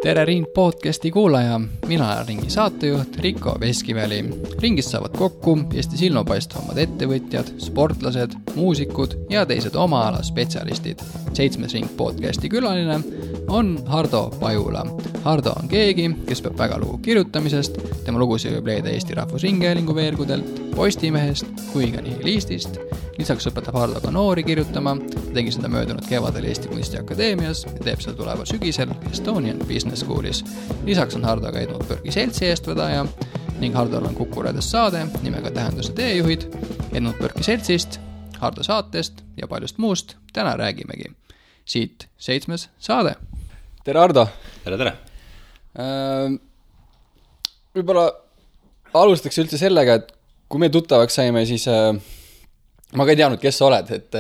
Tere Ring podcasti kuulaja, mina olen Ringi saatejuht Riko Veskiväli. Ringist saavad kokku Eesti silmapaistvamad ettevõtjad, sportlased, muusikud ja teised oma ala spetsialistid. 7. Ring podcasti külaline on Hardo Pajula. Hardo on keegi, kes peab väga lugu kirjutamisest, tema lugusid võib leida Eesti Rahvusringhäälingu veergudelt, Postimehest kui ka Nihilistist. Lisaks õpetab Hardo ka noori kirjutama, tegi seda möödunud kevadel Eesti Kunstiakadeemias ja teeb seda tuleval sügisel Estonian Business Schoolis. Lisaks on Hardo ka Edmund Burke'i seltsi eestvedaja ning Hardol on Kuku Raadios saade nimega Tähenduse teejuhid. Edmund Burke'i seltsist, Hardo saatest ja paljust muust täna räägimegi. Siit 7. saade. Tere Hardo! Tere! Võib-olla alustaks üldse sellega, et kui me tuttavaks saime, siis ma ka ei teadnud, kes sa oled, et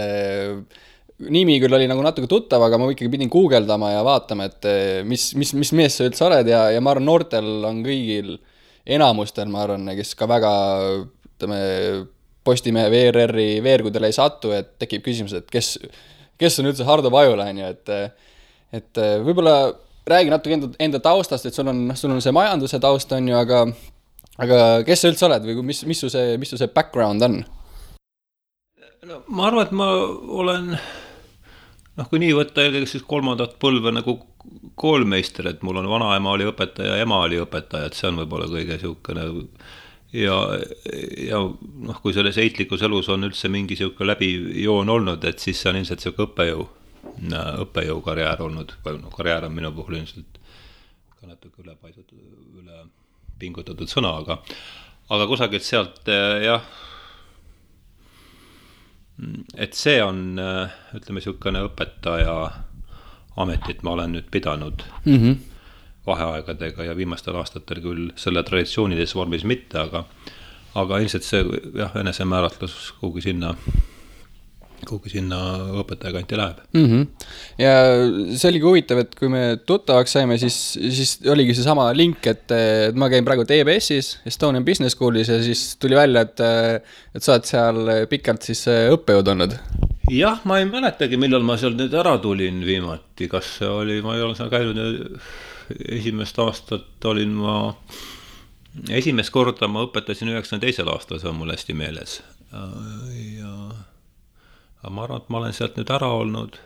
nimi küll oli nagu natuke tuttav, aga ma ikkagi pidin guugeldama ja vaatama, et mis mees sa üldse oled ja ma arvan, noortel on kõigil enamustel, ma arvan, kes ka väga Postimehe VRR-i veergudele ei satu, et tekib küsimus, et kes on üldse Hardo Pajula, et võib-olla räägi natuke enda taustast, et sul on see majanduse taust on ju, aga kes sa üldse oled või mis su see background on? No, ma arvan, et ma olen, kui nii võtta eelkõige siis 3. põlve nagu koolmeister, et mul on vanaema oli õpetaja ja ema oli õpetaja, et see on võib-olla kõige siukene ja kui selles heitlikus elus on üldse mingi siuke läbijoon olnud, et siis see on ilmselt siuke õppejõu karjäär olnud, karjäär on minu puhul ilmselt ka natuke üle pingutatud sõna, aga kusagilt sealt jah, et see on, ütleme, siukene õpetaja ametit ma olen nüüd pidanud vaheaegadega ja viimastel aastatel küll selle traditsioonides vormis mitte, aga ilmselt see jah, enesemääratlus kuhugi sinna õpetaja kanti läheb. Ja see oligi huvitav, et kui me tuttavaks saime, siis oligi see sama link, et ma käin praegu TBS-is, Estonian Business Schoolis ja siis tuli välja, et sa oled seal pikalt siis õppejõud olnud. Jah, ma ei mäletagi, millal ma seal nüüd ära tulin viimati, kas see oli, ma ei ole seal käinud esimest aastat olin esimest korda ma õpetasin 92. aastal, see on mul hästi meeles ja ma arvan, et ma olen sealt nüüd ära olnud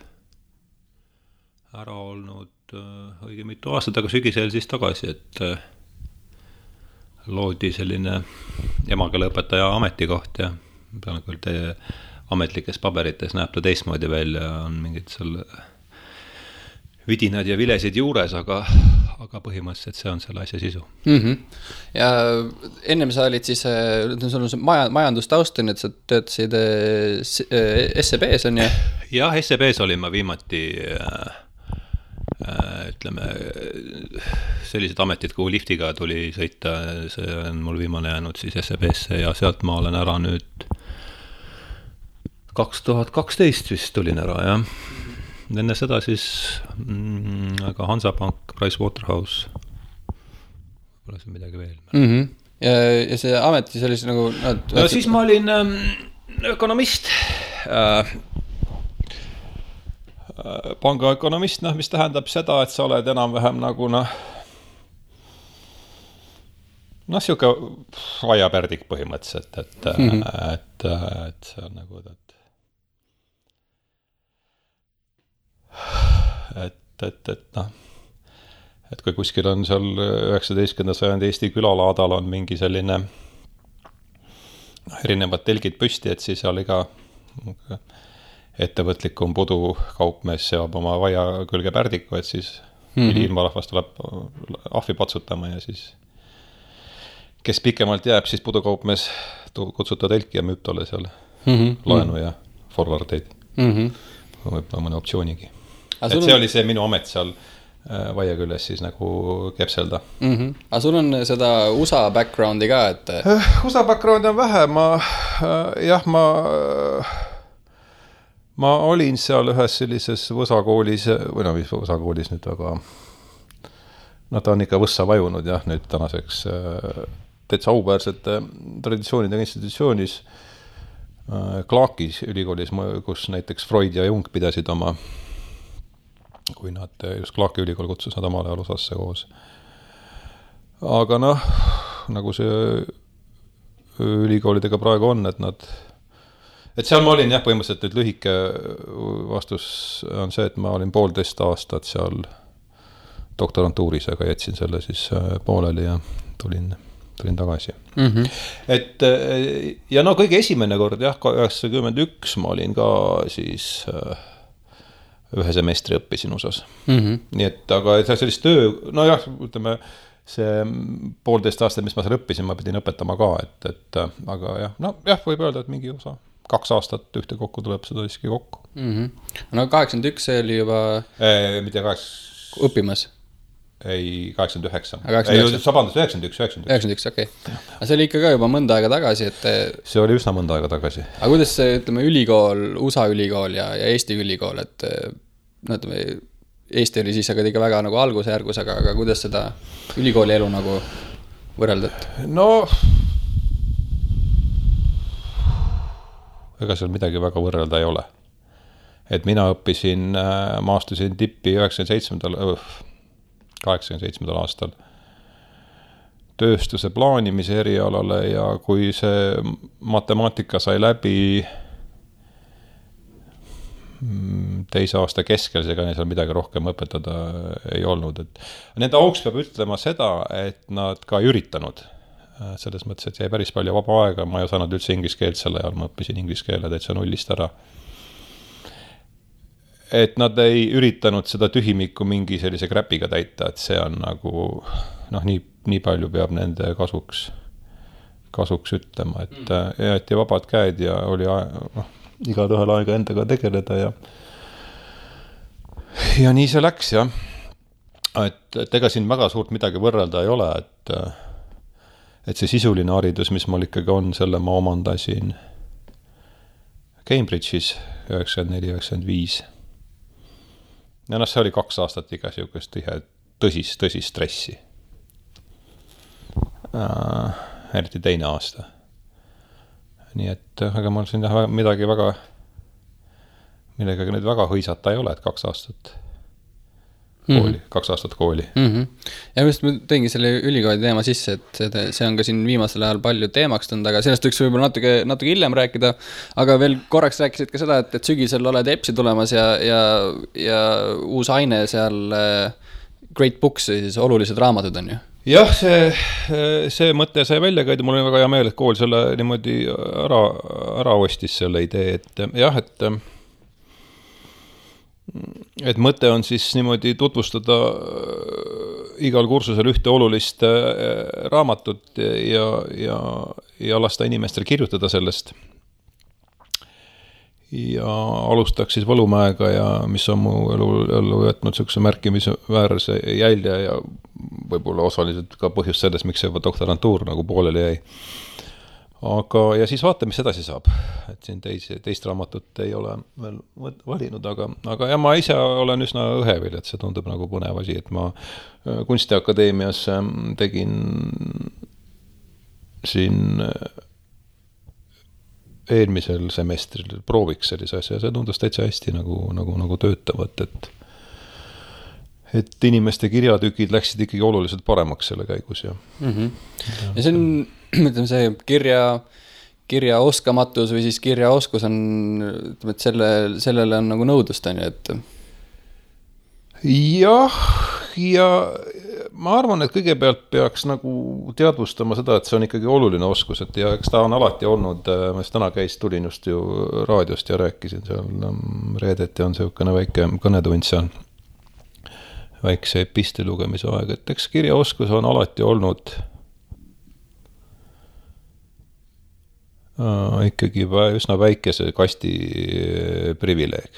õige mitu aastat, aga sügisel siis tagasi, et loodi selline emakeeleõpetaja ametikoht ja pean küll teie ametlikes paberites näeb ta teistmoodi välja, on mingid seal vidinad ja vilesid juures, aga põhimõtteliselt see on selle asja sisu. Ja ennem sa olid siis, sul on see majandustausten, et sa töötasid SEB-s on ju? Jah, SEB-s olin ma viimati, ütleme, sellised ametid, kuhu liftiga tuli sõita, see on mul viimane jäänud siis SEB-sse ja sealt ma olen ära nüüd 2012 vist tulin ära, jah. Enne seda siis aga Hansapank, Pricewaterhouse, pole see midagi veel. Ja see ameti sellise nagu... No siis ma olin ökonomist, pangaökonomist, mis tähendab seda, et sa oled enam-vähem nagu siuke aiapärdik põhimõtteliselt, et see on nagu et kui kuskil on seal 19. sajandi Eesti külalaadal on mingi selline erinevad telgid püsti, et siis seal iga ettevõtlikum pudukaupmees seab oma vaia külge pärdiku, et siis ilmarahvas tuleb ahvi patsutama ja siis kes pikemalt jääb, siis pudukaupmees kutsuta telki ja müüb tolle seal laenu ja forwardeid võib-olla mõne optsioonigi. Et see oli see minu amet seal vaia küljes siis nagu kepselda. Aga sul on seda USA backgroundi ka, et... USA backgroundi on vähe, ma olin seal ühes sellises Võsa koolis, või mis Võsa koolis nüüd, aga ta on ikka Võssa vajunud jah, nüüd tänaseks täitsa auväärsete traditsioonidega institutsioonis Clarkis ülikoolis, kus näiteks Freud ja Jung pidasid oma kui nad just Clarki ülikool kutsus nad omal ajal USA-sse koos. Aga noh, nagu see ülikoolidega praegu on, et seal ma olin jah, põhimõtteliselt nüüd lühike vastus on see, et ma olin 1,5 aastat seal doktorantuuris, aga jätsin selle siis pooleli ja tulin tagasi. Et ja no kõige esimene kord jah, 91 ma olin ka siis ühe semestri õppisin USA-s. Nii et, aga sellist töö, no jah, ütleme, see 1,5 aastat, mis ma seal õppisin, ma pidin õpetama ka, et aga jah, no jah, võib öelda, et mingi osa 2 aastat ühte kokku tuleb seda siiski kokku. No 81 see oli juba mitte 8... õppimas? Ei, 89. 91, okei. Aga see oli ikka ka juba mõnda aega tagasi, et... See oli üsna mõnda aega tagasi. Aga kuidas see, ütleme, ülikool, USA ülikool ja Eesti ülikool, et no, ütleme, Eesti oli siis aga ikka väga nagu algusjärgus, aga kuidas seda ülikooli elu nagu võrreldad? No, ega seal midagi väga võrrelda ei ole. Et mina õppisin, ma astusin tippi 87. aastal tööstuse plaanimise erialale ja kui see matemaatika sai läbi 2. aasta keskel, seega neil seal midagi rohkem õpetada ei olnud. Et nende auks peab ütlema seda, et nad ka ei üritanud. Selles mõttes, et jäi päris palju vaba aega, ma ei osanud üldse inglise keelt selle ajal, ma õppisin inglise keele täitsa nullist ära. Et nad ei üritanud seda tühimikku mingi sellise kräpiga täita, et see on nagu, noh, nii palju peab nende kasuks ütlema, et jäeti vabad käed ja oli igal ühel aega endaga tegeleda ja nii see läks, jah. Et ega siin väga suurt midagi võrrelda ei ole, et see sisuline haridus, mis mul ikkagi on, selle ma omandasin Cambridge'is 94-95. Ja see oli 2 aastat iga siukest tõsist stressi. Eriti 2. aasta. Nii et, aga mul siin midagi väga, millega nüüd väga hõisata ei ole, et 2 aastat kooli, 2 aastat kooli. Ja just ma teingi selle ülikooli teema sisse, et see on ka siin viimasel ajal palju teemaks tulnud, aga sellest võiks võib-olla natuke hiljem rääkida, aga veel korraks rääkisid ka seda, et sügisel oled EPS-i tulemas ja uus aine seal Great Books, siis olulised raamatud on ju? Jah, see mõte sai välja käida, mul on väga hea meel, et kool selle niimoodi ära ostis selle idee, et jah, et mõte on siis niimoodi tutvustada igal kursusel ühte olulist raamatut ja lasta inimestel kirjutada sellest. Ja alustaks siis Võlumäega ja mis on mu ellu jätnud sellise märkimisväärse jälje ja võib-olla osaliselt ka põhjust sellest, miks see doktorantuur nagu pooleli jäi. Aga, ja siis vaata, mis edasi saab. Et siin teist raamatut ei ole veel valinud, aga ja ma ise olen üsna õhevil, et see tundub nagu põnev asi, et ma Kunstiakadeemias tegin siin eelmisel semestril prooviks sellise asja ja see tundus täitsa hästi nagu töötavat, et inimeste kirjatükid läksid ikkagi oluliselt paremaks selle käigus. Ja see on, ütleme, see kirja oskamatus või siis kirjaoskus on, ütleme, et sellele on nagu nõudlust, on ju, et ja ma arvan, et kõigepealt peaks nagu teadvustama seda, et see on ikkagi oluline oskus, et ja eks ta on alati olnud, ma täna tulin just ju raadiost ja rääkisin seal reedeti on selline väike kõnetund seal, väikse epistli lugemise aeg, et eks kirjaoskus on alati olnud ikkagi üsna väikese kasti privileeg.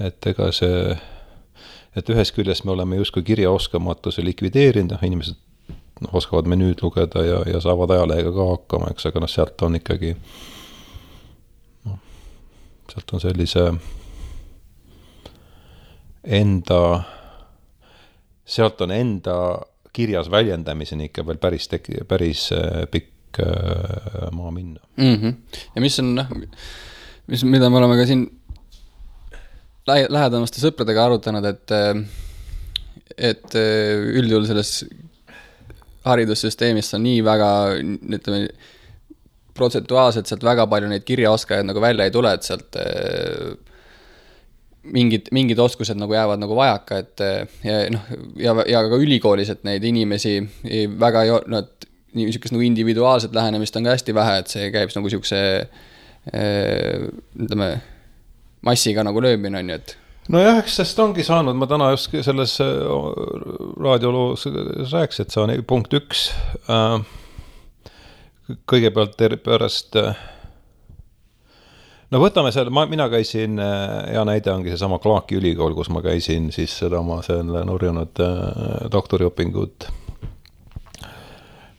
Et ega see, et ühes küljest me oleme justkui kirjaoskamatuse likvideerinud, inimesed oskavad menüüd lugeda ja saavad ajalehega ka hakkama, eks, aga sealt on ikkagi sealt on sellise sealt on enda kirjas väljendamiseni ikka veel päris pikk maa minna. Ja mis on, mida me oleme ka siin lähedamaste sõpradega arutanud, et üldjuhul selles haridussüsteemis on nii väga, ütleme, protsentuaalselt sealt väga palju neid kirjaoskajaid nagu välja ei tule, et sealt mingid oskused nagu jäävad nagu vajaka, et ja ka ülikoolis, et neid inimesi väga niisugust nagu individuaalset lähenemist on ka hästi vähe, et see käib nagu niisuguse ütleme, massiga nagu löömine on ju, et nojah, eks sest ongi saanud, ma täna just selles raadioloos rääks, et see on punkt 1. Kõigepealt pärast, no võtame selle, mina käisin, hea näide ongi see sama Clarki ülikool, kus ma käisin siis seda oma selle nurjunud doktoriõpingut.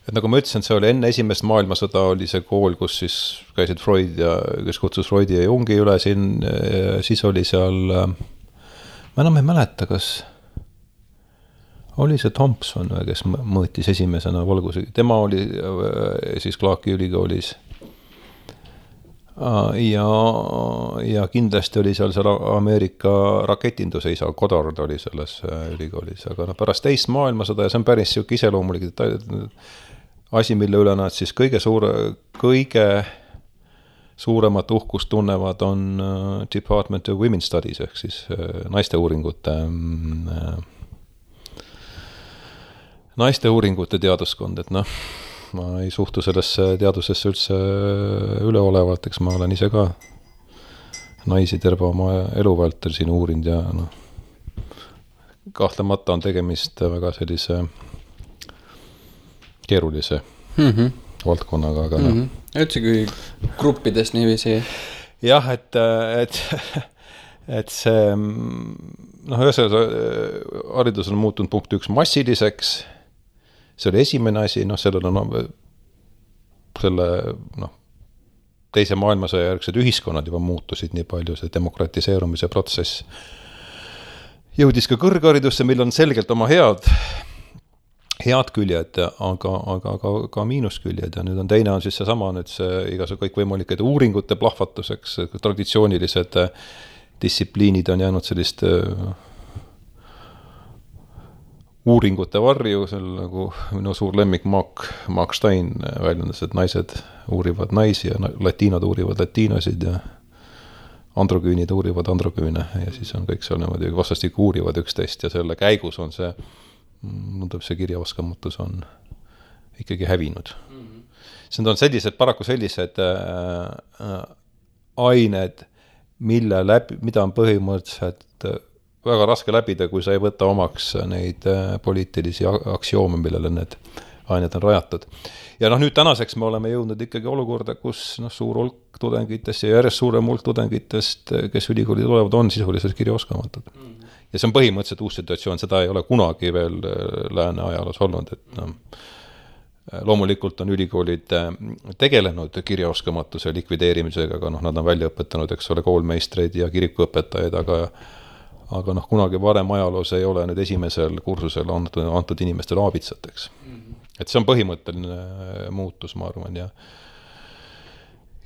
Et nagu ma ütlesin, see oli enne esimest maailmasõda oli see kool, kus siis käisid Freud ja kes kutsus Freudi ja Jungi üle siin, siis oli seal, ma enam ei mäleta, kas oli see Thompson, kes mõõtis esimesena valguse, tema oli siis Clarki ülikoolis ja kindlasti oli seal Ameerika raketinduse isa, Goddard oli selles ülikoolis, aga pärast teist maailmasõda ja see on päris siuke iseloomulik asi, mille üle nad siis kõige suuremat uhkust tunnevad on Department of Women's Studies ehk siis naiste uuringute teaduskond, et ma ei suhtu sellesse teadusesse üldse üleolevalt, eks ma olen ise ka naisi terve oma elu vältel siin uurinud ja kahtlemata on tegemist väga sellise keerulise valdkonnaga, aga üldse kui gruppidest niiviisi. Jah, et see haridus on muutunud punkt 1 massiliseks, see oli esimene asi, sellel on selle teise maailmasõja järgsed ühiskonnad juba muutusid nii palju, see demokratiseerumise protsess jõudis ka kõrgharidusse, mil on selgelt oma head küljed, aga ka miinusküljed ja nüüd on teine on siis seesama nüüd see igasugune kõikvõimalike uuringute plahvatuseks, traditsioonilised distsipliinid on jäänud sellist uuringute varju, seal nagu minu suur lemmik Mark Stein väljendas, et naised uurivad naisi ja latiinod uurivad latiinosid ja androküünid uurivad androküüne ja siis on kõik seal niimoodi vastastikku uurivad üksteist ja selle käigus on see kirjaoskamatus on ikkagi hävinud. See on paraku sellised ained, mida on põhimõtteliselt väga raske läbida, kui sa ei võta omaks neid poliitilisi aktsioome, millele need ained on rajatud. Ja nüüd tänaseks me oleme jõudnud ikkagi olukorda, kus suur hulk tudengitest ja järjest suurem hulk tudengitest, kes ülikooli tulevad, on sisuliselt kirjaoskamatud. Ja see on põhimõtteliselt uus situatsioon, seda ei ole kunagi veel lääne ajaloos olnud, et loomulikult on ülikoolid tegelenud kirjaoskamatuse likvideerimisega, aga nad on välja õpetanud, eks ole, koolmeistreid ja kirikuõpetajaid, aga kunagi varem ajaloos ei ole nüüd esimesel kursusel antud inimestele aabitsateks. Et see on põhimõtteline muutus, ma arvan, ja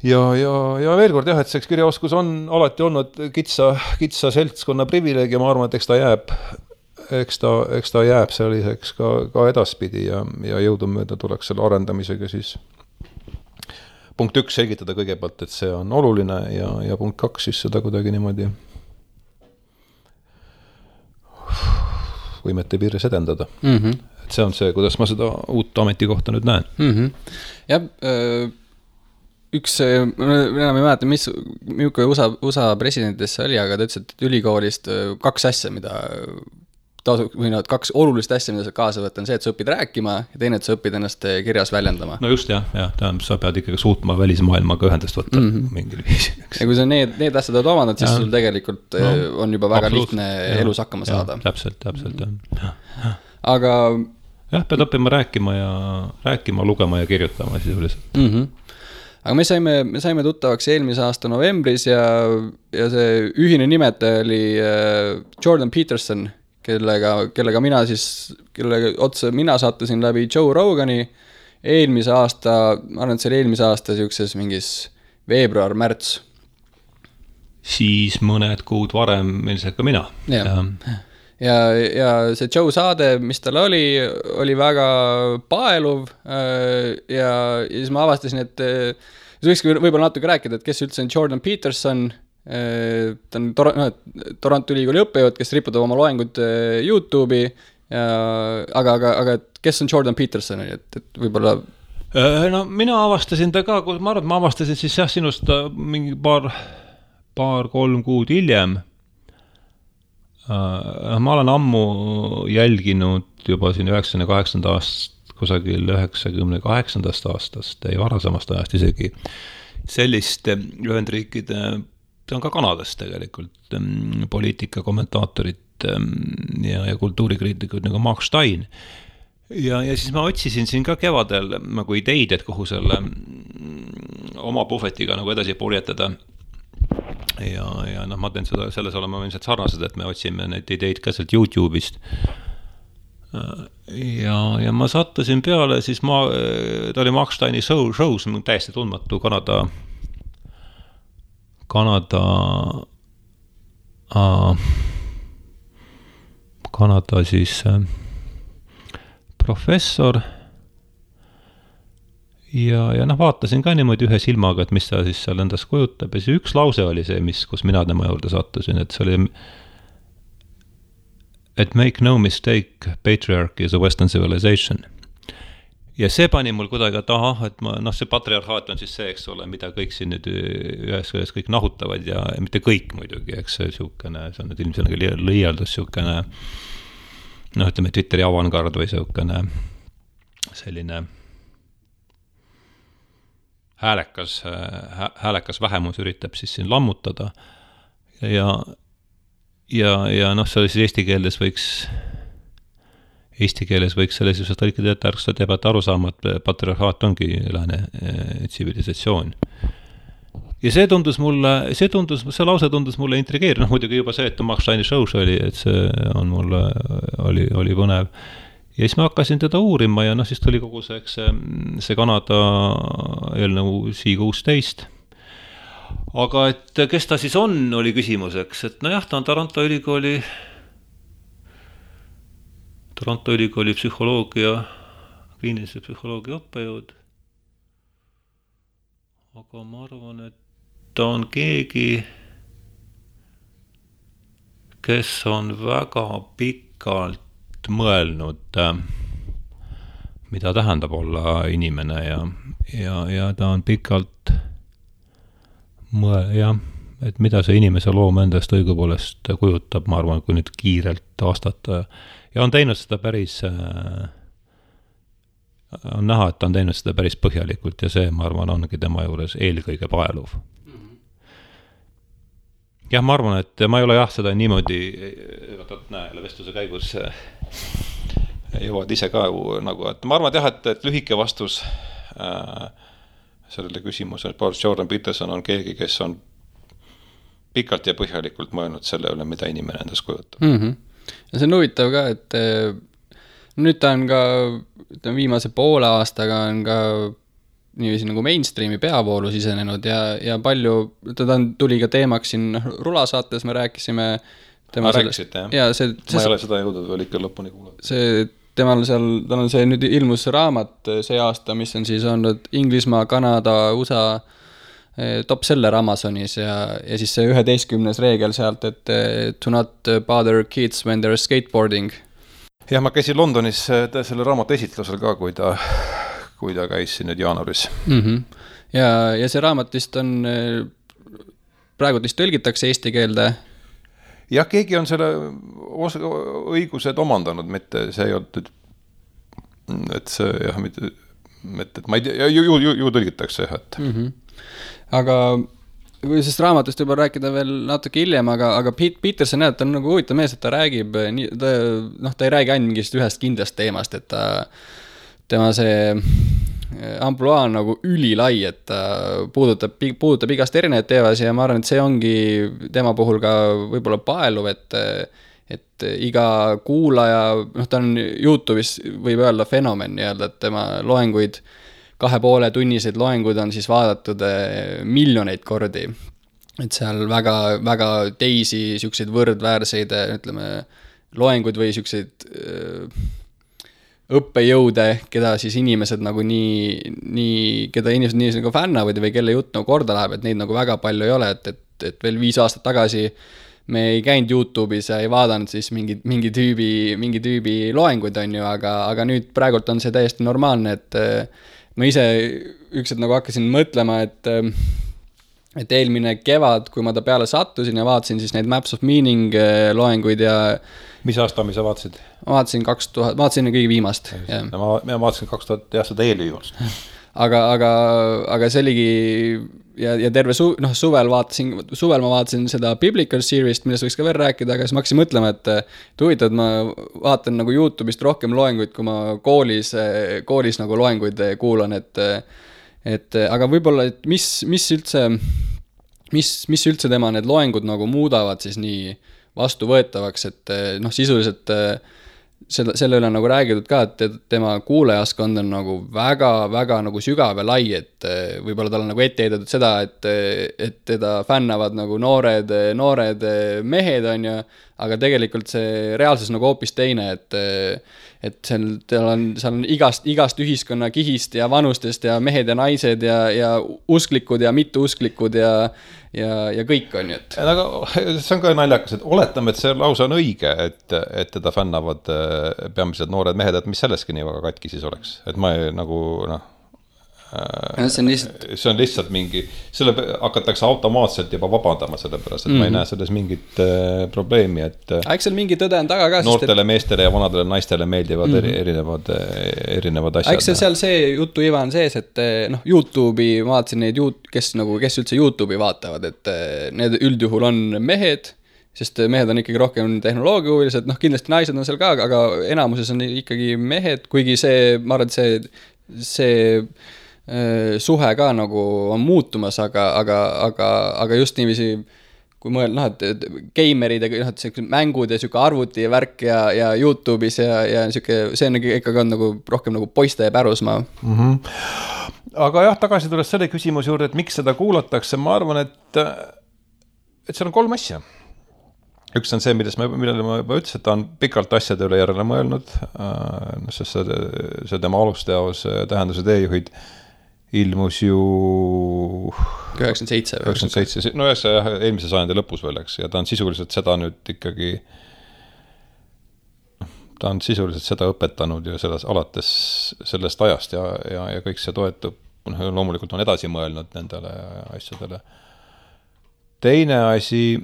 veel kord jah, et see kirjaoskus on alati olnud kitsa seltskonna privileeg ja ma arvan, et eks ta jääb selliseks ka edaspidi ja jõudumööda tuleks selle arendamisega siis punkt 1 selgitada kõigepealt, et see on oluline ja punkt 2 siis seda kuidagi niimoodi võimete piires edendada. Et see on see, kuidas ma seda uut ametikohta nüüd näen. Jah, enam ei mäleta, milline USA presidentidest see oli, aga ta ütles, et ülikoolist 2 asja, kaks olulist asja, mida sa kaasa võtta, on see, et sa õpid rääkima ja teine, et sa õpid ennast kirjas väljendama. No just jah, sa pead ikkagi suutma välismaailmaga ühendust võtta mingil viisil. Ja kui sa need asjad oled omanud, siis sul tegelikult on juba väga lihtne elus hakkama saada. Täpselt. Aga jah, pead õppima rääkima, lugema ja kirjutama sisuliselt. Aga me saime tuttavaks eelmise aasta novembris ja see ühine nimetaja oli Jordan Peterson, kellega mina sattusin läbi Joe Rogani eelmise aasta, ma arvan, et see oli eelmise aasta siukses mingis veebruar-märts. siis mõned kuud varem ilmselt ka mina. Ja see Joe saade, mis tal oli väga paeluv ja siis ma avastasin, et võikski võib-olla natuke rääkida, et kes üldse on Jordan Peterson, ta on Toronto ülikooli õppejõud, kes riputab oma loengud YouTube'i, aga kes on Jordan Peterson, et võib-olla no mina avastasin ta ka, ma arvan, et ma avastasin siis sinust mingi paar-kolm kuud hiljem. Ma olen ammu jälginud juba siin 98. aastast, kusagil 98. aastast ja varasemast ajast isegi sellist Ühendriikide, see on ka Kanadast tegelikult, poliitika kommentaatorit ja kultuurikriitikud nagu Mark Stein. Ja siis ma otsisin siin ka kevadel nagu ideid, et kuhu selle oma puhvetiga nagu edasi purjetada. Ja ma teen seda, selles olema ilmselt sarnased, et me otsime neid ideid ka sealt YouTube'ist. Ja ma sattusin peale, siis ta oli Mark Steini show's, täiesti tundmatu Kanada siis professor ja vaatasin ka niimoodi ühe silmaga, et mis ta siis seal endas kujutab ja siis üks lause oli see, kus mina tema juurde sattusin, et see oli et make no mistake, patriarchy is a Western civilization. Ja see pani mul kuidagi taha, et see patriarhaat on siis see, eks ole, mida kõik siin nüüd ühes kõik nahutavad ja mitte kõik muidugi, eks see siukene, see on nüüd ilmselt liialdus siukene, ütleme Twitteri avangard või siukene selline häälekas vähemus üritab siis siin lammutada ja see oli siis eesti keeles võiks selles just tõlkida, et ärks ta teevad arusaama, et patriarhaat ongi lääne tsivilisatsioon. Ja see lause tundus mulle intrigeeriv, muidugi juba see, et Mark Steini show's oli, et see on mulle oli põnev. Ja siis ma hakkasin teda uurima ja siis tuli kogu see Kanada eelnõu C-16. Aga et kes ta siis on, oli küsimuseks, et ta on Toronto ülikooli psühholoogia, kliinilise psühholoogia õppejõud. Aga ma arvan, et ta on keegi, kes on väga pikalt mõelnud, mida tähendab olla inimene ja ta on pikalt et mida see inimese loom endast õigupoolest kujutab, ma arvan, kui nüüd kiirelt vastata. Ja on teinud seda on näha, et ta on teinud seda päris põhjalikult ja see, ma arvan, ongi tema juures eelkõige paeluv. Jah, ma arvan, et ma ei ole seda niimoodi, vestluse käigus jõuad ise ka nagu, et ma arvan, et lühike vastus sellele küsimusele, et Jordan Peterson on keegi, kes on pikalt ja põhjalikult mõelnud selle üle, mida inimene endas kujutab. Ja see on huvitav ka, et nüüd ta on ka viimase poole aastaga on ka niiviisi nagu mainstreami peavoolu sisenenud ja palju, tuli ka teemaks siin Rulasaates, me rääkisime rääkisid, jah? Ma ei ole seda jõudnud veel ikka lõpuni kuulata. Tal on see nüüd ilmus raamat see aasta, mis on siis olnud Inglismaa, Kanada, USA top seller Amazonis ja siis see 11. reegel sealt, et to not bother kids when they're skateboarding. Jah, ma käisin Londonis selle raamatu esitlusel ka, kui ta käis siin nüüd jaanuaris. Ja see raamat vist on praegu vist tõlgitakse eesti keelde. Jah, keegi on selle õigused omandanud, mitte see ei olnud, et see jah, et ma ei tea, ju tõlgitakse jah, et aga kui sest raamatust juba rääkida veel natuke hiljem, aga Peterson näeb, ta on nagu huvitav mees, et ta räägib, ta ei räägi ainult mingist ühest kindlast teemast, et tema see ampluaa on nagu ülilai, et ta puudutab igast erinevaid teevasi ja ma arvan, et see ongi tema puhul ka võib-olla paeluv, et iga kuulaja, ta on YouTube'is võib öelda fenomen, et tema loenguid 2,5 tunniseid loenguid on siis vaadatud miljoneid kordi. et seal väga, väga teisi siukseid võrdväärseid, ütleme, loenguid või siukseid õppejõude, keda siis inimesed nagu keda inimesed nii nagu fännavad või kelle jutt nagu korda läheb, et neid nagu väga palju ei ole, et veel 5 aastat tagasi me ei käinud YouTube'is ja ei vaadanud siis mingi tüübi loenguid, on ju, aga nüüd praegult on see täiesti normaalne, et ma ise ükselt nagu hakkasin mõtlema, et eelmine kevad, kui ma ta peale sattusin ja vaatasin siis neid Maps of Meaning loenguid ja mis aasta sa vaatasid? Ma vaatasin kõige viimast. Ma vaatasin 2000, jah, seda eelviimast. Aga see oligi ja terve suvel ma vaatasin seda Biblical Series't, millest võiks ka veel rääkida, aga siis ma hakkasin mõtlema, et huvitav, et ma vaatan nagu YouTube'ist rohkem loenguid, kui ma koolis nagu loenguid kuulan, et aga võib-olla, et mis üldse tema need loengud nagu muudavad siis nii vastuvõetavaks, et sisuliselt selle üle nagu räägitud ka, et tema kuulajaskond on nagu väga, väga nagu sügav ja lai, et võib-olla tal on nagu ette heidetud seda, et teda fännavad nagu noored mehed, on ju, aga tegelikult see reaalsus nagu hoopis teine, et seal on igast ühiskonna kihist ja vanustest ja mehed ja naised ja usklikud ja mitteusklikud ja kõik on ju, et. Aga see on ka naljakas, et oletame, et see lause on õige, et teda fännavad peamiselt noored mehed, et mis selleski nii väga katki siis oleks, et ma ei nagu see on lihtsalt mingi, selle hakatakse automaatselt juba vabandama sellepärast, et ma ei näe selles mingit probleemi, et eks seal mingi tõde on taga ka, noortele meestele ja vanadele naistele meeldivad erinevad asjad. Eks seal see jutu iva on sees, et YouTube'i ma vaatasin neid, kes üldse YouTube'i vaatavad, et need üldjuhul on mehed, sest mehed on ikkagi rohkem tehnoloogiahuvilised, kindlasti naised on seal ka, aga enamuses on ikkagi mehed, kuigi see, ma arvan, et see suhe ka nagu on muutumas, aga just niiviisi, kui mõelda, et geimerid ja mängud ja siuke arvuti ja värk ja YouTube'is ja siuke, see on ikkagi on nagu rohkem nagu poiste pärusmaa. Aga jah, tagasi tulles selle küsimuse juurde, et miks seda kuulatakse, ma arvan, et seal on 3 asja. Üks on see, millele ma juba ütlesin, et ta on pikalt asjade üle järele mõelnud, sest see tema alusteos tähenduse teejuhid ilmus ju 97, no jah, eelmise sajandi lõpus veel, eks, ja ta on sisuliselt seda nüüd ikkagi, ta on sisuliselt seda õpetanud ju alates sellest ajast ja kõik see toetub, loomulikult on edasi mõelnud nendele asjadele. Teine asi,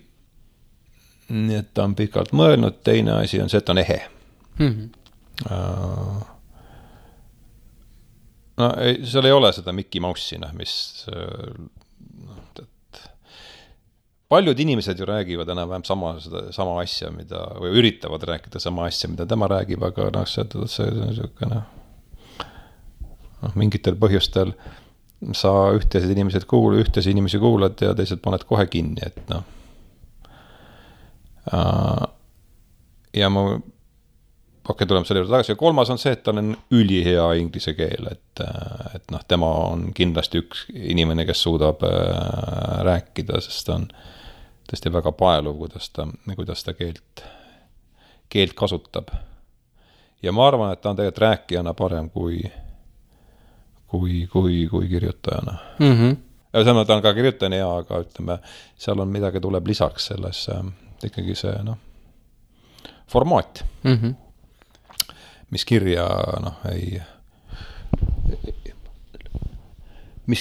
nii et ta on pikalt mõelnud, teine asi on see, et ta on ehe. No seal ei ole seda Mickey Mouse'i, mis paljud inimesed ju räägivad enam-vähem sama asja, või üritavad rääkida sama asja, mida tema räägib, aga see on niisugune mingitel põhjustel sa ühtesi inimesi kuulad ja teised paned kohe kinni, et ja ma tuleme selle juurde tagasi. Ja 3. on see, et tal on ülihea inglise keel, et tema on kindlasti üks inimene, kes suudab rääkida, sest ta on tõesti väga paeluv, kuidas ta keelt kasutab. Ja ma arvan, et ta on tegelikult rääkijana parem kui kirjutajana. Ja samas ta on ka kirjutajana hea, aga ütleme, seal on midagi tuleb lisaks selles ikkagi see formaat. Mis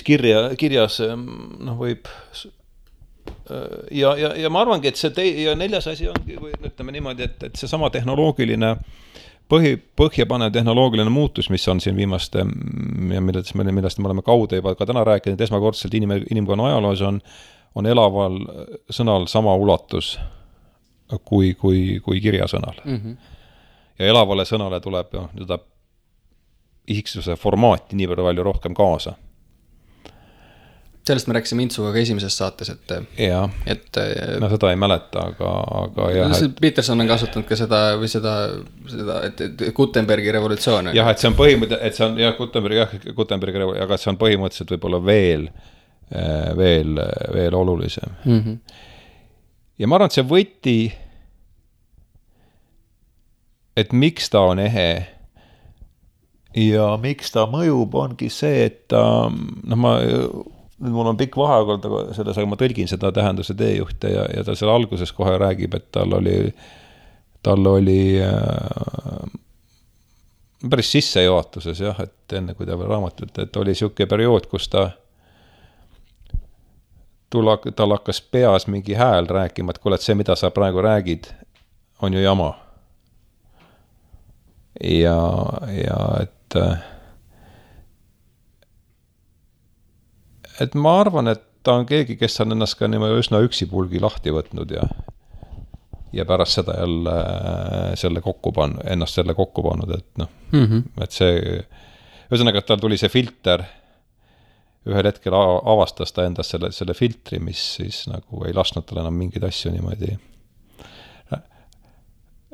kirja kirjas võib ja ma arvangi, et ja 4. asi ongi, või ütleme niimoodi, et see sama tehnoloogiline põhjapanev tehnoloogiline muutus, mis on siin viimaste ja millest me oleme kaude juba ka täna rääkinud, esmakordselt inimkonna ajaloos on elaval sõnal sama ulatus kui kirjasõnal. Ja elavale sõnale tuleb isiksuse formaati nii palju rohkem kaasa. Sellest me rääkisime Intsuga ka esimeses saates, et seda ei mäleta, aga jah. Peterson on kasutanud ka seda, et Gutenbergi revolutsioon. Jah, et see on põhimõtteliselt, Gutenbergi revolutsioon, aga see on põhimõtteliselt võib-olla veel veel olulisem. Ja ma arvan, et see võti, et miks ta on ehe ja miks ta mõjub, ongi see, et mul on pikk vaheaeg selles, aga ma tõlgin seda tähenduse teejuhte ja ta seal alguses kohe räägib, et tal oli päris sissejuhatuses jah, et enne kui ta veel raamatut, et oli siuke periood, kus tal hakkas peas mingi hääl rääkima, et kuule, et see, mida sa praegu räägid, on ju jama. Ja et ma arvan, et ta on keegi, kes on ennast ka niimoodi üsna üksipulgi lahti võtnud ja pärast seda jälle ennast selle kokku pannud, et et see, ühesõnaga, et tal tuli see filter, ühel hetkel avastas ta endast selle filtri, mis siis nagu ei lasknud tal enam mingeid asju niimoodi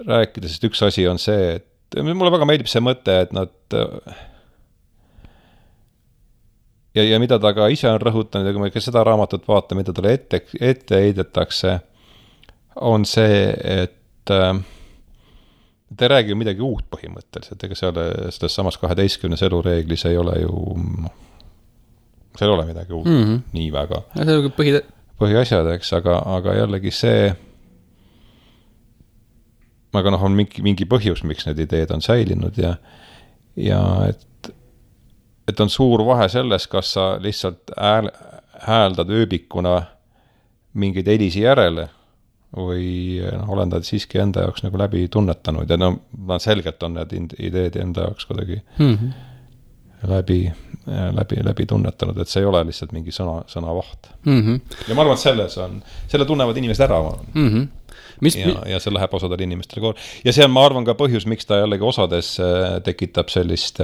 rääkida, sest üks asi on see, et mulle väga meeldib see mõte, et nad ja mida ta ka ise on rõhutanud, ja kui me ka seda raamatut vaatame, mida talle ette heidetakse, on see, et ta ei räägi ju midagi uut põhimõtteliselt, ega selles samas 12 elureeglis ei ole ju, seal ei ole midagi uut nii väga. See on põhiasjad, eks, aga jällegi see, aga on mingi põhjus, miks need ideed on säilinud ja et on suur vahe selles, kas sa lihtsalt hääldad ööbikuna mingeid helisi järele või olendad siiski enda jaoks nagu läbi tunnetanud ja selgelt on need ideed enda jaoks kuidagi läbi tunnetanud, et see ei ole lihtsalt mingi sõnavaht. Ja ma arvan, et selle tunnevad inimesed ära. Ja see läheb osadele inimestele koor. Ja see on, ma arvan, ka põhjus, miks ta jällegi osades tekitab sellist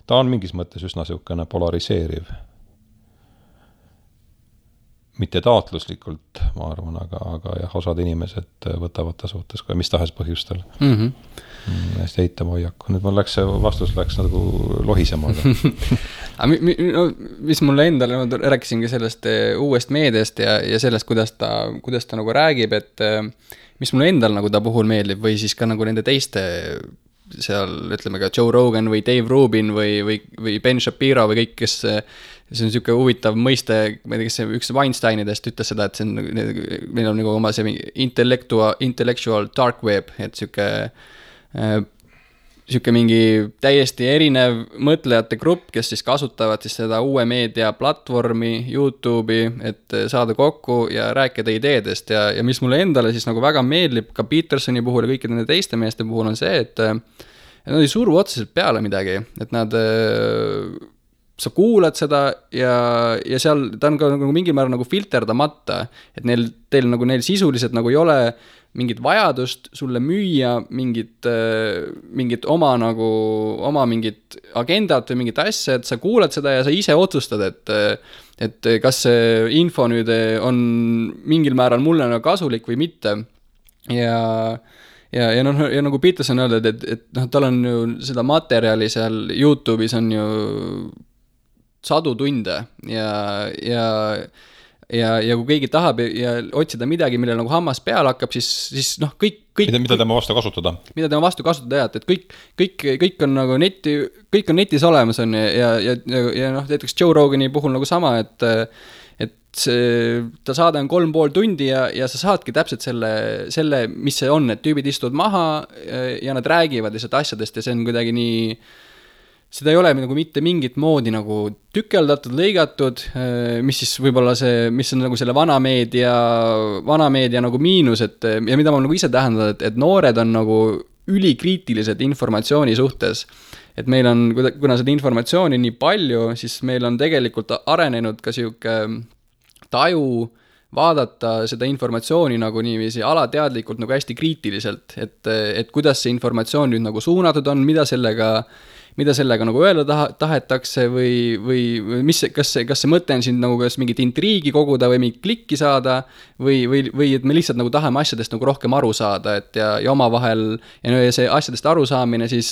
ta on mingis mõttes üsna siukene polariseeriv. Mitte taotluslikult, ma arvan, aga jah, osad inimesed võtavad ta suhtes kui mis tahes põhjustel. Hästi eitama hoiaku. Nüüd vastus läks nagu lohisemaga. Mis mulle endale, rääkisingi sellest uuest meediast ja sellest, kuidas ta nagu räägib, et mis mulle endal nagu ta puhul meeldib või siis ka nagu nende teiste seal, ütleme ka Joe Rogan või Dave Rubin või Ben Shapiro või kõik, kes see on niisugune huvitav mõiste, ma ei tea, kes üks Weinsteinidest ütles seda, et see on, meil on nagu oma see intellectual dark web, et niisugune mingi täiesti erinev mõtlejate grupp, kes siis kasutavad siis seda uue meedia platvormi, YouTube'i, et saada kokku ja rääkida ideedest ja mis mulle endale siis nagu väga meeldib ka Petersoni puhul ja kõikide nende teiste meeste puhul on see, et nad ei suru otseselt peale midagi, et nad sa kuulad seda ja seal ta on ka nagu mingil määral nagu filterdamata, et neil sisuliselt nagu ei ole mingit vajadust sulle müüa mingit oma mingit agendat või mingit asja, et sa kuulad seda ja sa ise otsustad, et kas see info nüüd on mingil määral mulle nagu kasulik või mitte. Ja nagu Peterson öeldud, et tal on ju seda materjali seal YouTube'is on ju sadu tunde ja kui keegi tahab ja otsida midagi, millel nagu hammas peal hakkab, siis kõik mida tema vastu kasutada. Mida tema vastu kasutada, kõik on nagu kõik on netis olemas on ja näiteks Joe Rogani puhul nagu sama, et ta saade on 3,5 tundi ja sa saadki täpselt selle, mis see on, et tüübid istuvad maha ja nad räägivad lihtsalt asjadest ja see on kuidagi nii, seda ei ole nagu mitte mingit moodi nagu tükeldatud, lõigatud, mis siis võib-olla mis on nagu selle vanameedia nagu miinus, ja mida ma nagu ise tähendanud, et noored on nagu ülikriitilised informatsiooni suhtes. Et meil on, kuna seda informatsiooni nii palju, siis meil on tegelikult arenenud ka siuke taju vaadata seda informatsiooni nagu niiviisi alateadlikult nagu hästi kriitiliselt, et kuidas see informatsioon nüüd nagu suunatud on, mida sellega nagu öelda tahetakse või kas see mõte on siin nagu kas mingit intriigi koguda või mingit klikki saada või et me lihtsalt nagu tahame asjadest nagu rohkem aru saada, et ja omavahel ja see asjadest arusaamine siis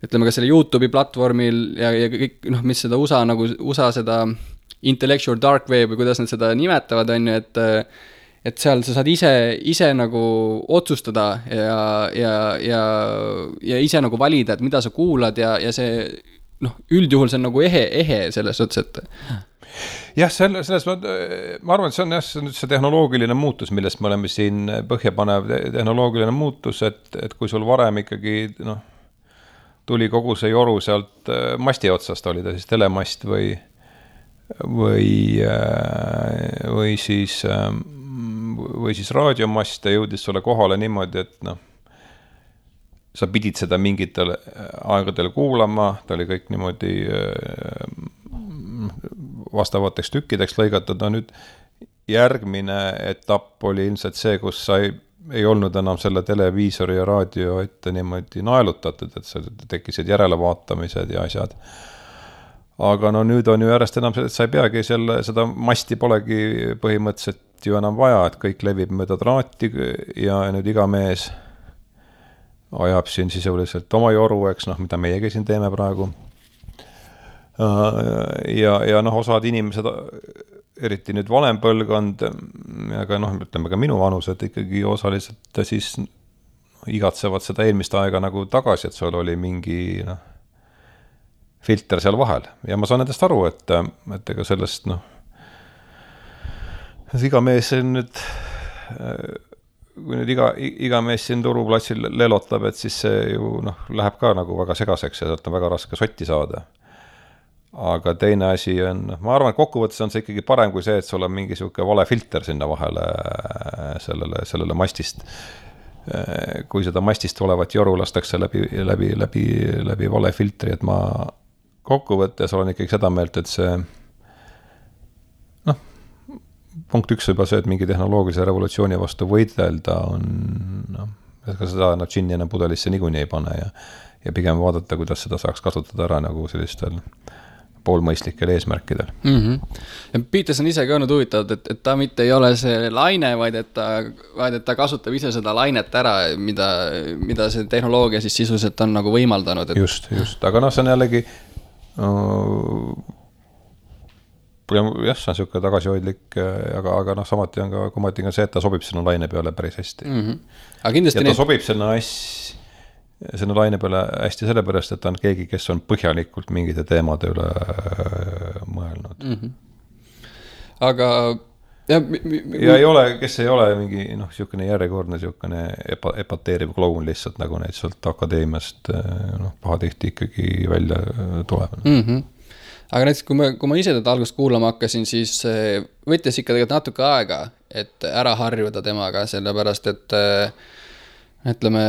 ütleme ka selle YouTube'i platvormil ja kõik, noh, mis seda USA seda intellectual dark web või kuidas nad seda nimetavad, on ju, et seal sa saad ise nagu otsustada ja ise nagu valida, et mida sa kuulad ja see, noh, üldjuhul see on nagu ehe selles suhtes, et jah, selles ma arvan, et see on jah, see tehnoloogiline muutus, millest me oleme siin põhjapanev tehnoloogiline muutus, et kui sul varem ikkagi, noh, tuli kogu see joru sealt masti otsast, oli ta siis telemast või siis raadiomast ja jõudis sulle kohale niimoodi, et noh, sa pidid seda mingitel aegadel kuulama, ta oli kõik niimoodi vastavateks tükkideks lõigatud, no nüüd järgmine etapp oli ilmselt see, kus sa ei olnud enam selle televiisori ja raadio ette niimoodi naelutatud, et sa tekkisid järelevaatamised ja asjad. Aga no nüüd on ju järjest enam see, et sa ei peagi seda masti polegi põhimõtteliselt ju enam vaja, et kõik levib mööda traati ja nüüd iga mees ajab siin sisuliselt oma joru, eks, noh, mida meiegi siin teeme praegu. Ja noh, osad inimesed, eriti nüüd vanem põlvkond, aga noh, ütleme ka minu vanused ikkagi osaliselt siis igatsevad seda eelmist aega nagu tagasi, et sul oli mingi filter seal vahel. Ja ma saan nendest aru, et ega sellest, noh, iga mees nüüd, kui nüüd iga mees siin turuplatsil lelotab, et siis see ju, noh, läheb ka nagu väga segaseks ja sealt on väga raske sotti saada. Aga teine asi on, ma arvan, et kokkuvõttes on see ikkagi parem kui see, et sul on mingi siuke vale filter sinna vahele sellele mastist. Kui seda mastist olevat joru lastakse läbi vale filtri, et ma kokkuvõttes olen ikkagi seda meelt, et see, noh, punkt 1 juba see, et mingi tehnoloogilise revolutsiooni vastu võidelda on, noh, ka seda džinni enam pudelisse niikuinii ei pane ja pigem vaadata, kuidas seda saaks kasutada ära nagu sellistel poolmõistlikel eesmärkidel. Ja Peterson ise ka olnud huvitavad, et ta mitte ei ole see laine, vaid et ta kasutab ise seda lainet ära, mida see tehnoloogia siis sisuliselt on nagu võimaldanud. Et... Just, aga noh, see on jällegi jah, see on siuke tagasihoidlik, aga noh, samati on ka kumati see, et ta sobib sinna laine peale päris hästi. Aga kindlasti ja ta sobib sinna laine peale hästi sellepärast, et ta on keegi, kes on põhjalikult mingite teemade üle mõelnud. Aga ja ei ole, kes ei ole mingi, noh, siukene järjekordne siukene epateeriv kloun lihtsalt, nagu neid sealt akadeemiast, noh, pahatihti ikkagi välja tuleb. Aga näiteks, kui ma ise teda algust kuulama hakkasin, siis võttis ikka tegelikult natuke aega, et ära harjuda temaga, sellepärast, et ütleme,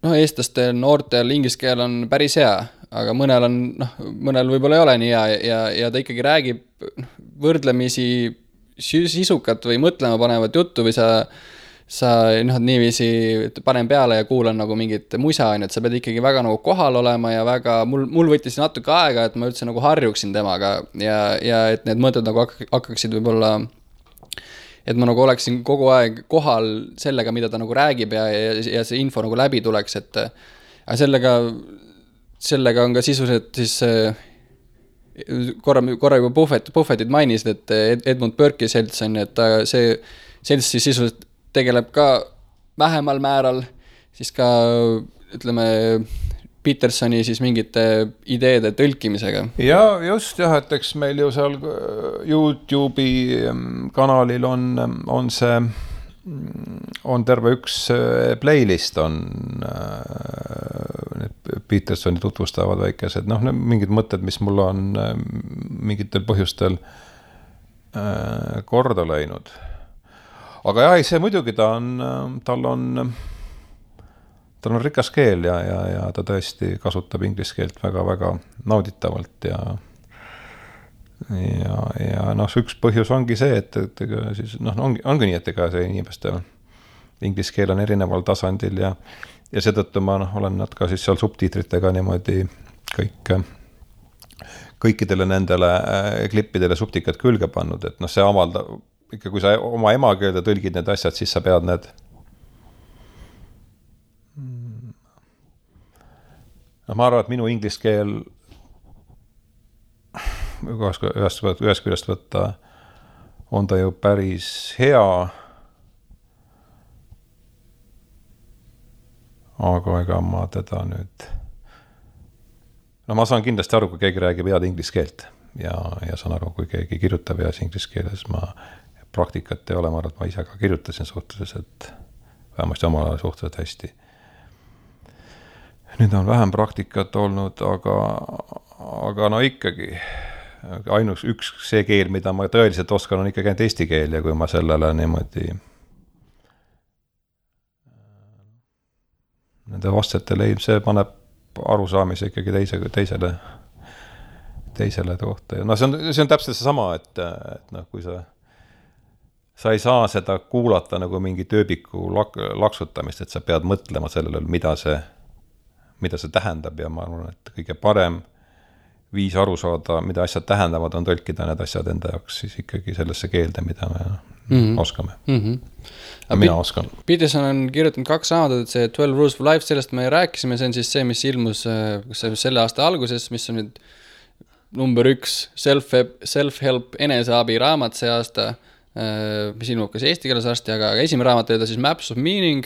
noh, eestlaste noortel inglise keel on päris hea, aga mõnel võib-olla ei ole nii hea ja ta ikkagi räägib võrdlemisi sisukat või mõtlema panevat juttu või sa noh, niiviisi panen peale ja kuulan nagu mingit musa, et sa pead ikkagi väga nagu kohal olema ja väga, mul võttis natuke aega, et ma üldse nagu harjuksin temaga ja et need mõtted nagu hakkaksid võib-olla, et ma nagu oleksin kogu aeg kohal sellega, mida ta nagu räägib ja see info nagu läbi tuleks, et sellega on ka sisuliselt siis korra juba Buffettit mainisid, et Edmund Burke'i selts on, et see selts siis sisuliselt tegeleb ka vähemal määral siis ka, ütleme, Petersoni siis mingite ideede tõlkimisega. Ja just jah, et eks meil ju seal YouTube'i kanalil on see, on terve üks playlist on Petersoni tutvustavad väikesed, noh, mingid mõtted, mis mul on mingitel põhjustel korda läinud. Aga jah, see muidugi tal on rikas keel ja ta tõesti kasutab inglise keelt väga-väga nauditavalt ja noh, üks põhjus ongi see, et siis, noh, ongi nii, et ega see inimeste inglise keel on erineval tasandil ja seetõttu ma olen nad ka siis seal subtiitritega niimoodi kõikidele nendele klippidele subtikat külge pannud, et noh, see avaldab ikka, kui sa oma emakeelde tõlgid need asjad, siis sa pead need ma arvan, et minu inglise keel ühest küljest võtta on ta ju päris hea, aga ega ma teda nüüd ma saan kindlasti aru, kui keegi räägib head inglise keelt ja saan aru, kui keegi kirjutab heas inglise keeles, praktikat ei ole, ma arvan, et ma ise ka kirjutasin suhteliselt, vähemasti omal ajal suhteliselt hästi. Nüüd on vähem praktikat olnud, aga no ikkagi ainus üks see keel, mida ma tõeliselt oskan, on ikkagi ainult eesti keel ja kui ma sellele niimoodi nende vastetele see paneb arusaamise ikkagi teisele kohta. No see on täpselt see sama, et kui sa ei saa seda kuulata nagu mingi tööbiku laksutamist, et sa pead mõtlema sellele, mida see tähendab ja ma arvan, et kõige parem viis aru saada, mida asjad tähendavad, on tõlkida need asjad enda jaoks siis ikkagi sellesse keelde, mida me oskame. Ja mina oskan. Peterson on kirjutanud 2 raamatut, see 12 Rules for Life, sellest me rääkisime, see on siis see, mis ilmus selle aasta alguses, mis on nüüd number 1 self-help eneseabi raamat see aasta, mis ilmub kas eesti keeles varsti, aga esimene raamat oli ta siis Maps of Meaning,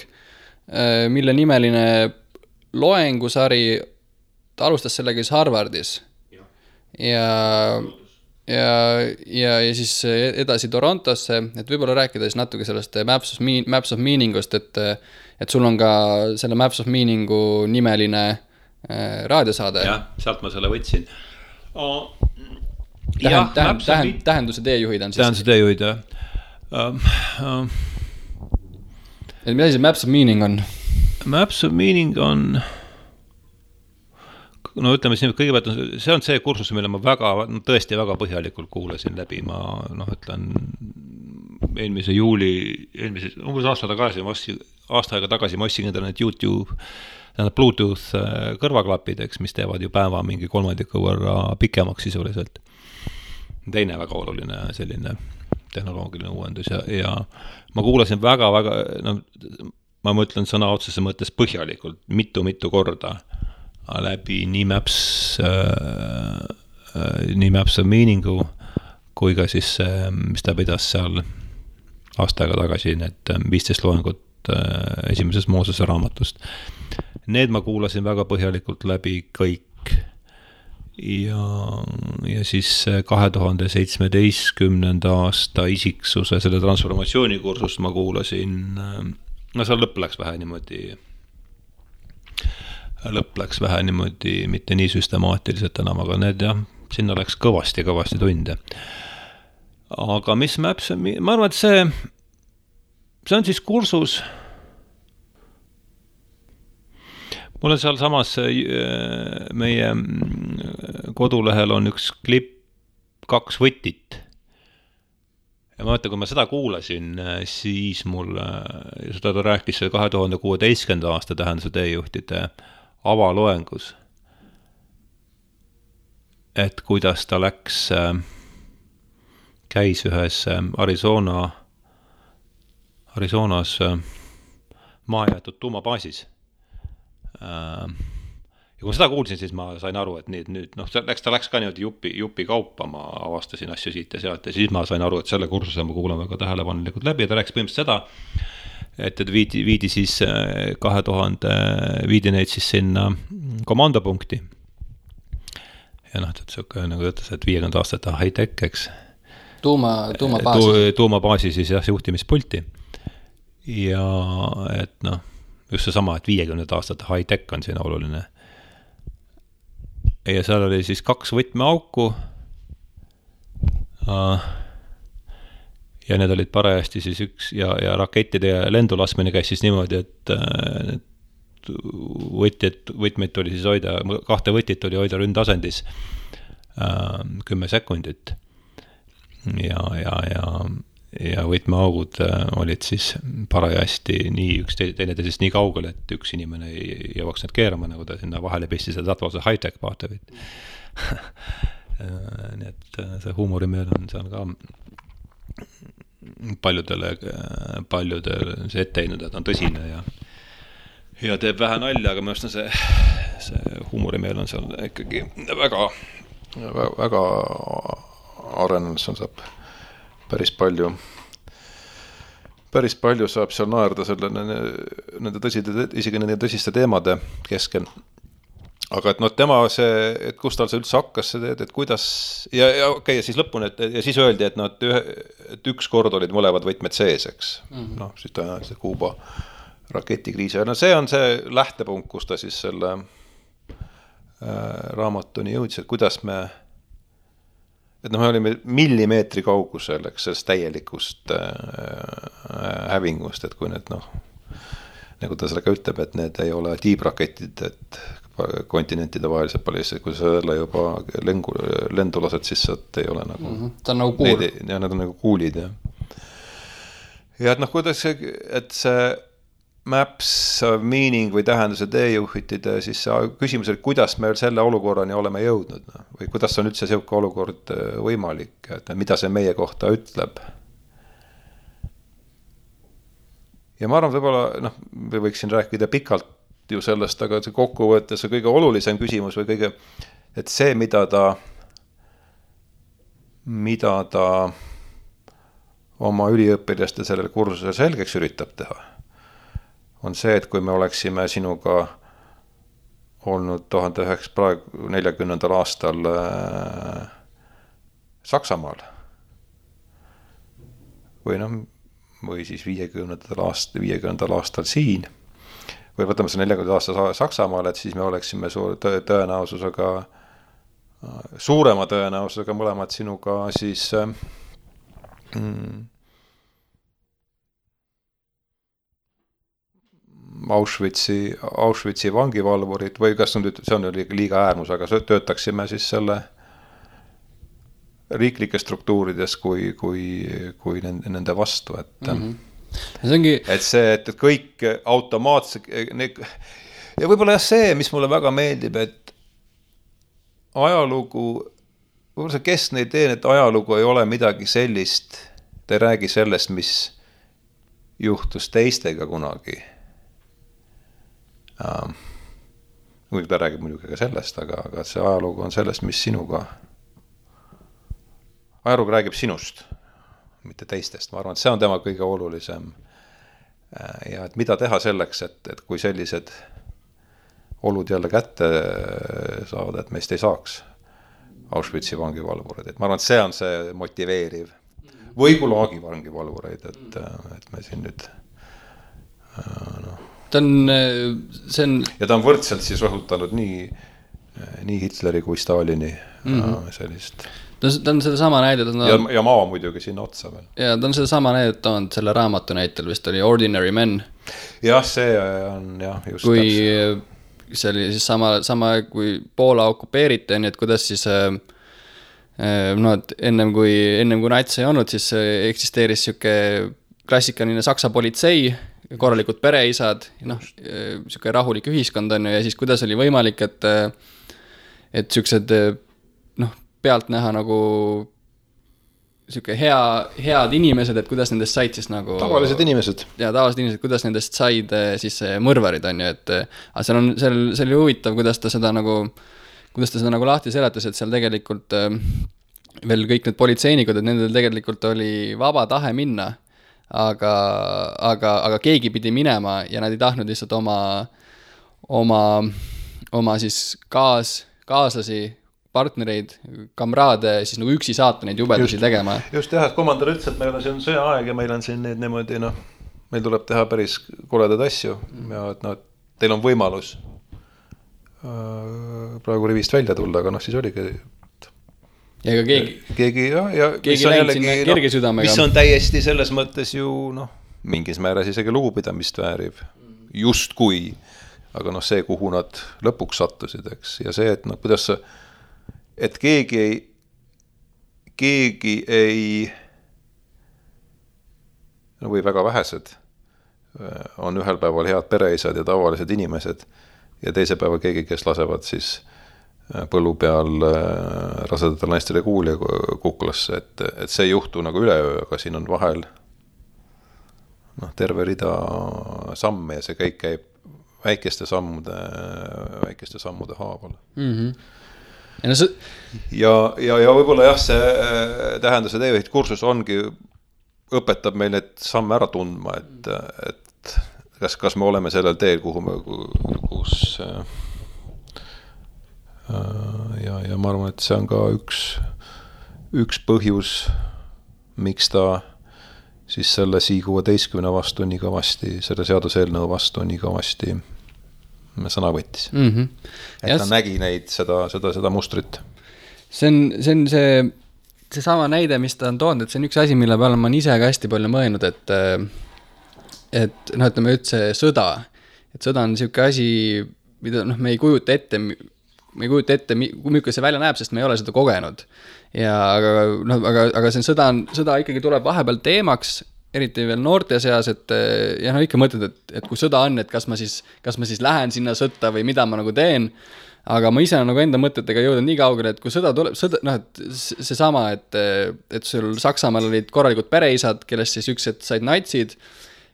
mille nimeline loengusari, ta alustas sellega siis Harvardis ja siis edasi Torontosse, et võib-olla rääkida siis natuke sellest Maps of Meaningust, et sul on ka selle Maps of Meaningu nimeline raadiosaade. Jah, sealt ma selle võtsin. Tähenduse teejuhid on siis. Tähenduse teejuhid, jah. Et mida see Maps of Meaning on? Maps of Meaning on... No ütleme siin, kõigepealt see on see kursus, mille ma tõesti väga põhjalikult kuulasin läbi. Ma ütlen eelmise juuli, umbes aasta aega tagasi ma ostsin endale need YouTube, Bluetooth kõrvaklapid, mis teevad ju päeva mingi 3 võrra pikemaks sisuliselt. Teine väga oluline selline tehnoloogiline uuendus ja ma kuulasin väga, ma mõtlen sõna otsese mõttes põhjalikult, mitu korda läbi nii Maps of Meaningu kui ka siis mis ta pidas seal aasta aega tagasi need 15 loengut esimesest Moosese raamatust. Need ma kuulasin väga põhjalikult läbi kõik ja siis 2017. aasta isiksuse selle transformatsioonikursust ma kuulasin, seal lõpp läks vähe niimoodi, mitte nii süstemaatiliselt enam, aga need jah, sinna läks kõvasti tunde. Aga mis Maps, ma arvan, et see on siis kursus, mul on seal samas meie kodulehel on üks klipp 2 võtit. Ja ma mõtlen, kui ma seda kuulasin, siis mul, seda ta rääkis 2016. aasta tähenduse teejuhtide avaloengus, et kuidas ta käis ühes Arizonas maajäetud tuumabaasis. Ja kui ma seda kuulsin, siis ma sain aru, et nüüd ta läks ka niimoodi jupi kaupa, ma avastasin asju siit ja sealt ja siis ma sain aru, et selle kursuse ma kuulan väga tähelepanelikult läbi ja ta rääkis põhimõtteliselt seda, et viidi siis 2000 viidi neid siis sinna komandopunkti. Ja nagu ütles, et 50 aastat high-tech, eks. Tuumabaasi siis jah, juhtimispulti. Ja et just see sama, et 50 aastat high-tech on siin oluline. Ja seal oli siis 2 võtmeauku. Ja need olid parajasti siis üks ja rakettide ja lendulasmine käis siis niimoodi, et võtmeid oli siis hoida, 2 võtit oli hoida ründasendis 10 sekundit ja võtmeaugud olid siis parajasti nii üks teineteisest nii kaugel, et üks inimene ei jõuaks need keerama, nagu ta sinna vahele pistis ja tatvase high-tech paatevit. Nii et see huumorimeel on seal ka paljudele see ette heinud, et on tõsine ja teeb vähe nalja, aga minu arust on see huumorimeel on seal ikkagi väga, väga arenenud, seal saab päris palju saab seal naerda selle isegi nende tõsiste teemade keskel. Aga et tema see, et kus tal see üldse hakkas see teed, et kuidas, ja okei, ja siis lõpuni, ja siis öeldi, et üks kord olid mõlevad võtmed sees, eks. Siis tõenäoliselt Kuuba raketikriisi. See on see lähtepunkt, kus ta siis selle raamatuni jõudis, et kuidas me olime millimeetri kaugusel, eks, sellest täielikust hävingust, et kui need, nagu ta sellega ütleb, et need ei ole tiibraketid, et kontinentide vahelised palju, kui sa jälle juba lendu lased, siis sealt ei ole nagu ta on nagu kuul. Ja need on nagu kuulid, ja et kuidas et see maps of meaning või tähenduse teejuhitide, siis küsimus, et kuidas me selle olukorrani oleme jõudnud, või kuidas on üldse selline olukord võimalik, et mida see meie kohta ütleb. Ja ma arvan, võib-olla, me võiksin rääkida pikalt ju sellest, aga see kokkuvõttes on kõige olulisem küsimus või kõige, et see, mida ta oma üliõpilaste sellel kursusel selgeks üritab teha, on see, et kui me oleksime sinuga olnud 1940. aastal Saksamaal või siis 50. aastal siin, või võtame see 40 aasta Saksamaal, et siis me oleksime suurema tõenäosusega mõlemad sinuga siis Auschwitzi vangivalvurid või kas see on liiga äärmus, aga töötaksime siis selle riiklikes struktuurides kui nende vastu, et et see, et kõik automaatselt ja võib-olla see, mis mulle väga meeldib, et ajalugu, võib-olla see keskne idee, et ajalugu ei ole midagi sellist, ta ei räägi sellest, mis juhtus teistega kunagi. Muidugi ta räägib muidugi ka sellest, aga see ajalugu on sellest, mis sinuga, ajalugu räägib sinust, mitte teistest. Ma arvan, et see on tema kõige olulisem. Ja et mida teha selleks, et kui sellised olud jälle kätte saavad, et meist ei saaks Auschwitzi vangivalvureid. Et ma arvan, et see on see motiveeriv. Või Gulagi vangivalvureid, et me siin nüüd ja ta on võrdselt siis rõhutanud nii Hitleri kui Stalini sellist. Ta on seda sama näidet. Ja maa muidugi sinna otsa veel. Ja ta on seda sama näidet toonud selle raamatu näitel, vist oli Ordinary Men. Jah, see on just kui see oli siis sama kui Poola okupeeriti, nii et kuidas siis et ennem kui nats ei olnud, siis eksisteeris siuke klassikaline Saksa politsei, korralikud pereisad, siuke rahulik ühiskond on ja siis kuidas oli võimalik, et siuksed pealt näha nagu siuke head inimesed, et kuidas nendest said siis nagu tavalised inimesed. Ja tavalised inimesed, kuidas nendest said siis mõrvarid on ju, et see oli huvitav, kuidas ta seda nagu lahti seletas, et seal tegelikult veel kõik need politseinikud, et nendel tegelikult oli vaba tahe minna, aga keegi pidi minema ja nad ei tahtnud lihtsalt oma siis kaaslasi, partnereid, kamraade siis nagu üksi saata neid jubedusi tegema. Just jah, et komandör ütles, et meil on siin sõjaaeg ja meil on siin neid niimoodi, meil tuleb teha päris koledad asju ja et teil on võimalus praegu rivist välja tulla, aga siis oligi ja ega keegi läinud sinna kerge südamega. Mis on täiesti selles mõttes ju mingis määras isegi lugupidamist väärib just kui, aga see, kuhu nad lõpuks sattusid, eks, ja see, et kuidas et keegi ei või väga vähesed on ühel päeval head pereisad ja tavalised inimesed ja teise päeva keegi, kes lasevad siis põllu peal rasedatel naistele kuuli kuklasse, et see ei juhtu nagu üleöö, aga siin on vahel terve rida samme ja see kõik käib väikeste sammude haaval. Ja võib-olla jah, see tähenduse teejuht kursus õpetab meil neid samme ära tundma, et kas me oleme sellel teel, kus ja ma arvan, et see on ka üks põhjus, miks ta siis selle SI-16 vastu nii kõvasti, selle seaduseelnõu vastu nii kõvasti sõna võttis. Et ta nägi neid seda mustrit. See on see sama näide, mis ta on toonud, et see on üks asi, mille peale ma ise ka hästi palju mõelnud, et ütleme üldse sõda. Et sõda on niisugune asi, mida me ei kujuta ette, kui milline see välja näeb, sest me ei ole seda kogenud. Aga see sõda ikkagi tuleb vahepeal teemaks, eriti veel noorte seas, et ikka mõtled, et kui sõda on, et kas ma siis lähen sinna sõtta või mida ma nagu teen, aga ma ise olen nagu enda mõtetega jõudnud nii kaugele, et kui sõda tuleb, et seesama, et sul Saksamaal olid korralikud pereisad, kellest siis üks, et said natsid,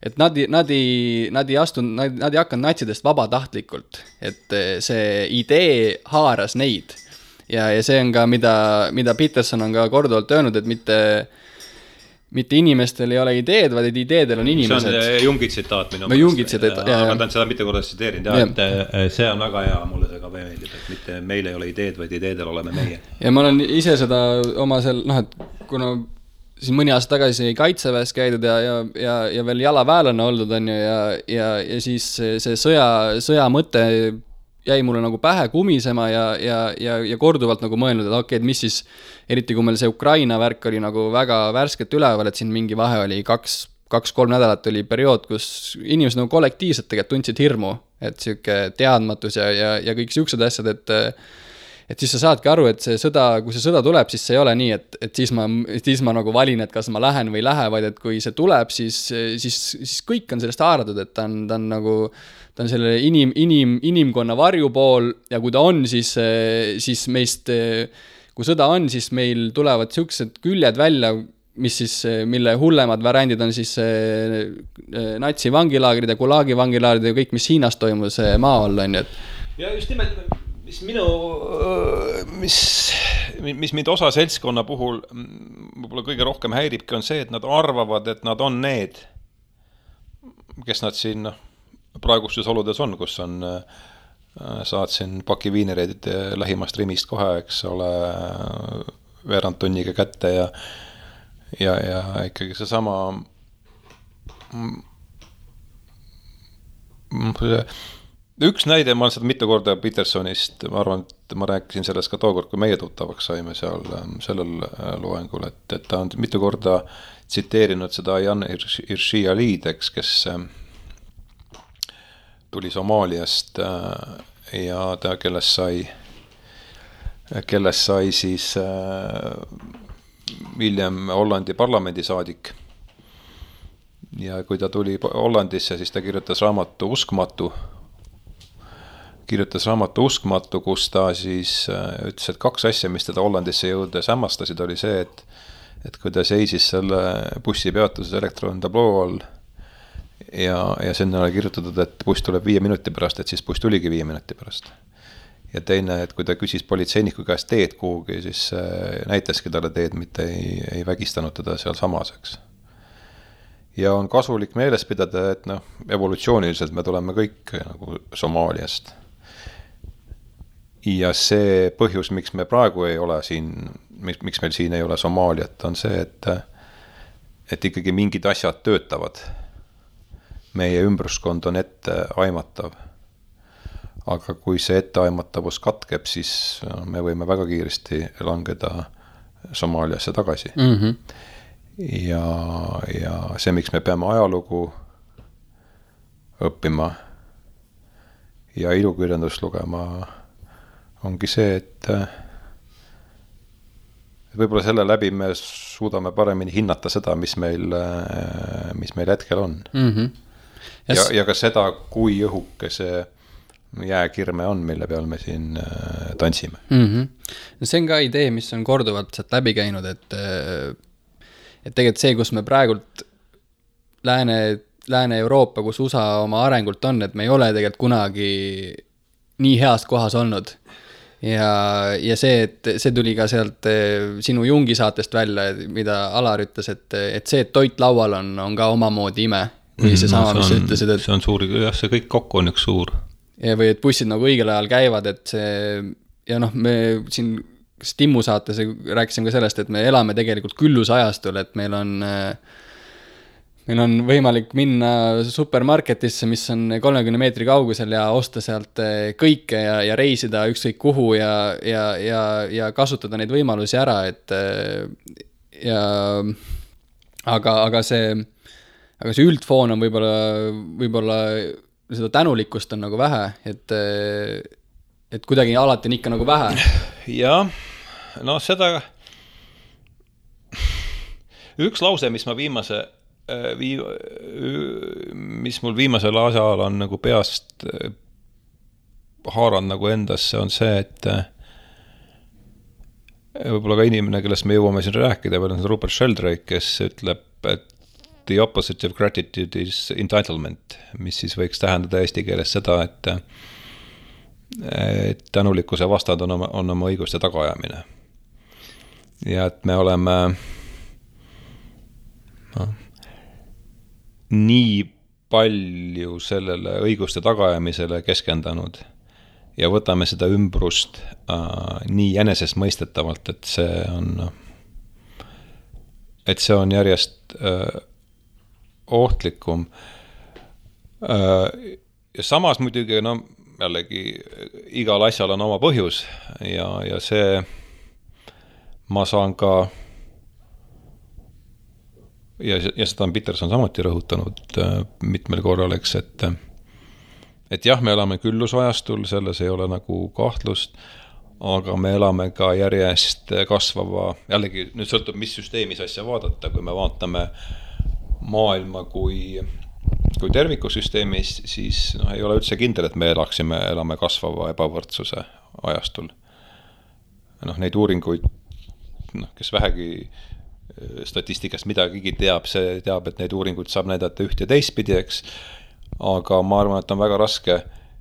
et nad ei hakanud natsidest vabatahtlikult, et see idee haaras neid. Ja see on ka, mida Peterson on ka korduvalt öelnud, et mitte inimestel ei ole ideed, vaid ideedel on inimesed. See on Jungi tsitaat minu mõttes. Ma tahan seda mitte korda tsiteerinud, et see on väga hea, mulle see ka meeldib, et mitte meil ei ole ideed, vaid ideedel oleme meie. Ja ma olen ise seda oma et kuna siin mõni aasta tagasi kaitseväes käidud ja veel jalaväelane oldud on ja siis see sõja mõte jäi mulle nagu pähe kumisema ja korduvalt nagu mõelnud, et okei, et mis siis, eriti kui meil see Ukraina värk oli nagu väga värsket üleval, et siin mingi vahe oli 2-3 nädalat oli periood, kus inimesed nagu kollektiivselt tegelikult tundsid hirmu, et siuke teadmatus ja kõik siuksed asjad, et siis sa saadki aru, et see sõda, kui see sõda tuleb, siis see ei ole nii, et siis ma nagu valin, et kas ma lähen või ei lähe, vaid et kui see tuleb, siis kõik on sellest haaratud, et ta on nagu ta on selle inimkonna varjupool ja kui ta on, siis meist, kui sõda on, siis meil tulevad siuksed küljed välja, mille hullemad variandid on siis natsi vangilaagrid ja Gulagi vangilaagrid ja kõik, mis Hiinas toimus maa all on. Ja just nimelt, mis mind osa seltskonna puhul võib-olla kõige rohkem häiribki, on see, et nad arvavad, et nad on need, kes nad siin praegustes oludes on, kus saad siin paki viinereid lähimast Rimist kohe, eks ole, veerand tunniga kätte ja ikkagi seesama üks näide, ma olen seda mitu korda Petersonist, ma arvan, et ma rääkisin sellest ka tookord, kui meie tuttavaks saime seal sellel loengul, et ta on mitu korda tsiteerinud seda Jan Hirsi Aliideks, kes tuli Somaaliast ja ta, kellest sai siis hiljem Hollandi parlamendisaadik. Ja kui ta tuli Hollandisse, siis ta kirjutas raamatu Uskmatu, kus ta siis ütles, et 2 asja, mis teda Hollandisse jõudes hämmastasid, oli see, et kui ta seisis selle bussipeatuses elektrontabloo all ja sinna oli kirjutatud, et buss tuleb 5 minuti pärast, et siis buss tuligi 5 minuti pärast. Ja teine, et kui ta küsis politseiniku käest teed kuhugi, siis näitaski talle teed, mitte ei vägistanud teda seal samaseks. Ja on kasulik meeles pidada, et evolutsiooniliselt me tuleme kõik nagu Somaaliast. Ja see põhjus, miks me praegu ei ole siin, miks meil siin ei ole Somaaliat, on see, et ikkagi mingid asjad töötavad. Meie ümbruskond on ette aimatav. Aga kui see etteaimatavus katkeb, siis me võime väga kiiresti langeda Somaaliasse tagasi. Ja see, miks me peame ajalugu õppima ja ilukirjandust lugema, ongi see, et võib-olla selle läbi me suudame paremini hinnata seda, mis meil hetkel on. Ja ka seda, kui õhuke see jääkirme on, mille peal me siin tantsime. See on ka idee, mis on korduvalt sealt läbi käinud, et tegelikult see, kus me praegult Lääne-Euroopa, kus USA oma arengult on, et me ei ole tegelikult kunagi nii heas kohas olnud. Ja see, et see tuli ka sealt sinu Jungi saatest välja, mida Alar ütles, et see, et toit laual on ka omamoodi ime. Või see sama, mis sa ütlesid, et see on suur, jah, see kõik kokku on üks suur. Ja või et bussid nagu õigel ajal käivad, et see, ja noh, me siin Timmu saates rääkisime ka sellest, et me elame tegelikult küllusajastul, et meil on võimalik minna supermarketisse, mis on 30 meetri kaugusel ja osta sealt kõike ja reisida ükskõik kuhu ja kasutada neid võimalusi ära, et aga see üldfoon on võib-olla seda tänulikkust on nagu vähe, et kuidagi alati on ikka nagu vähe. Jah, no seda üks lause, mis mul viimasel asjal on nagu peast haaranud nagu endasse, on see, et võib-olla ka inimene, kellest me jõuame siin rääkida, veel on Rupert Sheldrake, kes ütleb, et the opposite of gratitude is entitlement, mis siis võiks tähendada eesti keeles seda, et tänulikkuse vastad on oma õiguste tagaajamine. Ja et me oleme nii palju sellele õiguste tagaajamisele keskendanud ja võtame seda ümbrust nii jänesest mõistetavalt, et see on järjest ohtlikum. Ja samas muidugi, no jällegi igal asjal on oma põhjus ja see ma saan ka ja seda on Peterson samuti rõhutanud mitmel korral, eks, et jah, me elame küllusajastul, selles ei ole nagu kahtlust, aga me elame ka järjest kasvava, jällegi nüüd sõltub, mis süsteemis asja vaadata, kui me vaatame maailma kui tervikusüsteemis, siis ei ole üldse kindel, et me elame kasvava ebavõrdsuse ajastul. Neid uuringuid, kes vähegi statistikast midagigi teab, see teab, et neid uuringuid saab näidata üht ja teistpidi, eks, aga ma arvan, et on väga raske,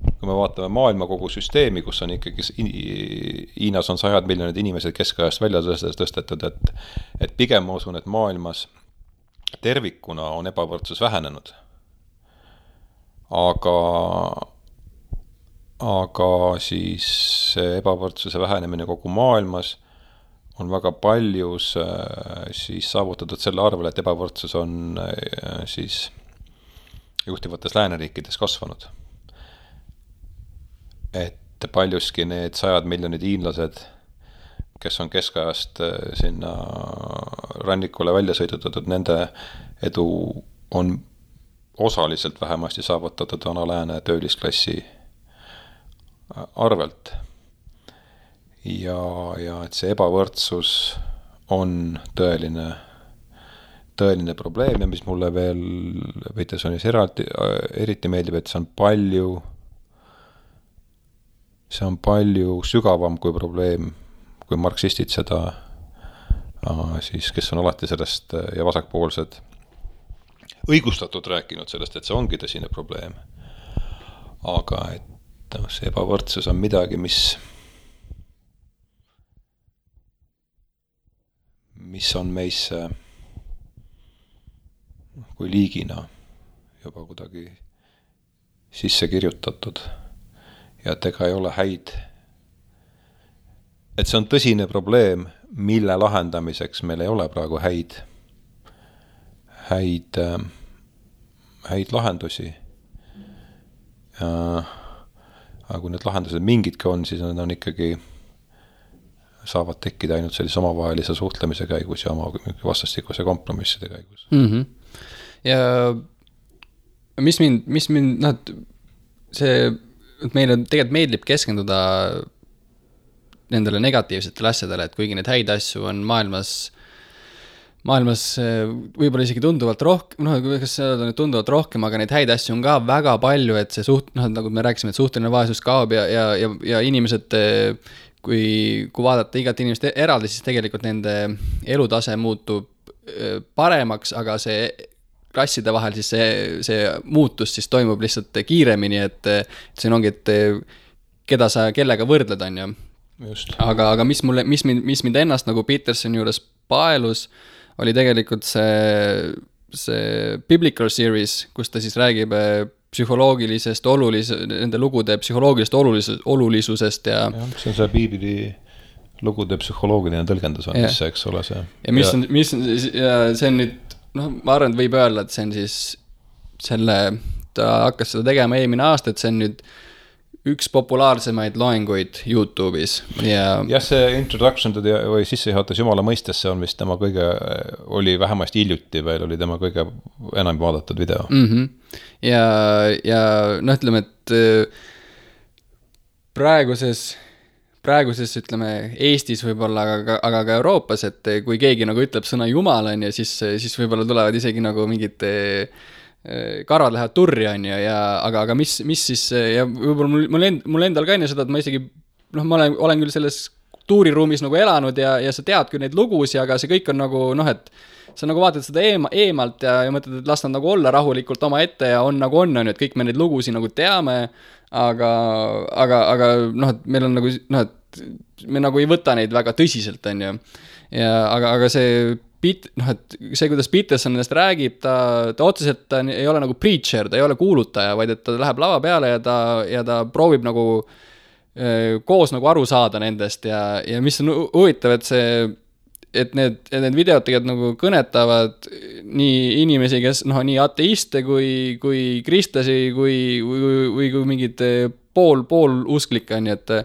kui me vaatame maailma kogu süsteemi, kus on ikkagi Hiinas on 100 miljonid inimesed keskajast välja tõstetud, et pigem ma usun, et maailmas tervikuna on ebavõrdsus vähenenud. Aga siis ebavõrdsuse vähenemine kogu maailmas on väga paljus siis saavutatud selle arvel, et ebavõrdsus on siis juhtivates lääneriikides kasvanud. Et paljuski need 100 miljonid hiinlased, kes on keskajast sinna rannikule välja sõidutatud, nende edu on osaliselt vähemasti saavutatud vana lääne töölisklassi arvelt. Ja et see ebavõrdsus on tõeline probleem ja mis mulle veel Petersonis eriti meeldib, et see on palju sügavam kui probleem, kui marksistid seda siis, kes on alati sellest ja vasakpoolsed õigustatud rääkinud sellest, et see ongi tõsine probleem. Aga et see ebavõrdsus on midagi, mis on meisse kui liigina juba kuidagi sisse kirjutatud ja et ega ei ole häid. Et see on tõsine probleem, mille lahendamiseks meil ei ole praegu häid lahendusi. Aga kui need lahendused mingidki on, siis need on ikkagi saavad tekkida ainult sellise omavahelise suhtlemise käigus ja oma vastastikuse kompromisside käigus. Mm-hmm. Ja mis mind see, et meile tegelikult meeldib keskenduda nendele negatiivsetele asjadele, et kuigi neid häid asju on maailmas võib-olla isegi tunduvalt rohkem, kas see on tunduvalt rohkem, aga neid häid asju on ka väga palju, et see nagu me rääkisime, et suhteline vaesus kaob ja inimesed, kui vaadata igat inimest eraldi, siis tegelikult nende elutase muutub paremaks, aga see klasside vahel, siis see muutus siis toimub lihtsalt kiiremini, et siin ongi, et keda sa kellega võrdled, on ju. Just. Aga mis mind ennast nagu Petersoni juures paelus, oli tegelikult see Biblical Series, kus ta siis räägib psühholoogilisest nende lugude psühholoogilisest olulisusest ja see on see Piibli lugude psühholoogiline tõlgendus on, mis see, eks ole see. Ja mis on see on nüüd, ma arvan, et võib öelda, et see on siis ta hakkas seda tegema eelmine aasta, et see on nüüd üks populaarsemaid loenguid YouTube'is ja see introduction või sissejuhatus Jumala mõistesse on vist tema oli vähemasti hiljuti veel, oli tema kõige enam vaadatud video. Ja ütleme, et praeguses ütleme Eestis võib-olla, aga ka Euroopas, et kui keegi nagu ütleb sõna Jumal on ja siis võib-olla tulevad isegi nagu mingid karvad lähevad turri on ja aga mis siis ja võib-olla mul endal ka enne seda, et ma isegi ma olen küll selles tuuriruumis nagu elanud ja sa tead küll neid lugusid, aga see kõik on nagu et sa nagu vaatad seda eemalt ja mõtled, et las nad nagu olla rahulikult oma ette ja on nagu on, et kõik me neid lugusid nagu teame, aga et meil on nagu et me nagu ei võta neid väga tõsiselt, on ju. Ja aga see et see, kuidas Peterson nendest räägib, ta otseselt ei ole nagu preacher, ta ei ole kuulutaja, vaid et ta läheb lava peale ja ta proovib nagu koos nagu aru saada nendest ja mis on huvitav, et need videod tegelikult nagu kõnetavad nii inimesi, kes nii ateiste kui kristlasi kui mingid pool usklikke, nii et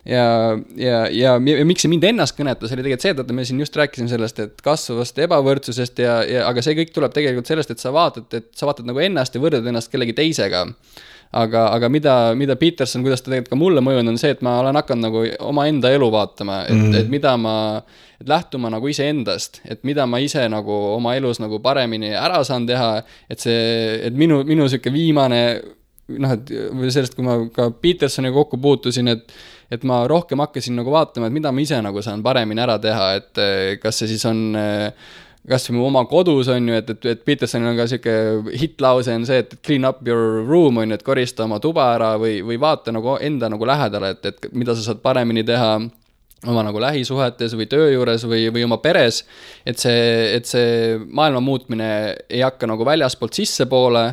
ja miks see mind ennast kõnetas, oli tegelikult see, et me siin just rääkisime sellest, et kasvavast ebavõrdsusest aga see kõik tuleb tegelikult sellest, et sa vaatad nagu ennast ja võrdad ennast kellegi teisega. Aga mida Peterson, kuidas ta tegelikult ka mulle mõjun, on see, et ma olen hakanud nagu oma enda elu vaatama, et lähtuma nagu ise endast, et mida ma ise nagu oma elus nagu paremini ära saan teha, et minu selline viimane, et sellest, kui ma ka Petersoni kokku puutusin, et ma rohkem hakkasin nagu vaatama, et mida ma ise nagu saan paremini ära teha, et kas see siis on kas või mu oma kodus on ju, et Petersonil on ka siuke hitlause on see, et clean up your room on ju, et korista oma tuba ära või vaata nagu enda nagu lähedale, et mida sa saad paremini teha oma nagu lähisuhetes või töö juures või oma peres, et see maailma muutmine ei hakka nagu väljaspoolt sissepoole,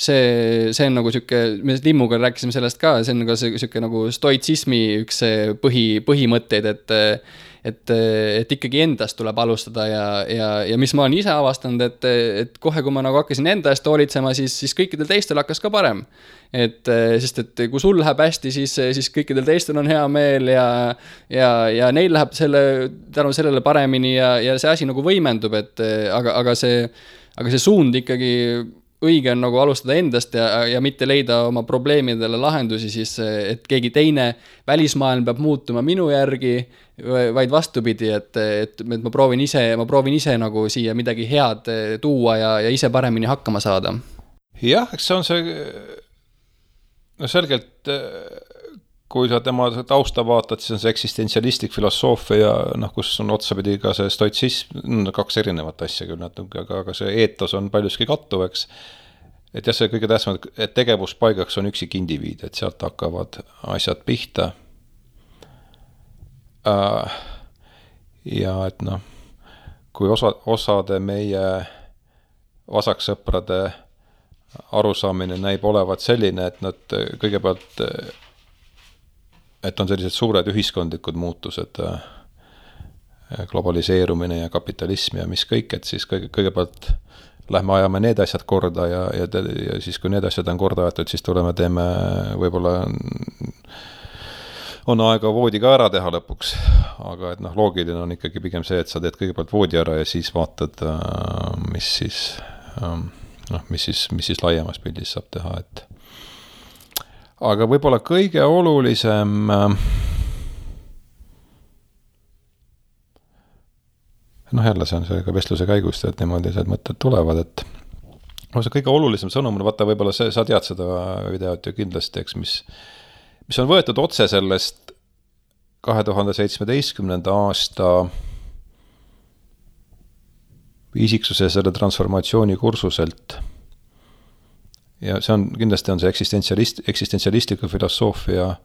see on nagu siuke, me Timmuga rääkisime sellest ka, see on nagu siuke nagu stoitsismi üks põhimõtteid, et ikkagi endast tuleb alustada ja mis ma olen ise avastanud, et kohe, kui ma nagu hakkasin enda eest hoolitsema, siis kõikidel teistel hakkas ka parem. Sest kui sul läheb hästi, siis kõikidel teistel on hea meel ja neil läheb tänu sellele paremini ja see asi nagu võimendub, aga see suund ikkagi õige on nagu alustada endast ja mitte leida oma probleemidele lahendusi, siis et keegi teine välismaailm peab muutuma minu järgi, vaid vastupidi, et ma proovin ise nagu siia midagi head tuua ja ise paremini hakkama saada. Jah, eks see on see selgelt, kui sa tema tausta vaatad, siis on see eksistentsialistlik filosoofia, kus on otsapidi ka see stoitsism, kaks erinevat asja küll, aga see eetos on paljuski kattuv, eks. Et jah, see kõige tähtsam, et tegevuspaigaks on üksik indiviid, et sealt hakkavad asjad pihta. Ja et kui osade meie vasaksõprade arusaamine näib olevat selline, et nad kõigepealt, et on sellised suured ühiskondlikud muutused, globaliseerumine ja kapitalism ja mis kõik, et siis kõigepealt lähme ajame need asjad korda ja siis, kui need asjad on korda aetud, siis teeme võib-olla on aega voodi ka ära teha lõpuks, aga et loogiline on ikkagi pigem see, et sa teed kõigepealt voodi ära ja siis vaatad, mis siis laiemas pildis saab teha, et aga võib-olla kõige olulisem jälle see on see ka vestluse käigust, et niimoodi need mõtted tulevad, et see kõige olulisem sõnum, vaata võib-olla sa tead seda videot ju kindlasti, eks, mis on võetud otse sellest 2017. aasta isiksuse selle transformatsiooni kursuselt. Ja see on, kindlasti on see eksistentsialistliku filosoofia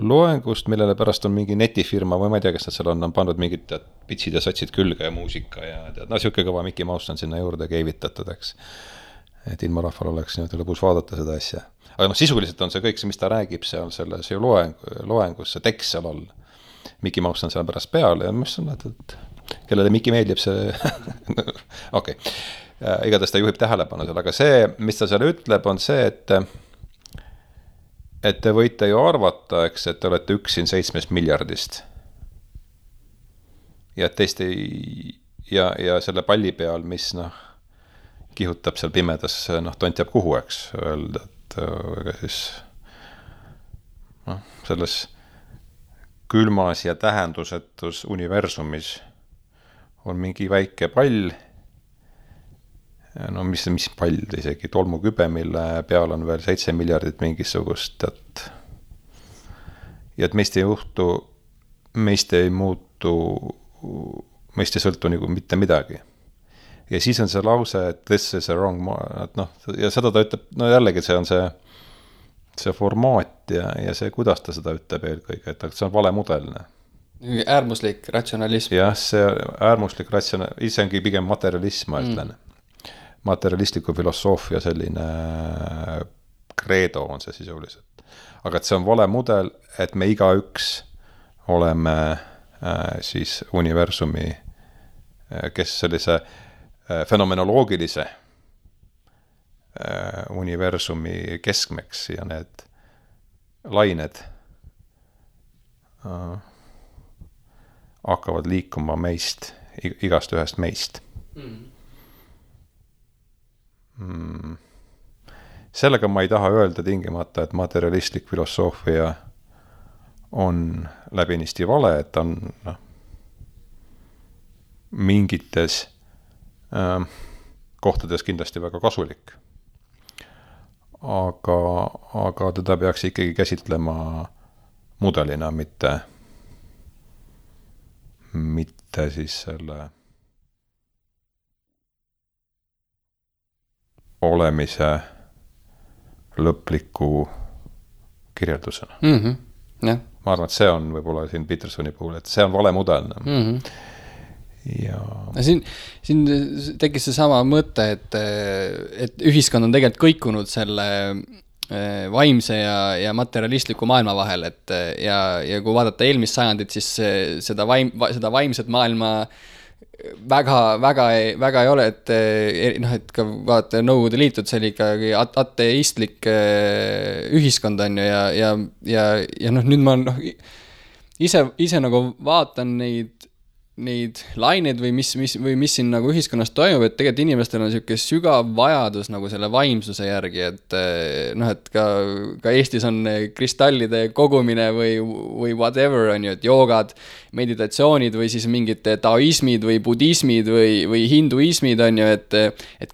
loengust, millele pärast on mingi netifirma või ma ei tea, kes nad seal on pandud mingid pitsid ja satsid külge ja muusika ja siuke kõva Mickey Mouse on sinna juurde keevitatud, eks. Et ilma rahval oleks niimoodi lõbus vaadata seda asja. Aga sisuliselt on see kõik see, mis ta räägib seal selles loengus, see tekst seal all. Mickey Mouse on seal pärast peal ja mis on, et kellele Mickey meeldib see okei. Igatahes ta juhib tähelepanu seal, aga see, mis ta seal ütleb, on see, et te võite ju arvata, eks, et te olete üks siin 7 miljardist. Ja teist ja selle palli peal, mis kihutab seal pimedas, tont jääb kuhu, eks, öelda, et ega siis selles külmas ja tähendusetus universumis on mingi väike pall, mis pall isegi, tolmukübe, mille peal on veel 7 miljardit mingisugust, ja et meist ei juhtu, meist ei muutu, meist ei sõltu nagu mitte midagi. Ja siis on see lause, et this is a wrong, ja seda ta ütleb, jällegi see on see formaat ja see, kuidas ta seda ütleb eelkõige, et see on valemudelne. Äärmuslik ratsionalism. Jah, see äärmuslik ratsionalism, ise ongi pigem materialism, ma ütlen. Materialistliku filosoofia selline kreedo on see sisuliselt. Aga et see on vale mudel, et me igaüks oleme siis universumi, kes sellise fenomenoloogilise universumi keskmeks ja need lained hakkavad liikuma meist, igast ühest meist. Sellega ma ei taha öelda tingimata, et materialistlik filosoofia on läbinisti vale, et on mingites kohtades kindlasti väga kasulik. Aga teda peaks ikkagi käsitlema mudelina, mitte siis selle olemise lõpliku kirjeldusena. Ja. Ma arvan, et see on võib-olla siin Petersoni puhul, et see on vale mudel. Ja siin tekkis see sama mõte, et ühiskond on tegelikult kõikunud selle vaimse ja materialistliku maailma vahel, ja kui vaadata eelmist sajandit, siis seda vaimset maailma väga ei ole, et ka vaata Nõukogude Liitud, see oli ikkagi ateistlik ühiskond on ju, ja nüüd ma ise nagu vaatan neid laineid või mis siin nagu ühiskonnas toimub, et tegelikult inimestel on selline sügav vajadus nagu selle vaimsuse järgi, et ka Eestis on kristallide kogumine või whatever on ju, et joogad, meditatsioonid või siis mingid taoismid või budismid või hinduismid on ju, et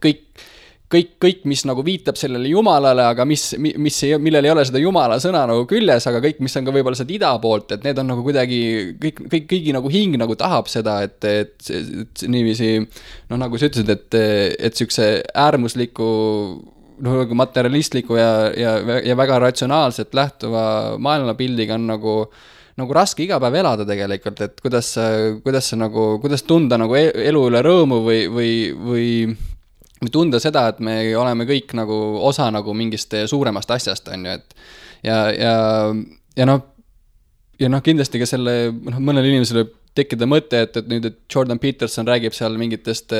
kõik, mis nagu viitab sellele jumalale, aga millel ei ole seda jumala sõna nagu küljes, aga kõik, mis on ka võib-olla seda ida poolt, et need on nagu kuidagi, kõigi nagu hing nagu tahab seda, et niiviisi, nagu sa ütlesid, et sükse äärmusliku, materialistliku ja väga ratsionaalselt lähtuva maailmapildiga on nagu raske iga päev elada tegelikult, et kuidas tunda nagu elu üle rõõmu või tunda seda, et me oleme kõik nagu osa nagu mingist suuremast asjast on ju, et ja kindlasti ka selle mõnel inimesel võib tekkida mõte, et nüüd, et Jordan Peterson räägib seal mingitest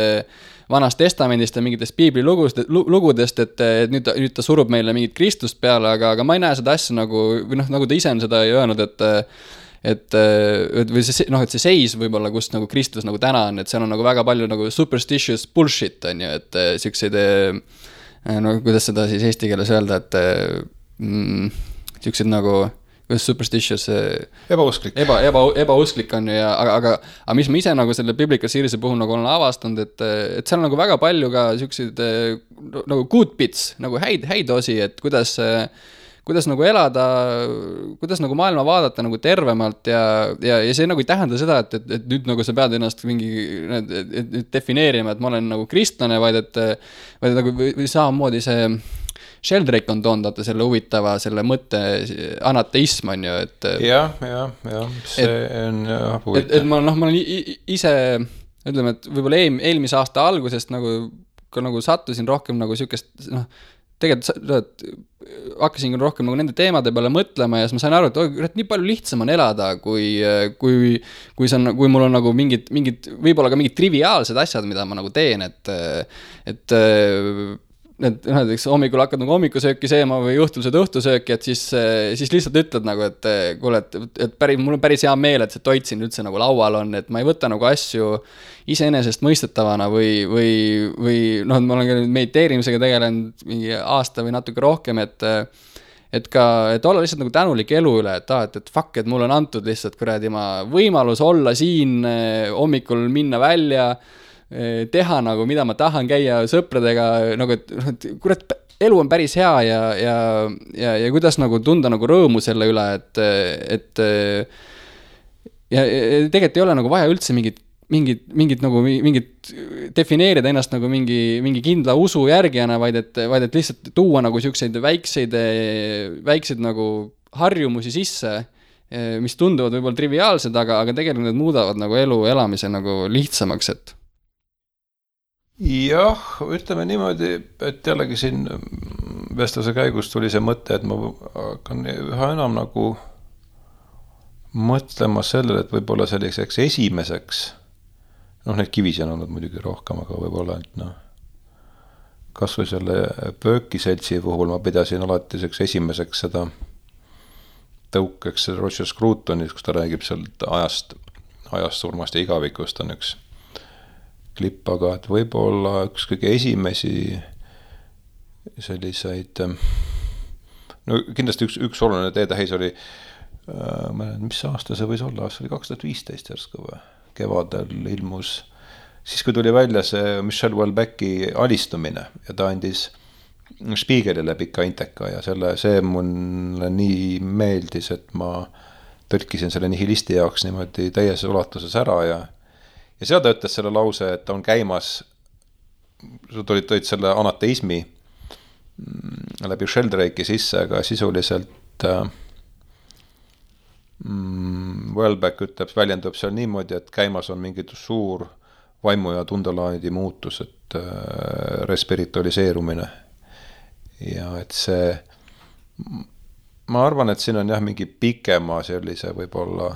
vanast testamendist ja mingitest piiblilugudest, et nüüd ta surub meile mingit Kristust peale, aga ma ei näe seda asja nagu, või nagu ta ise on seda öelnud, et see seis võib-olla, kus nagu Kristus nagu täna on, et seal on nagu väga palju nagu superstitious bullshit on ju, et siukseid kuidas seda siis eesti keeles öelda, et siukseid nagu kuidas superstitious ebausklik ebausklik on ju, aga mis ma ise nagu selle Biblical Series'i puhul nagu olen avastanud, et seal on nagu väga palju ka siukseid nagu good bits, nagu häid osi, et kuidas kuidas nagu elada, kuidas nagu maailma vaadata nagu tervemalt ja see nagu ei tähenda seda, et nüüd nagu sa pead ennast mingi defineerima, et ma olen nagu kristlane, vaid nagu või samamoodi see Sheldrake on toondata selle huvitava, selle mõtte anateism on ju, et jah, see on huvitav. Et ma olen ise, ütleme, et võib-olla eelmise aasta algusest nagu sattusin rohkem nagu sükest, tegelikult hakkasin rohkem nagu nende teemade peale mõtlema ja siis ma sain aru, et nii palju lihtsam on elada, kui mul on nagu mingid, võib-olla ka mingid triviaalsed asjad, mida ma nagu teen, et näiteks hommikul hakkad nagu hommikusööki seema või õhtused õhtusööki, et siis lihtsalt ütled nagu, et kuule, et mul on päris hea meel, et see toit siin üldse nagu laual on, et ma ei võta nagu asju iseenesest mõistetavana või ma olen ka mediteerimisega tegelenud mingi aasta või natuke rohkem, et olla lihtsalt nagu tänulik elu üle, et fuck, et mul on antud lihtsalt kuradi võimalus olla siin hommikul minna välja, teha nagu, mida ma tahan, käia sõpradega, nagu, et kurat, elu on päris hea ja kuidas nagu tunda nagu rõõmu selle üle, et tegelikult ei ole nagu vaja üldse mingit defineerida ennast nagu mingi kindla usu järgijana, vaid et lihtsalt tuua nagu siukseid väikseid nagu harjumusi sisse, mis tunduvad võib-olla triviaalsed, aga tegelikult need muudavad nagu elu elamise nagu lihtsamaks, et jah, ütleme niimoodi, et jällegi siin vestluse käigus tuli see mõte, et ma hakkan üha enam nagu mõtlema sellele, et võib-olla selliseks esimeseks, neid kivisi on olnud muidugi rohkem, aga võib-olla, et kas või selle Pöökiseltsi puhul ma pidasin alati esimeseks seda tõukeks Roger Scrutonis, kus ta räägib sealt ajast, surmast ja igavikust on üks klipp, aga et võib-olla üks kõige esimesi selliseid, kindlasti üks oluline teetähis oli, mis aasta see võis olla, see oli 2015 järsku või, kevadel ilmus, siis kui tuli välja see Michel Houellebecqi alistumine ja ta andis Spiegelile pika inteka ja see mulle nii meeldis, et ma tõlkisin selle nihilisti jaoks niimoodi täies ulatuses ära ja seal ta ütles selle lause, et ta on käimas, sa tõid selle anateismi läbi Sheldrake'i sisse, aga sisuliselt Houellebecq väljendub seal niimoodi, et käimas on mingi suur vaimu ja tundelaadi muutus, et respiritualiseerumine. Ja et see, ma arvan, et siin on jah mingi pikema sellise võib-olla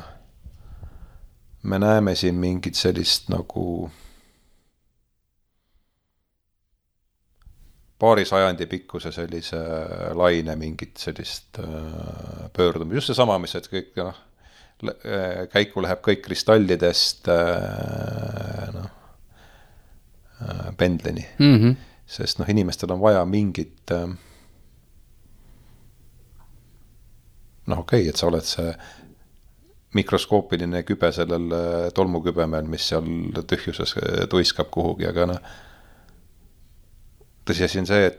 me näeme siin mingit sellist nagu paari sajandi pikkuse sellise laine mingit sellist pöördumist. Just see sama, mis et kõik käiku läheb kõik kristallidest pendleni. Sest inimestel on vaja mingit okei, et sa oled see mikroskoopiline kübe sellel tolmukübemel, mis seal tühjuses tuiskab kuhugi, aga tõsiasi on see,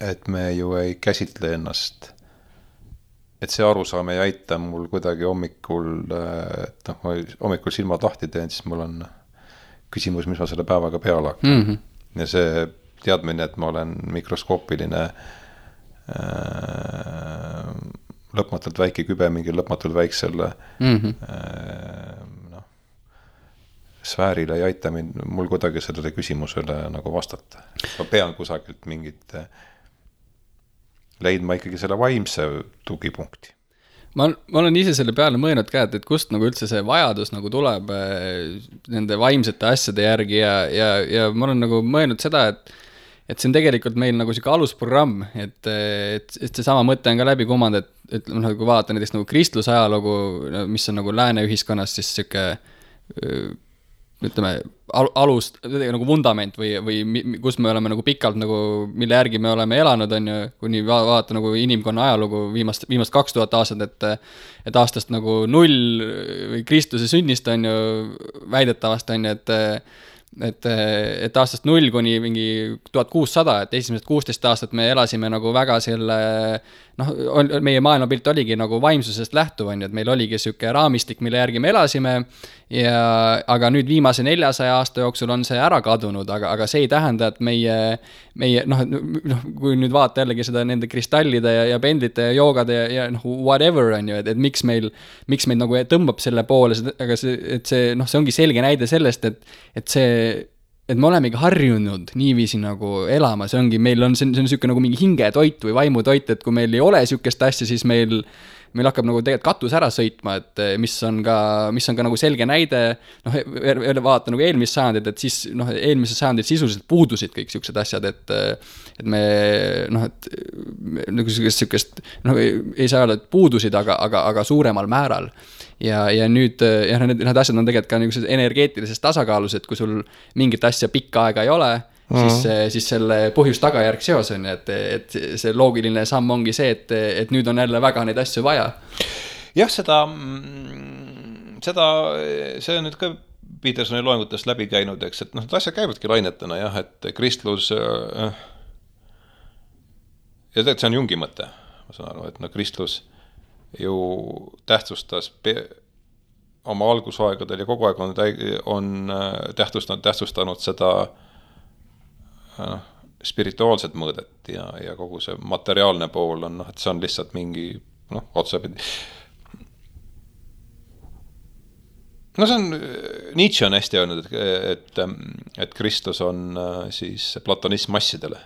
et me ju ei käsitle ennast, et see arusaam ei aita mul kuidagi hommikul, et hommikul silmad lahti teen, siis mul on küsimus, mis ma selle päevaga peale hakkan. Ja see teadmine, et ma olen mikroskoopiline lõpmatult väike kübe mingi lõpmatult väiksele sfäärile ei aita mul kuidagi sellele küsimusele nagu vastata. Ma pean kusagilt mingit leidma ikkagi selle vaimse tugipunkti. Ma olen ise selle peale mõelnud ka, et kust nagu üldse see vajadus nagu tuleb nende vaimsete asjade järgi ja ma olen nagu mõelnud seda, et see on tegelikult meil nagu siuke alusprogramm, et see sama mõte on ka läbi kumanud, et kui vaadata näiteks nagu kristluse ajalugu, mis on nagu lääne ühiskonnas, siis siuke ütleme, alus, nagu vundament või kus me oleme nagu pikalt nagu, mille järgi me oleme elanud, on ju, kuni vaadata nagu inimkonna ajalugu viimast 2000 aastat, et aastast nagu 0 või Kristuse sünnist on ju väidetavast on ju, et aastast 0 kuni mingi 1600, et esimesed 16 aastat me elasime nagu väga selle, meie maailmapilt oligi nagu vaimsusest lähtuv, on ju, et meil oligi selline raamistik, mille järgi me elasime, aga nüüd viimase 400 aasta jooksul on see ära kadunud, aga see ei tähenda, et meie kui nüüd vaata jällegi seda nende kristallide ja pendlite ja joogade ja whatever, on ju, et miks meil nagu tõmbab selle poole, aga see ongi selge näide sellest, et me olemegi harjunud niiviisi nagu elama, see ongi, meil on selline nagu mingi hingetoit või vaimutoit, et kui meil ei ole sükest asja, siis meil hakkab nagu tegelikult katus ära sõitma, et mis on ka nagu selge näide, vaata nagu eelmist sajandit, et siis eelmises sajandit sisuliselt puudusid kõik siuksed asjad, et me nagu sükest, ei saa öelda, et puudusid, aga suuremal määral. Ja nüüd, need asjad on tegelikult ka nagu energeetilises tasakaalus, et kui sul mingit asja pikka aega ei ole, siis selle põhjus-tagajärg seos on, et see loogiline samm ongi see, et nüüd on jälle väga neid asju vaja. Jah, see on nüüd ka Petersoni loengutest läbi käinud, eks, et asjad käivadki lainetena, jah, et kristlus ja tegelikult see on Jungi mõte, ma saan aru, et kristlus ju tähtsustas oma algusaegadel ja kogu aeg on tähtsustanud seda spirituaalset mõõdet ja kogu see materiaalne pool on, et see on lihtsalt mingi otsapidi. See on, Nietzsche on hästi öelnud, et Kristus on siis platonism massidele.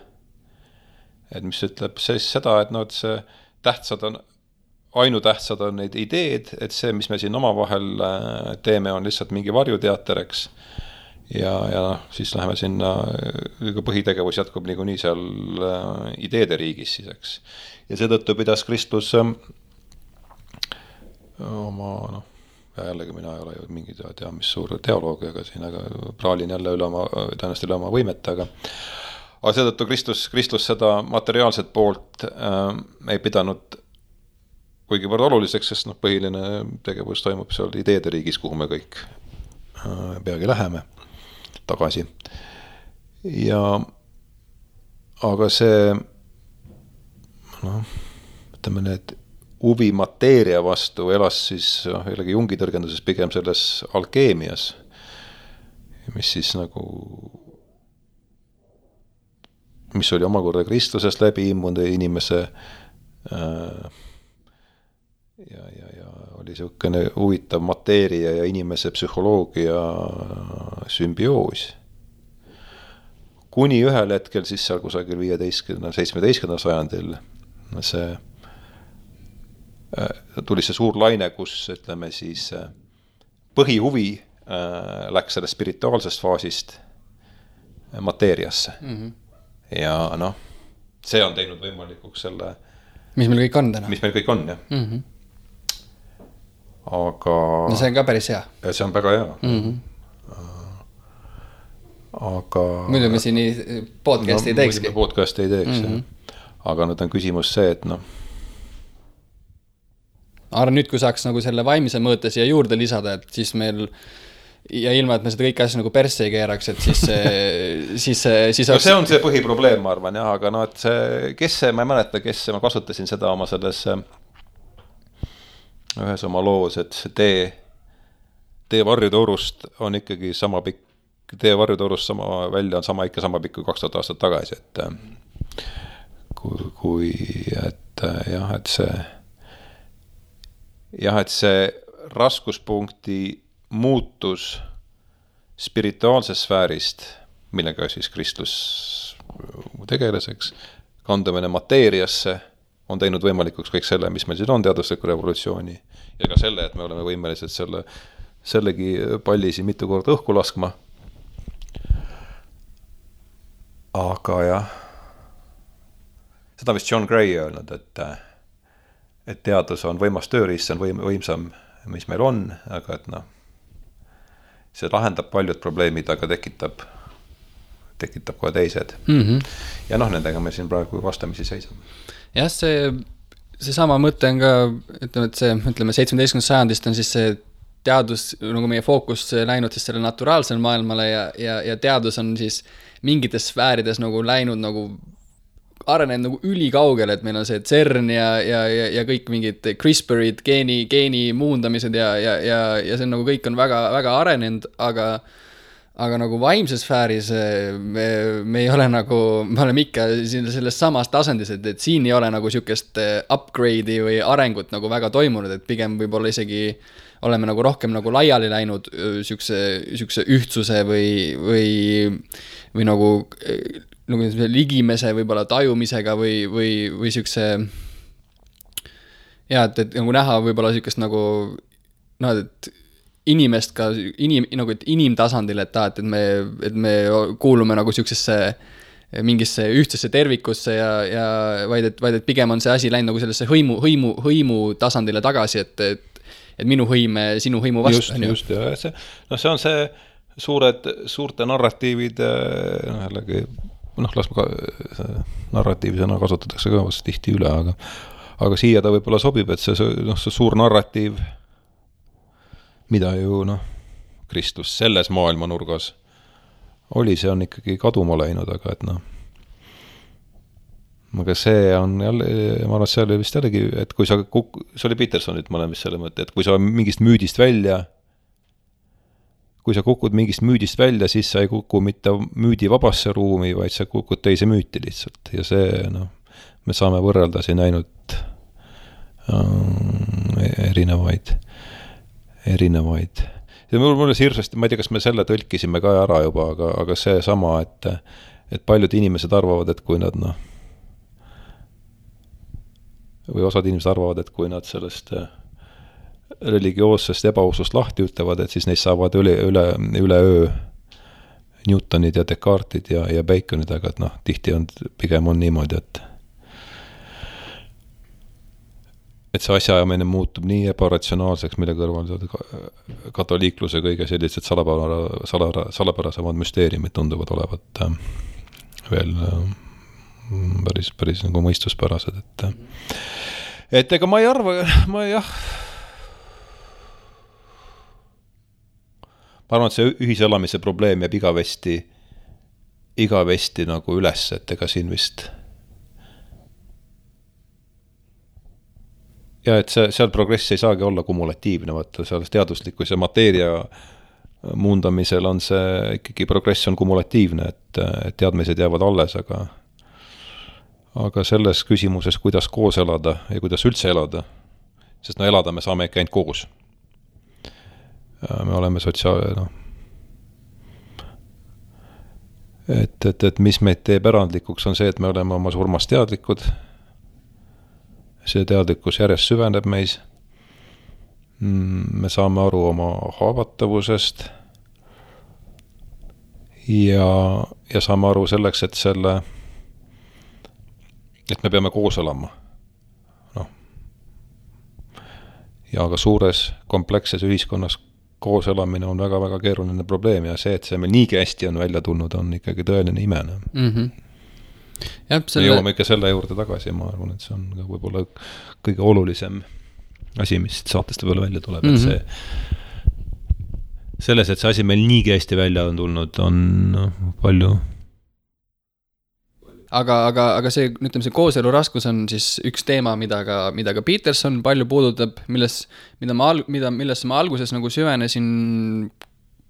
Et mis ütleb seda, et see ainutähtsad on neid ideed, et see, mis me siin omavahel teeme, on lihtsalt mingi varjuteater, eks. Ja siis läheme sinna, põhitegevus jätkub niikuinii seal ideede riigis siis, eks. Ja seetõttu pidas Kristus oma, jällegi mina ei ole ju mingi mis suur teoloog, aga praalin jälle tõenäoliselt üle oma võimet, aga seetõttu Kristus seda materiaalset poolt ei pidanud kuigi võrd oluliseks, sest põhiline tegevus toimub seal ideede riigis, kuhu me kõik peagi läheme tagasi. Aga see, ütleme need huvi mateeria vastu elas siis jällegi Jungi tõrgenduses pigem selles alkeemias, mis siis mis oli omakorda Kristusest läbi immunud inimese ja oli selline huvitav mateeria ja inimese psühholoogia sümbioos. Kuni ühel hetkel siis seal kusagil 17. sajandil tuli see suur laine, kus ütleme siis põhihuvi läks sellest spirituaalsest faasist mateeriasse. Ja see on teinud võimalikuks selle mis meil kõik on täna. Mis meil kõik on, jah. Aga see on ka päris hea. See on väga hea. Aga muidu me siin podcasti ei teekski. Podcasti ei teeks, aga nüüd on küsimus see, et arvan nüüd, kui saaks nagu selle vaimise mõõte siia juurde lisada, et siis meil ja ilma, et me seda kõik asja nagu persse ei keeraks, et siis see on see põhiprobleem, ma arvan, jah, aga et see, ma ei mäleta, ma kasutasin seda oma selles ühes oma loos, et see tee varjutorust on ikkagi sama pikk, tee varjutorust välja on ikka sama pikk kui 2000 aastat tagasi, et et see raskuspunkti muutus spirituaalsest sfäärist, millega siis Kristus tegeles, eks, kandumine mateeriasse on teinud võimalikuks kõik selle, mis meil siin on teadusliku revolutsiooni ja ka selle, et me oleme võimelised sellegi palli siin mitu korda õhku laskma. Aga jah, seda vist John Gray öelnud, et teadus on võimas tööriist, see on võimsam, mis meil on, aga et see lahendab paljud probleemid, aga tekitab ka teised. Ja nendega me siin praegu vastamisi seisame. Jah, see sama mõte on ka, ütleme 17. sajandist on siis see teadus, nagu meie fookus läinud siis selle naturaalsele maailmale ja teadus on siis mingites sfäärides nagu läinud nagu arenenud nagu ülikaugele, et meil on see CERN ja kõik mingid CRISPRid, geeni muundamised ja see on nagu kõik on väga, väga arenenud, aga nagu vaimses sfääris me ei ole nagu, me oleme ikka selles samas tasandis, et siin ei ole nagu sükest upgrade'i või arengut nagu väga toimunud, et pigem võib-olla isegi oleme nagu rohkem nagu laiali läinud sükse ühtsuse või nagu ligimese võib-olla tajumisega või sükse et nagu näha võib-olla sükest nagu et inimest ka nagu et inimtasandil, et me kuulume nagu süksesse mingisse ühtsesse tervikusse ja vaid et pigem on see asi läinud nagu sellesse hõimu tasandile tagasi, et minu hõime sinu hõimu vastu. Just, ja see on see suurte narratiivide jällegi las ma narratiivi sõna kasutatakse ka vast tihti üle, aga siia ta võib-olla sobib, et see suur narratiiv, mida ju Kristus selles maailmanurgas oli, see on ikkagi kaduma läinud, aga et aga see on jälle, ma arvan, et see oli vist jällegi, et kui see oli Petersonit, ma olen vist selle mõtte, et kui sa mingist müüdist välja, kui sa kukud mingist müüdist välja, siis sa ei kuku mitte müüdi vabasse ruumi, vaid sa kukud teise müüti lihtsalt. Ja see, me saame võrrelda siin ainult erinevaid. Ja mulle hirmsasti, ma ei tea, kas me selle tõlkisime ka ära juba, aga see sama, et paljud inimesed arvavad, et kui nad või osad inimesed arvavad, et kui nad sellest religioossest ebausust lahti ütlevad, et siis neist saavad üle öö Newtonid ja Descartes'id ja Baconid, aga et tihti pigem on niimoodi, et see asjaajamine muutub nii ebaratsionaalseks, mille kõrval katoliikluse kõige sellised salapärasemad müsteeriumid tunduvad olevat veel päris nagu mõistuspärased, et ega ma ei arva, ma arvan, et see ühiselamise probleem jääb igavesti nagu üles, et ega siin vist ja et seal progress ei saagi olla kumulatiivne, vaata seal teaduslikkus ja mateeria muundamisel on see ikkagi progress on kumulatiivne, et teadmised jäävad alles, aga selles küsimuses, kuidas koos elada ja kuidas üldse elada, sest elada me saame ikka ainult koos. Me oleme et mis meid teeb erandlikuks on see, et me oleme oma surmast teadlikud, see teadlikkus järjest süveneb meis, me saame aru oma haavatavusest ja saame aru selleks, et me peame koos elama. Ja aga suures kompleksses ühiskonnas koos elamine on väga-väga keeruline probleem ja see, et see meil niigi hästi on välja tulnud, on ikkagi tõeline imene. Me jõuame ikka selle juurde tagasi, ma arvan, et see on ka võib-olla kõige olulisem asi, mis saateste peale välja tuleb, et see selles, et see asi meil niigi hästi välja on tulnud, on palju. Aga see, ütleme, see kooselu raskus on siis üks teema, mida ka Peterson palju puudutab, millesse ma alguses nagu süvenesin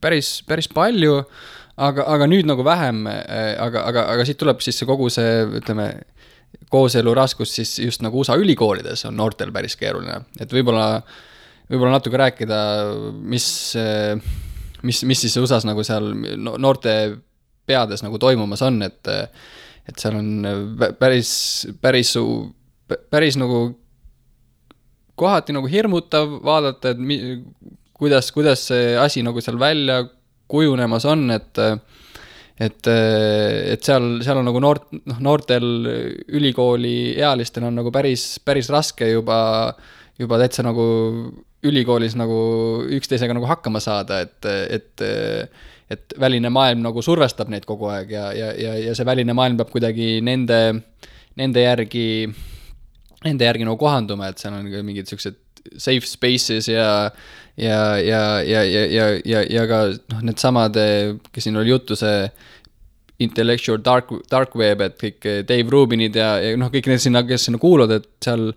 päris palju, aga nüüd nagu vähem, aga siit tuleb siis see kogu see, ütleme, kooselu raskus siis just nagu USA ülikoolides on noortel päris keeruline, et võib-olla natuke rääkida, mis siis USAs nagu seal noorte peades nagu toimumas on, et seal on päris nagu kohati nagu hirmutav vaadata, et kuidas see asi nagu seal välja kujunemas on, et seal on nagu noortel ülikooli ealistel on nagu päris raske juba täitsa nagu ülikoolis nagu üksteisega nagu hakkama saada, et väline maailm nagu survestab neid kogu aeg ja see väline maailm peab kuidagi nende järgi nagu kohanduma, et seal on mingid sellised safe spaces ja ka noh, need samad, kes siin oli juttu, see intellectual dark web, et kõik Dave Rubinid ja noh, kõik need sinna, kes sinna kuuluvad, et seal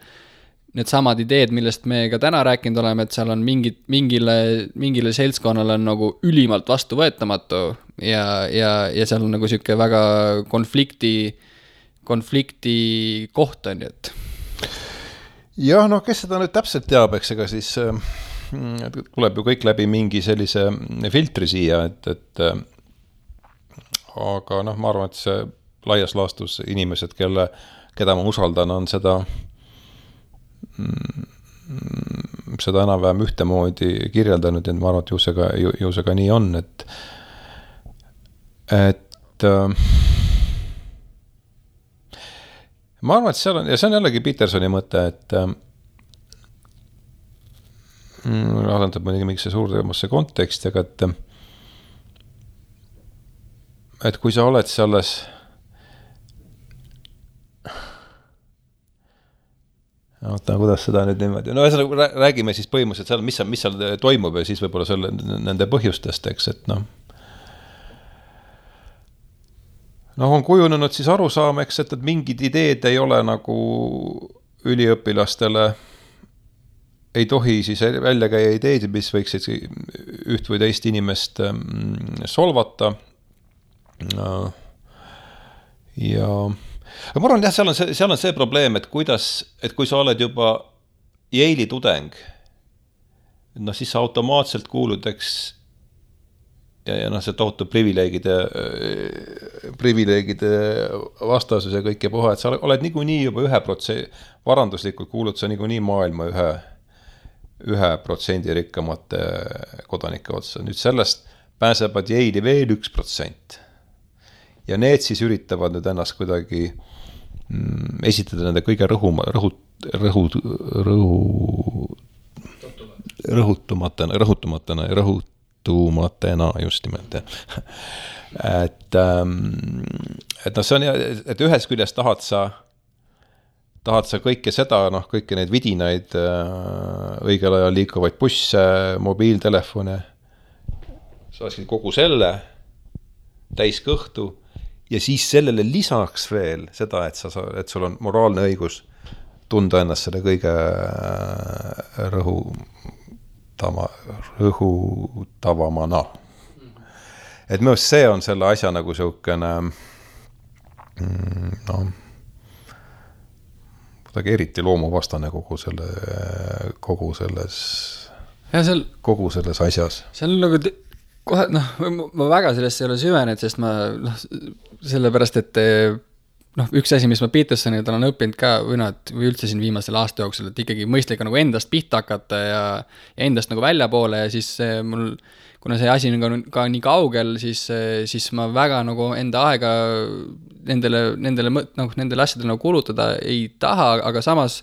need samad ideed, millest me ka täna rääkinud oleme, et seal on mingile seltskonnale on nagu ülimalt vastuvõetamatu ja seal on nagu siuke väga konflikti koht on, et jah, noh, kes seda nüüd täpselt teab, eks ega siis tuleb ju kõik läbi mingi sellise filtri siia, et aga noh, ma arvan, et see laias laastus inimesed, keda ma usaldan, on seda enam-vähem ühtemoodi kirjeldanud ja ma arvan, et ju see ka nii on, et ma arvan, et seal on, ja see on jällegi Petersoni mõte, et asendab muidugi mingisse suuremasse konteksti, aga et kui sa oled selles kuidas seda nüüd niimoodi, no räägime siis põhimõtteliselt seal, mis seal toimub ja siis võib-olla nende põhjustest, eks, et noh, on kujunenud siis arusaam, eks, et mingid ideed ei ole nagu üliõpilastele, ei tohi siis välja käia ideed, mis võiksid üht või teist inimest solvata. Ja ma arvan, jah, seal on see probleem, et kui sa oled juba Yale'i tudeng, no siis sa automaatselt kuulud, eks, ja noh, see tohutu privileegide vastasus ja kõik ja puha, et sa oled niikuinii juba 1%, varanduslikult kuulud sa niikuinii maailma 1% rikkamate kodanike otsa. Nüüd sellest pääsevad Yale'i veel 1%. Ja need siis üritavad nüüd ennast kuidagi esitada nende kõige rõhutumatena just nimelt. Et noh, see on, et ühes küljes tahad sa kõike seda, noh, kõiki neid vidinaid, õigel ajal liikuvaid busse, mobiiltelefone, saaksid kogu selle täis kõhtu ja siis sellele lisaks veel seda, et sul on moraalne õigus tunda ennast selle kõige rõhutavamana. Et minu see on selle asja nagu siukene kuidagi eriti loomuvastane kogu selles asjas. See on nagu kohe, noh, ma väga sellest ei ole süvenenud, sest ma, noh, sellepärast, et noh, üks asi, mis ma Petersonilt olen õppinud ka, või üldse siin viimasel aasta jooksul, et ikkagi mõistlik nagu endast pihta hakata ja endast nagu välja poole ja siis mul, kuna see asi on ka nii kaugel, siis ma väga nagu enda aega nendele asjadele nagu kulutada ei taha, aga samas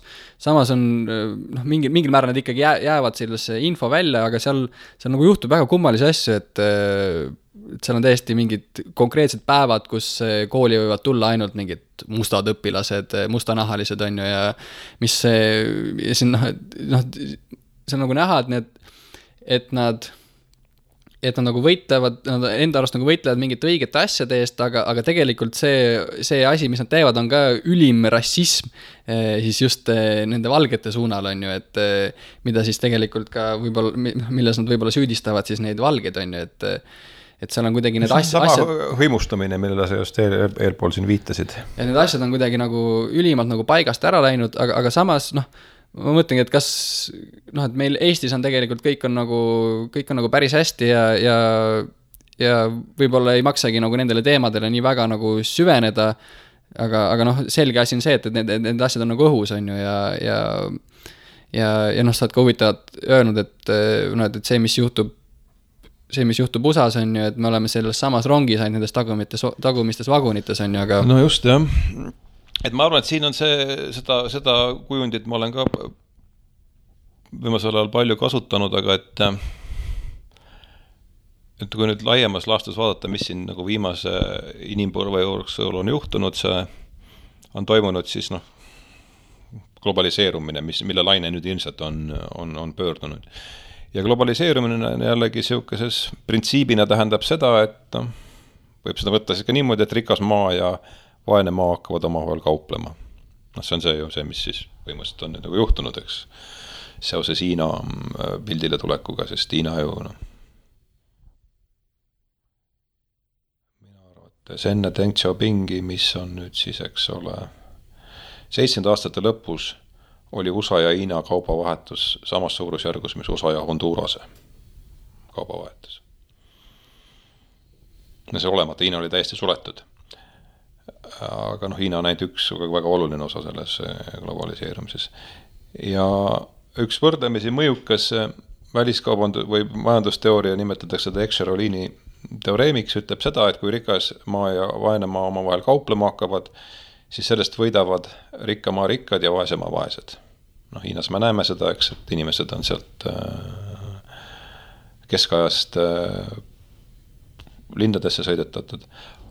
on noh, mingil määral nad ikkagi jäävad sellesse info välja, aga seal nagu juhtub väga kummalisi asju, et seal on täiesti mingid konkreetsed päevad, kus kooli võivad tulla ainult mingid mustad õpilased, mustanahalised on ju ja mis ja siin noh, see on nagu näha, et nad nagu võitlevad, nad enda arust nagu võitlevad mingite õigete asjade eest, aga tegelikult see asi, mis nad teevad, on ka ülim rassism siis just nende valgete suunal on ju, et mida siis tegelikult ka võib-olla, milles nad võib-olla süüdistavad siis neid valgeid on ju, et seal on kuidagi need asjad... hõimustamine, millele sa just eelpool siin viitasid. Ja need asjad on kuidagi nagu ülimalt nagu paigast ära läinud, aga samas noh, ma mõtlengi, et kas noh, et meil Eestis on tegelikult kõik on nagu päris hästi ja võib-olla ei maksagi nagu nendele teemadele nii väga nagu süveneda, aga noh, selge asi on see, et need asjad on nagu õhus on ju ja noh, sa oled ka huvitavad öelnud, et see, mis juhtub USAs on ju, et me oleme selles samas rongis ainult nendes tagumistes vagunites on ju, aga... No just, jah. Et ma arvan, et siin on seda kujundit ma olen ka viimasel ajal palju kasutanud, aga et kui nüüd laiemas laastus vaadata, mis siin nagu viimase inimpõlve jooksul on juhtunud, see on toimunud siis noh, globaliseerumine, mille laine nüüd ilmselt on pöördunud. Ja globaliseerumine jällegi siukeses printsiibina tähendab seda, et võib seda võtta siis ka niimoodi, et rikas maa ja vaene maa hakkavad omavahel kauplema. See on see, mis siis põhimõtteliselt on nagu juhtunud, eks, seoses Hiina pildile tulekuga, sest Hiina ju mina arvates enne Deng Xiaopingi, mis on nüüd siis, eks ole, 70 aastate lõpus oli USA ja Hiina kaubavahetus samas suurusjärgus, mis USA ja Hondurase kaubavahetus. Ja see olemata, Hiina oli täiesti suletud. Aga Hiina on ainult üks väga oluline osa selles globaliseerumises. Ja üks võrdlemisi mõjukas väliskaubandus- või majandusteooria nimetatakse seda Exerolini teoreemiks, ütleb seda, et kui rikas maa ja vaene maa omavahel kauplema hakkavad, siis sellest võidavad rikka maa rikkad ja vaese maa vaesed. Hiinas me näeme seda, eks, et inimesed on sealt keskajast lindadesse sõidetatud,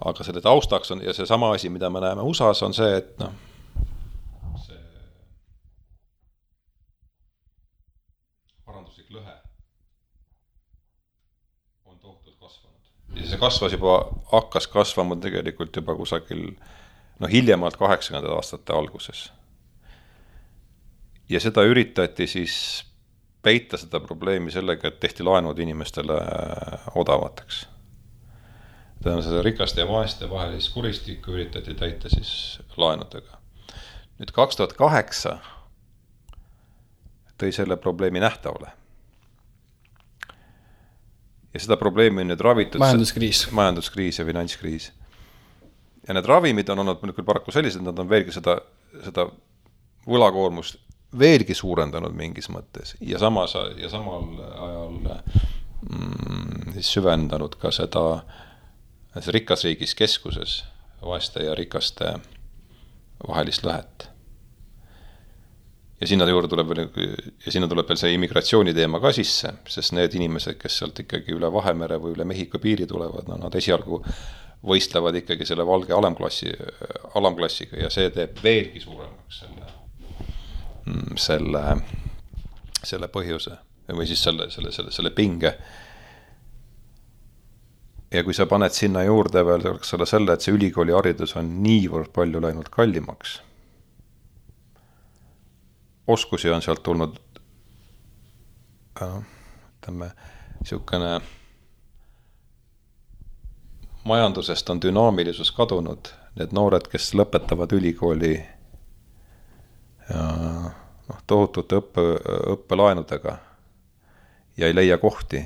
aga selle taustaks on, ja see sama asi, mida me näeme USAs, on see, et see varanduslik lõhe on tohutult kasvanud. Ja see hakkas kasvama tegelikult juba kusagil hiljemalt 80. aastate alguses. Ja seda üritati siis peita seda probleemi sellega, et tehti laenud inimestele odavateks. Seda rikaste ja vaeste vahelist kuristikku üritati täita siis laenudega. Nüüd 2008 tõi selle probleemi nähtavale. Ja seda probleemi on nüüd ravitud majanduskriis ja finantskriis. Ja need ravimid on olnud küll paraku sellised, nad on veelgi seda võlakoormust veelgi suurendanud mingis mõttes ja samal ajal siis süvendanud ka seda rikas riigis keskuses vaeste ja rikaste vahelist lõhet. Ja sinna tuleb veel see immigratsiooni teema ka sisse, sest need inimesed, kes sealt ikkagi üle Vahemere või üle Mehhiko piiri tulevad, nad esialgu võistlevad ikkagi selle valge alamklassiga ja see teeb veelgi suuremaks selle põhjuse või siis selle pinge. Ja kui sa paned sinna juurde veel selle, et see ülikooli haridus on niivõrd palju läinud kallimaks, oskusi on sealt tulnud siukene majandusest on dünaamilisus kadunud, need noored, kes lõpetavad ülikooli tohutute õppelaenudega ja ei leia kohti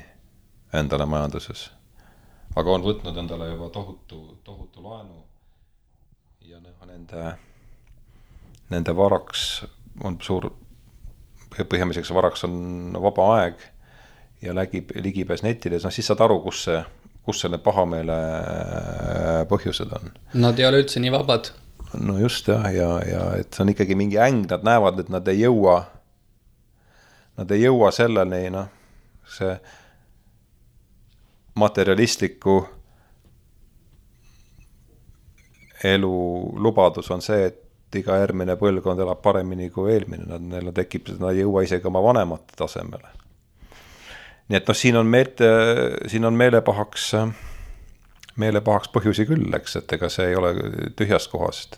endale majanduses. Aga on võtnud endale juba tohutu laenu ja nende varaks on põhjamiseks varaks on vaba aeg ja ligipääs netile, siis saad aru, kus selle pahameele põhjused on. Nad ei ole üldse nii vabad. No just ja et see on ikkagi mingi äng, nad näevad, et nad ei jõua selleni, see materialistliku elu lubadus on see, et iga järgmine põlvkond elab paremini kui eelmine, nad tekib, nad ei jõua isegi oma vanemate tasemele. Nii et siin on meelepahaks põhjusi küll, eks, et ega see ei ole tühjast kohast.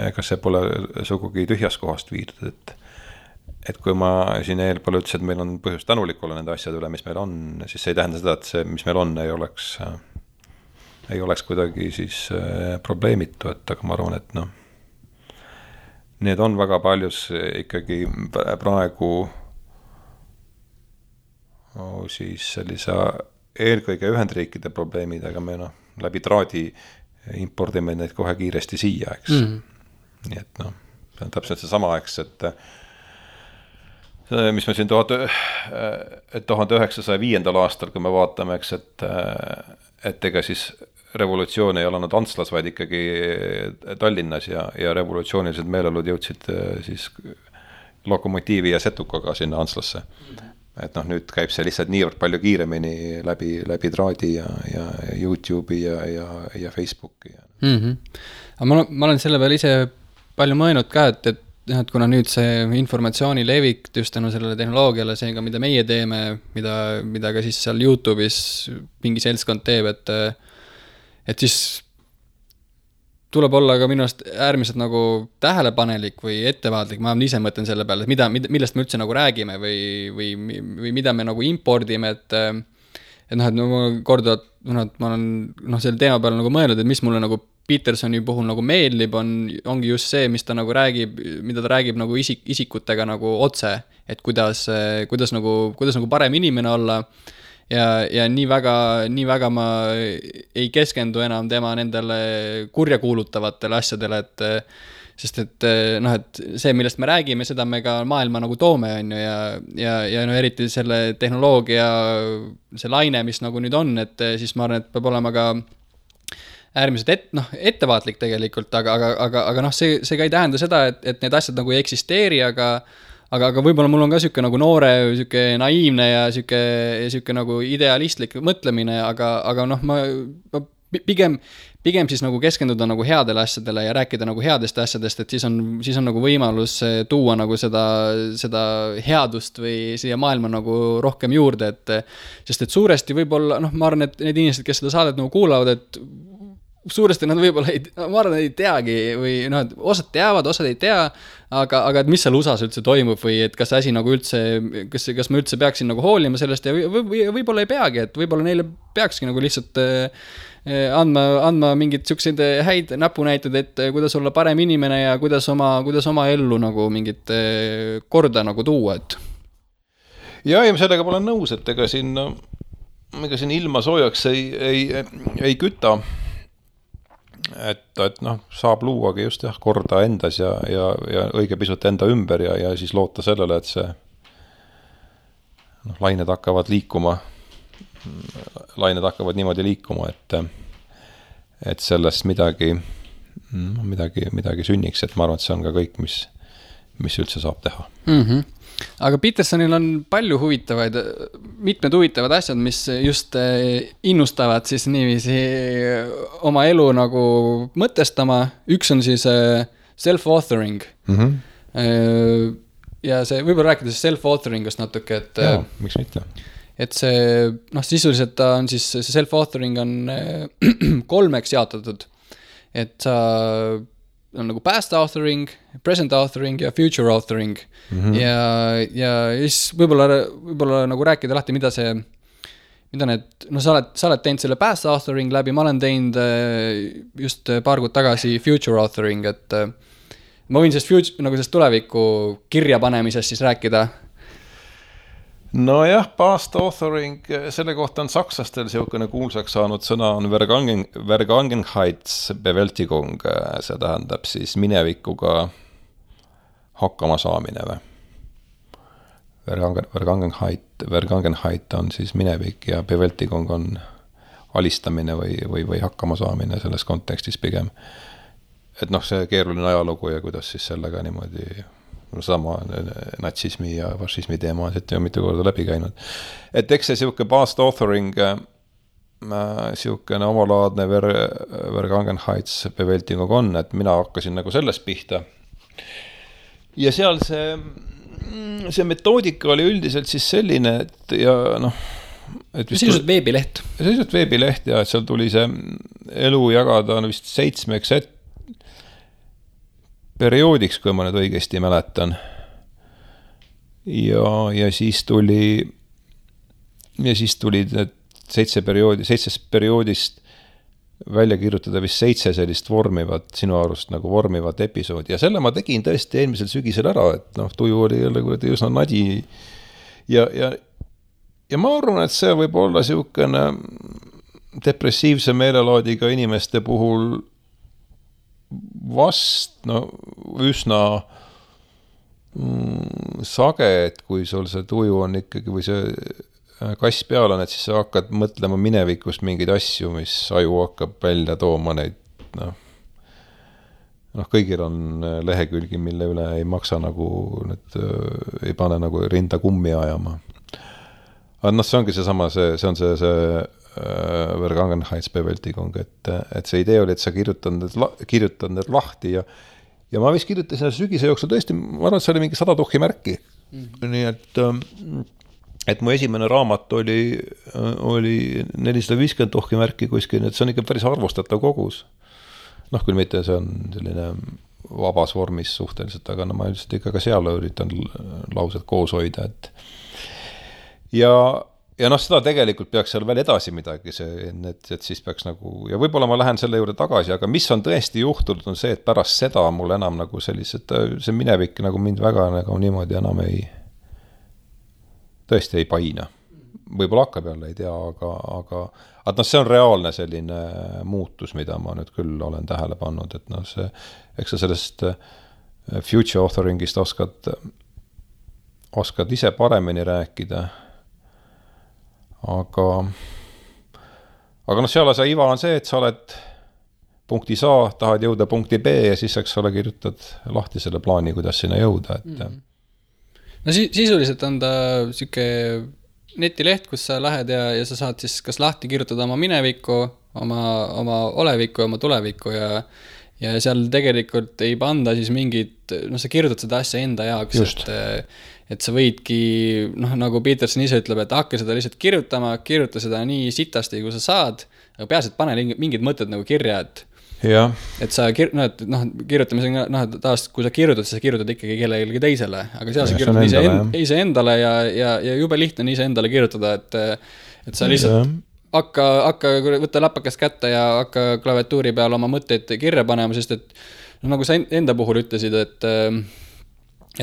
Ega see pole sugugi tühjast kohast viidud, et kui ma siin eelpool ütlesin, et meil on põhjus tänulik olla nende asjade üle, mis meil on, siis see ei tähenda seda, et see, mis meil on, ei oleks kuidagi siis probleemitu, et aga ma arvan, et need on väga paljus ikkagi praegu siis sellise eelkõige Ühendriikide probleemid, aga me läbi traadi impordime neid kohe kiiresti siia, eks. Nii et see on täpselt see sama, eks, et mis me siin 1905. aastal, kui me vaatame, eks, et ega siis revolutsioon ei olnud Antslas, vaid ikkagi Tallinnas ja revolutsioonilised meeleolud jõudsid siis lokomotiivi ja setukaga sinna Antslasse. Et nüüd käib see lihtsalt niivõrd palju kiiremini läbi traadi ja YouTube'i ja Facebooki. Aga ma olen selle peale ise palju mõelnud ka, et kuna nüüd see informatsiooni levik just tänu sellele tehnoloogiale, seega mida meie teeme, mida ka siis seal YouTube'is mingi seltskond teeb, et siis tuleb olla ka minu arust äärmiselt nagu tähelepanelik või ettevaatlik, ma ise mõtlen selle peale, et millest me üldse nagu räägime või mida me nagu impordime, et ma korduvalt, ma olen selle teema peale nagu mõelnud, et mis mulle nagu Petersoni puhul nagu meeldib, ongi just see, mis ta nagu räägib, mida ta räägib nagu isikutega nagu otse, et kuidas nagu parem inimene olla ja nii väga ma ei keskendu enam tema nendele kurjakuulutavatele asjadele, sest et see, millest me räägime, seda me ka maailma nagu toome, on ju, ja eriti selle tehnoloogia, see laine, mis nagu nüüd on, et siis ma arvan, et peab olema ka äärmiselt ettevaatlik tegelikult, aga see ka ei tähenda seda, et need asjad nagu ei eksisteeri, aga võib-olla mul on ka siuke nagu noore, siuke naiivne ja siuke nagu idealistlik mõtlemine, aga ma pigem siis nagu keskenduda nagu headele asjadele ja rääkida nagu headest asjadest, et siis on nagu võimalus tuua nagu seda headust või siia maailma nagu rohkem juurde, sest et suuresti võib-olla, ma arvan, et need inimesed, kes seda saadet nagu kuulavad, et suuresti nad võib-olla ma arvan, ei teagi või osad teavad, osad ei tea, aga et mis seal USA-s üldse toimub või et kas asi nagu üldse, kas ma üldse peaksin nagu hoolima sellest ja võib-olla ei peagi, et võib-olla neile peakski nagu lihtsalt andma mingid siukseid häid näpunäitud, et kuidas olla parem inimene ja kuidas oma ellu nagu mingit korda nagu tuua, et. Ja sellega ma olen nõus, et ega siin ilma soojaks ei küta. Et saab luuagi just korda endas ja õige pisut enda ümber ja siis loota sellele, et see lained hakkavad niimoodi liikuma, et sellest midagi sünniks, et ma arvan, et see on ka kõik, mis üldse saab teha. Mm-hmm. Aga Petersonil on mitmed huvitavad asjad, mis just innustavad siis niiviisi oma elu nagu mõtestama. Üks on siis self-authoring. Mm-hmm. Ja see, võib-olla rääkides self-authoringust natuke, et jaa, miks mitte? Et see, sisuliselt on siis, see self-authoring on 3 jaotatud. Et sa on nagu past authoring, present authoring ja future authoring. Mm-hmm. Ja siis võib-olla nagu rääkida lahti, mida need, sa oled teinud selle past authoring läbi, ma olen teinud just paar kuud tagasi future authoring, et ma võin sellest tuleviku kirja panemisest siis rääkida. No jah, past authoring, selle kohta on sakslastel siukene kuulsaks saanud sõna on Vergangenheitsbewältigung, see tähendab siis minevikuga hakkama saamine või. Vergangenheit on siis minevik ja Bewältigung on alistamine või hakkama saamine selles kontekstis pigem. Et see keeruline ajalugu ja kuidas siis sellega niimoodi sama natsismi ja fašismi teema on siit ju mitu korda läbi käinud. Et eks see siuke past authoring, siukene omalaadne Vergangenheitsbewältigung on, et mina hakkasin nagu sellest pihta. Ja seal see metoodika oli üldiselt siis selline, et ja sisuliselt veebileht. Sisuliselt veebileht ja et seal tuli see elu jagada vist 7 perioodiks, kui ma nüüd õigesti mäletan. Ja siis tuli need 7 perioodist välja kirjutada vist 7 sellist sinu arust nagu vormivat episoodi. Ja selle ma tegin tõesti eelmisel sügisel ära, et tuju oli jälle üsna nadi. Ja ma arvan, et see võib olla siukene depressiivse meelelaadiga inimeste puhul vast üsna sage, et kui sul see tuju on ikkagi või see kass peal on, et siis sa hakkad mõtlema minevikust mingeid asju, mis aju hakkab välja tooma neid, kõigil on lehekülgi, mille üle ei maksa nagu, ei pane nagu rinda kummi ajama. Aga see ongi seesama, see on see Vergangenheitsbewältigung, et see idee oli, et sa kirjutad need lahti ja ja ma vist kirjutasin sügise jooksul tõesti, ma arvan, et see oli mingi 100 tuhhi märki. Nii et mu esimene raamat oli 450 tuhhi märki kuskil, et see on ikka päris arvustatav kogus. Küll mitte see on selline vabas vormis suhteliselt, aga ma üldiselt ikka ka seal üritan laused koos hoida, et ja seda tegelikult peaks seal veel edasi midagi, et siis peaks nagu, ja võib-olla ma lähen selle juurde tagasi, aga mis on tõesti juhtunud, on see, et pärast seda mul enam nagu sellised, see minevik nagu mind väga nagu niimoodi enam tõesti ei paina. Võib-olla hakkab jälle, ei tea, aga see on reaalne selline muutus, mida ma nüüd küll olen tähele pannud, et eks sa sellest future authoringist oskad ise paremini rääkida, aga seal see iva on see, et sa oled punktis A, tahad jõuda punkti B ja siis ole kirjutad lahti selle plaani, kuidas sinna jõuda, et No sisuliselt on ta siuke netileht, kus sa lähed ja sa saad siis kas lahti kirjutada oma minevikku, oma olevikku ja oma tulevikku ja seal tegelikult ei panda siis mingid, sa kirjutad seda asja enda jaoks, et sa võidki, nagu Peterson ise ütleb, et hakka seda lihtsalt kirjuta seda nii sitasti, kui sa saad, aga peaasi, et pane mingid mõtted nagu kirja, et sa kirjutamisega, taas, kui sa kirjutad, siis sa kirjutad ikkagi kellelegi teisele, aga seal sa kirjutad ise endale ja jube lihtne on ise endale kirjutada, et sa lihtsalt hakka võtta läpakas kätte ja hakka klaviatuuri peal oma mõtteid kirja panema, sest et nagu sa enda puhul ütlesid, et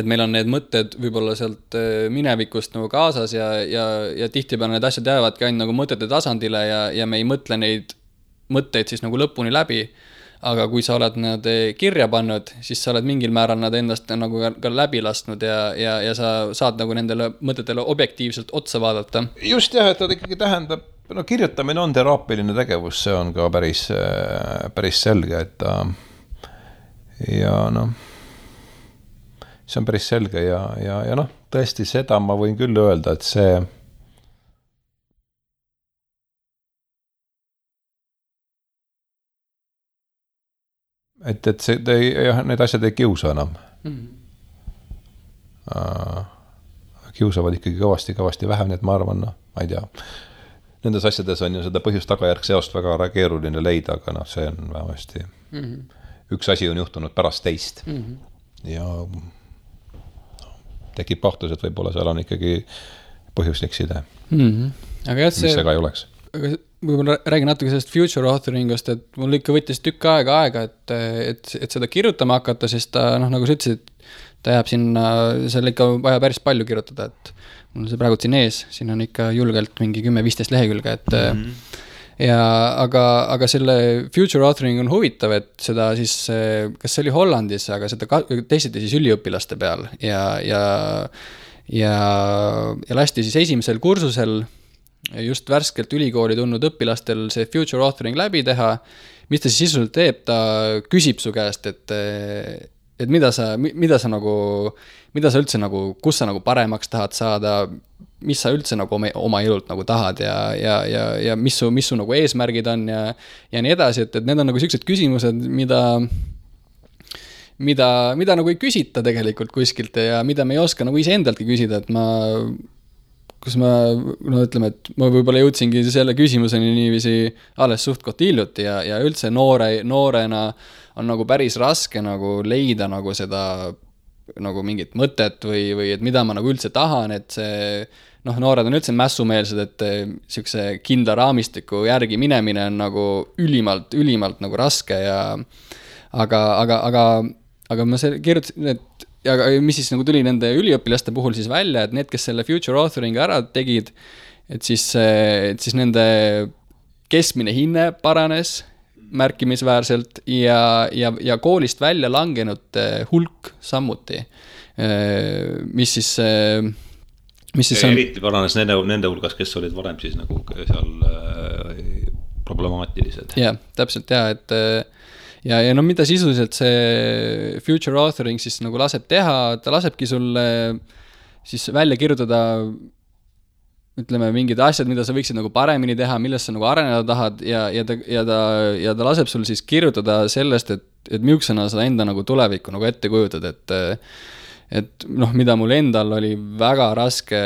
meil on need mõtted võib-olla sealt minevikust nagu kaasas ja tihtipeale need asjad jäävadki ainult nagu mõtete tasandile ja me ei mõtle neid mõtteid siis nagu lõpuni läbi, aga kui sa oled nad kirja pannud, siis sa oled mingil määral nad endast nagu ka läbi lasknud ja sa saad nagu nendele mõtetele objektiivselt otsa vaadata. Just jah, et ta ikkagi tähendab, kirjutamine on teraapiline tegevus, see on ka päris selge, et see on päris selge ja tõesti seda ma võin küll öelda, et see need asjad ei kiusa enam. Kiusavad ikkagi kõvasti vähem, nii et ma arvan, ma ei tea. Nendes asjades on ju seda põhjus-tagajärg seost väga keeruline leida, aga see on vähemasti üks asi on juhtunud pärast teist. Ja tekib kahtlus, et võib-olla seal on ikkagi põhjuslik side. Aga mis see ka ei oleks. Aga võib-olla räägin natuke sellest future authoringust, et mul ikka võttis tükk aega, et seda kirjutama hakata, sest ta, nagu sa ütlesid, ta jääb sinna, seal ikka vaja päris palju kirjutada, et mul on see praegu siin ees, siin on ikka julgelt mingi 10-15 lehekülge, et aga selle future authoring on huvitav, et seda siis, kas see oli Hollandis, aga seda testiti siis üliõpilaste peal ja lasti siis esimesel kursusel just värskelt ülikooli tulnud õpilastel see future authoring läbi teha, mis ta siis sisuliselt teeb, ta küsib su käest, et mida sa üldse nagu, kus sa nagu paremaks tahad saada, mis sa üldse nagu oma elult nagu tahad ja mis su nagu eesmärgid on ja nii edasi, et need on nagu sellised küsimused, mida nagu ei küsita tegelikult kuskilt ja mida me ei oska nagu ise endaltki küsida, et ütleme, et ma võib-olla jõudsingi selle küsimuseni niiviisi alles suhtkot hiljuti ja üldse noorena on nagu päris raske nagu leida nagu seda nagu mingit mõtet või et mida ma nagu üldse tahan, et see noored on üldse mässumeelsed, et siukse kindla raamistiku järgi minemine on nagu ülimalt nagu raske ja aga ma kirjutasin, et ja mis siis nagu tuli nende üliõpilaste puhul siis välja, et need, kes selle future authoring ära tegid, et siis nende keskmine hinne paranes märkimisväärselt ja koolist välja langenud hulk sammuti, mis siis on... Eriti paranes nende hulgas, kes olid varem siis nagu seal problemaatilised. Jah, täpselt et ja mida sisuliselt see future authoring siis nagu laseb teha, ta lasebki sulle siis välja kirjutada, ütleme, mingid asjad, mida sa võiksid nagu paremini teha, millest sa nagu areneda tahad ja ta laseb sul siis kirjutada sellest, et et millisena sa enda nagu tulevikku nagu ette kujutad, et noh, mida mul endal oli väga raske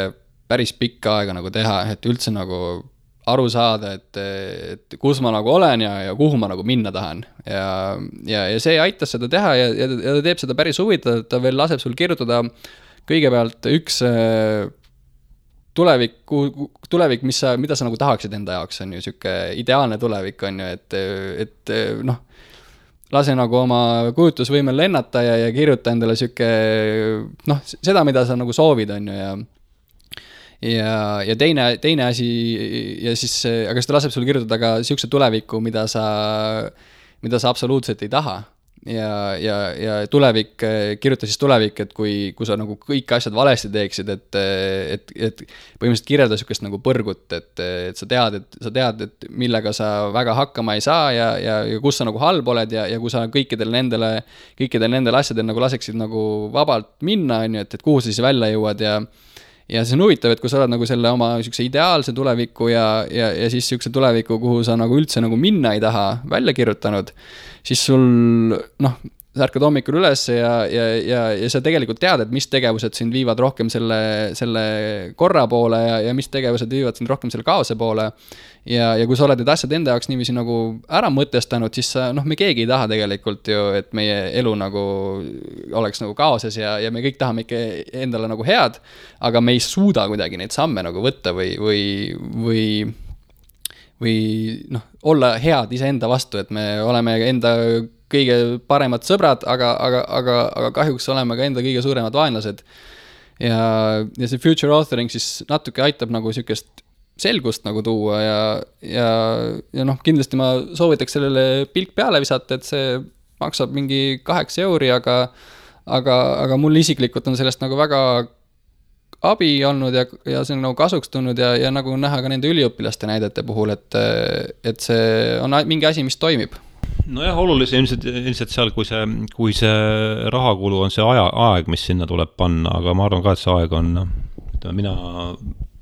päris pikka aega nagu teha, et üldse nagu aru saada, et kus ma nagu olen ja kuhu ma nagu minna tahan. Ja see aitas seda teha ja ta teeb seda päris huvitav, ta veel laseb sul kirjutada kõigepealt üks tulevik, mida sa nagu tahaksid enda jaoks, on ju siuke ideaalne tulevik, on ju, et noh, lase nagu oma kujutlusvõimel lennata ja kirjuta endale siuke, noh, seda, mida sa nagu soovid, on ju, ja teine asi, ja siis, aga seda laseb sul kirjutada ka siukse tuleviku, mida sa absoluutselt ei taha. Ja tulevik, kirjuta siis tulevik, et kui sa nagu kõik asjad valesti teeksid, et põhimõtteliselt kirjelda siukest nagu põrgut, et sa tead, et millega sa väga hakkama ei saa ja kus sa nagu halb oled ja kui sa kõikidel nendel asjadel nagu laseksid nagu vabalt minna, on ju, et kuhu sa siis välja jõuad ja see on huvitav, et kui sa oled nagu selle oma siukse ideaalse tuleviku ja siis siukse tuleviku, kuhu sa nagu üldse nagu minna ei taha välja kirjutanud, siis sul, noh, sa ärkad hommikul üles ja sa tegelikult tead, et mis tegevused sind viivad rohkem selle korra poole ja mis tegevused viivad sind rohkem selle kaose poole. Ja kui sa oled need asjad enda jaoks niiviisi nagu ära mõtestanud, siis sa, noh, me keegi ei taha tegelikult ju, et meie elu nagu oleks nagu kaoses ja me kõik tahame ikka endale nagu head, aga me ei suuda kuidagi neid samme nagu võtta või noh, olla head iseenda vastu, et me oleme enda kõige paremad sõbrad, aga kahjuks oleme ka enda kõige suuremad vaenlased. Ja see future authoring siis natuke aitab nagu siukest selgust nagu tuua ja noh, kindlasti ma soovitaks sellele pilk peale visata, et see maksab mingi 8 €, aga mul isiklikult on sellest nagu väga abi olnud ja see on nagu kasuks tulnud ja nagu näha ka nende üliõpilaste näidete puhul, et see on mingi asi, mis toimib. Nojah, olulise ilmselt seal, kui see rahakulu on see aeg, mis sinna tuleb panna, aga ma arvan ka, et see aeg on,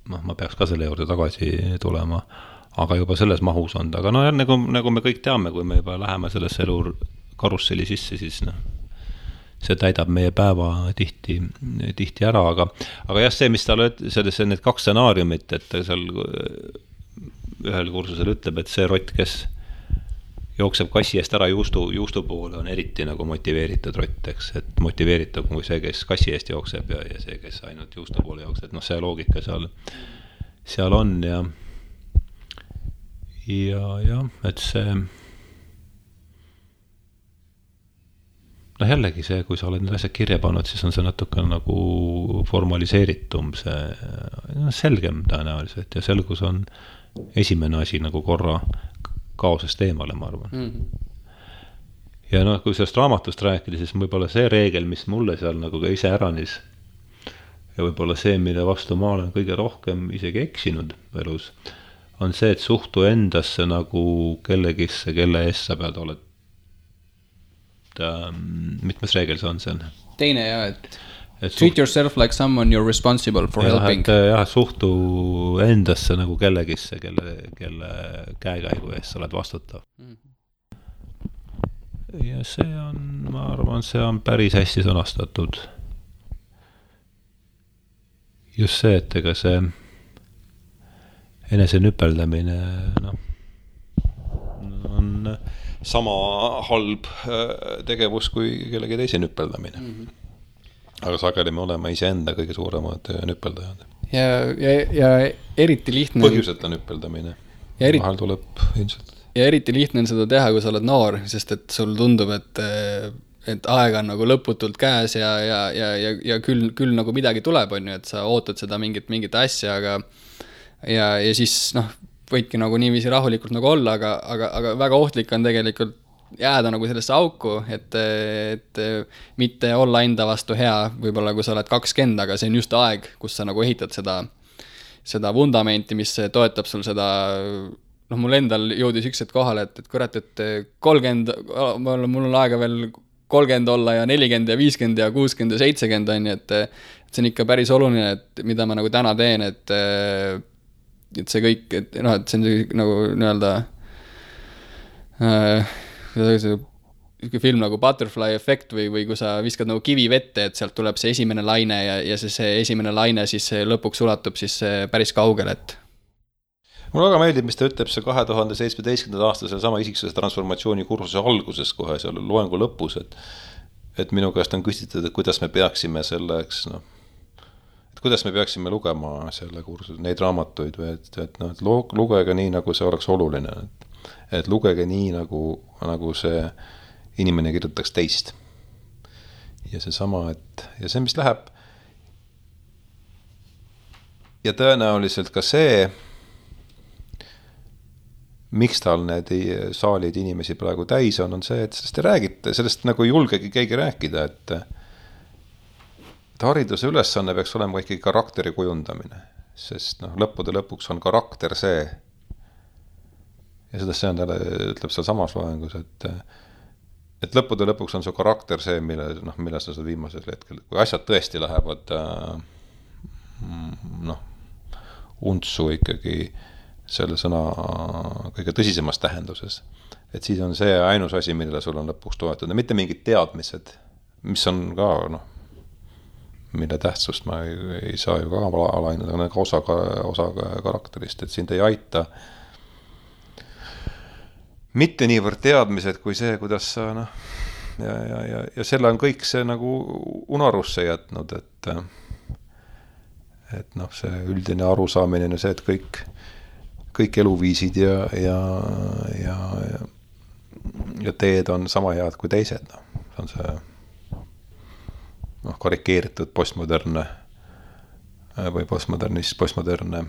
ma peaks ka selle juurde tagasi tulema, aga juba selles mahus on. Aga no nagu me kõik teame, kui me juba läheme sellesse elu karusselli sisse, siis see täidab meie päeva tihti ära, aga jah, see, mis tal sellesse need 2 stsenaariumit, et seal ühel kursusel ütleb, et see rott, kes jookseb kassi eest ära juustu poole, on eriti nagu motiveeritud rott, eks, et motiveeritud kui see, kes kassi eest jookseb ja see, kes ainult juustu poole jookseb, et noh, see loogika seal on ja et see noh, jällegi see, kui sa oled need asjad kirja pannud, siis on see natuke nagu formaliseeritum, see selgem tõenäoliselt ja selgus on esimene asi nagu korra kaosest eemale, ma arvan. Ja noh, kui sellest raamatust rääkida, siis võib-olla see reegel, mis mulle seal nagu ka ise äranis ja võib-olla see, mille vastu ma olen kõige rohkem isegi eksinud elus, on see, et suhtu endasse nagu kellegisse, kelle eest sa pead oled. Mitmes reegel see on seal? Teine ja, et treat yourself like someone you're responsible for helping. Jah, suhtu endasse nagu kellegisse, kelle käekäigu eest sa oled vastutav. Ja see on, ma arvan, see on päris hästi sõnastatud. Just see, et ega see enese nüpeldamine on sama halb tegevus kui kellegi teise nüpeldamine. Aga sageli me oleme iseenda kõige suuremad nüpeldajad. Ja eriti lihtne põhjuseta nüpeldamine. Vahel tuleb ilmselt. Ja eriti lihtne on seda teha, kui sa oled noor, sest et sul tundub, et aeg on nagu lõputult käes ja küll nagu midagi tuleb, on ju, et sa ootad seda mingit asja, ja siis noh, võidki nagu niiviisi rahulikult nagu olla, aga väga ohtlik on tegelikult jääda nagu sellesse auku, et mitte olla enda vastu hea, võib-olla kui sa oled 20, aga see on just aeg, kus sa nagu ehitad seda vundamenti, mis toetab sul seda, noh, mul endal jõudis üks kohale, et kurat, et 30, mul on aega veel 30 olla ja 40 ja 50 ja 60 ja 70 on, et see on ikka päris oluline, et mida ma nagu täna teen, et see kõik, et see on nagu nii-öelda film nagu Butterfly Effect või kui sa viskad nagu kivi vette, et sealt tuleb see esimene laine ja see esimene laine siis lõpuks ulatub siis päris kaugele, et mulle väga meeldib, mis ta ütleb see 2017. aasta selle sama isiksuse transformatsiooni kursuse alguses kohe seal loengu lõpus, et minu käest on küsitud, et kuidas me peaksime selleks, et kuidas me peaksime lugema selle kursuse, neid raamatuid või et lugege nii, nagu see oleks oluline, et lugege nii, nagu see inimene kirjutaks teist. Ja see sama, ja see, mis läheb ja tõenäoliselt ka see, miks tal need saalid inimesi praegu täis on see, et sellest ei räägita, sellest nagu ei julgegi keegi rääkida, et hariduse ülesanne peaks olema ikkagi karakteri kujundamine, sest lõppude lõpuks on karakter see, ja seda see on talle, ütleb seal samas loengus, et lõppude lõpuks on su karakter see, mille sa viimasel hetkel, kui asjad tõesti lähevad untsu ikkagi selle sõna kõige tõsisemas tähenduses. Et siis on see ainus asi, millele sul on lõpuks toetada. Mitte mingid teadmised, mis on ka, mille tähtsust ma ei saa ju ka alainada, aga ka osa karakterist, et sind ei aita mitte niivõrd teadmised kui see, kuidas sa, ja selle on kõik see nagu unarusse jätnud, et see üldine arusaamine on see, et kõik eluviisid ja teed on sama head kui teised. See on see karikeeritud postmodernne või postmodernne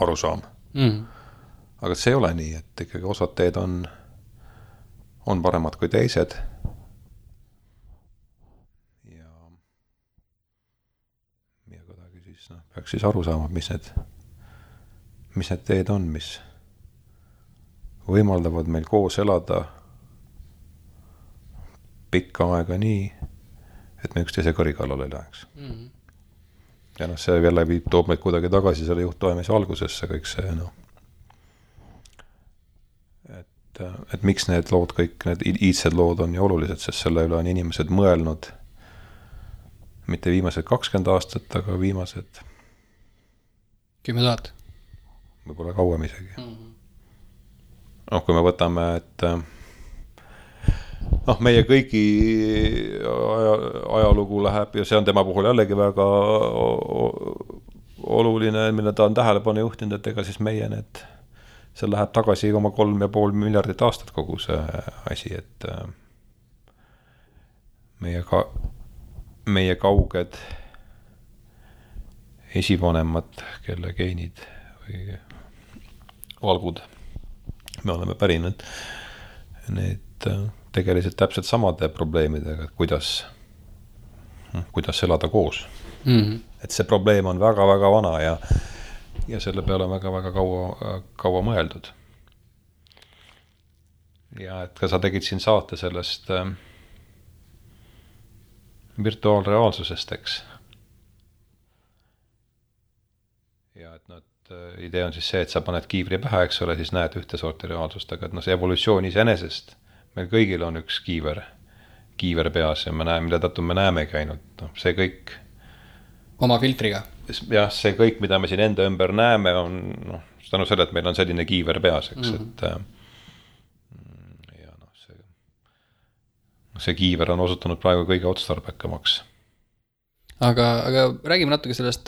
arusaam. Aga see ei ole nii, et ikkagi osad teed on paremad kui teised. Ja kuidagi siis peaks siis aru saama, mis need teed on, mis võimaldavad meil koos elada pikka aega nii, et me üksteise kõri kallal ei läheks. Ja see jälle toob meid kuidagi tagasi selle juhtoimise algusesse kõik see, et miks need lood, kõik need iidsed lood on nii olulised, sest selle üle on inimesed mõelnud mitte viimased 20 aastat, aga viimased 10 000. Võib-olla kauem isegi. Kui me võtame, et meie kõigi ajalugu läheb ja see on tema puhul jällegi väga oluline, mille ta on tähelepanu juhtinud, et ega siis meie see läheb tagasi 3,5 miljardit aastat kogu see asi, et meie kauged esivanemad, kelle geenid või valgud me oleme pärinud, need tegeliselt täpselt samade probleemidega, et kuidas elada koos. Et see probleem on väga-väga vana ja selle peale on väga-väga kaua mõeldud. Ja et ka sa tegid siin saate sellest virtuaalreaalsusest, eks. Ja et idee on siis see, et sa paned kiivri pähe, eks ole, siis näed ühte sorti reaalsust, aga et see evolutsioon iseenesest, meil kõigil on üks kiiver peas ja me näeme, mille tõttu me näemegi ainult, see kõik oma filtriga. Jah, see kõik, mida me siin enda ümber näeme, on tänu selle, et meil on selline kiiver peas, eks, ja see kiiver on osutunud praegu kõige otstarbekamaks. Aga räägime natuke sellest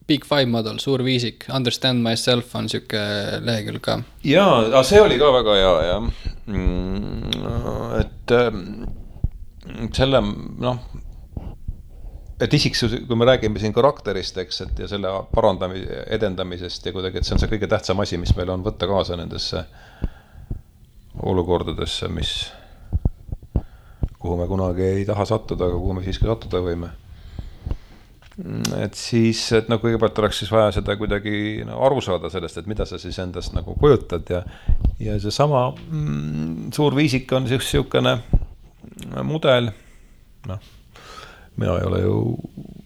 Big Five model, suur viisik, Understand Myself on siuke lehekülg ka. Jaa, see oli ka väga hea, ja et selle, et isiksus, kui me räägime siin karakterist, eks, et ja selle edendamisest ja kuidagi, et see on see kõige tähtsam asi, mis meil on võtta kaasa nendesse olukordadesse, kuhu me kunagi ei taha sattuda, aga kuhu me siiski sattuda võime. Et siis, et kõigepealt oleks siis vaja seda kuidagi aru saada sellest, et mida sa siis endast kujutad ja see sama suur viisik on siukene mudel, mina ei ole ju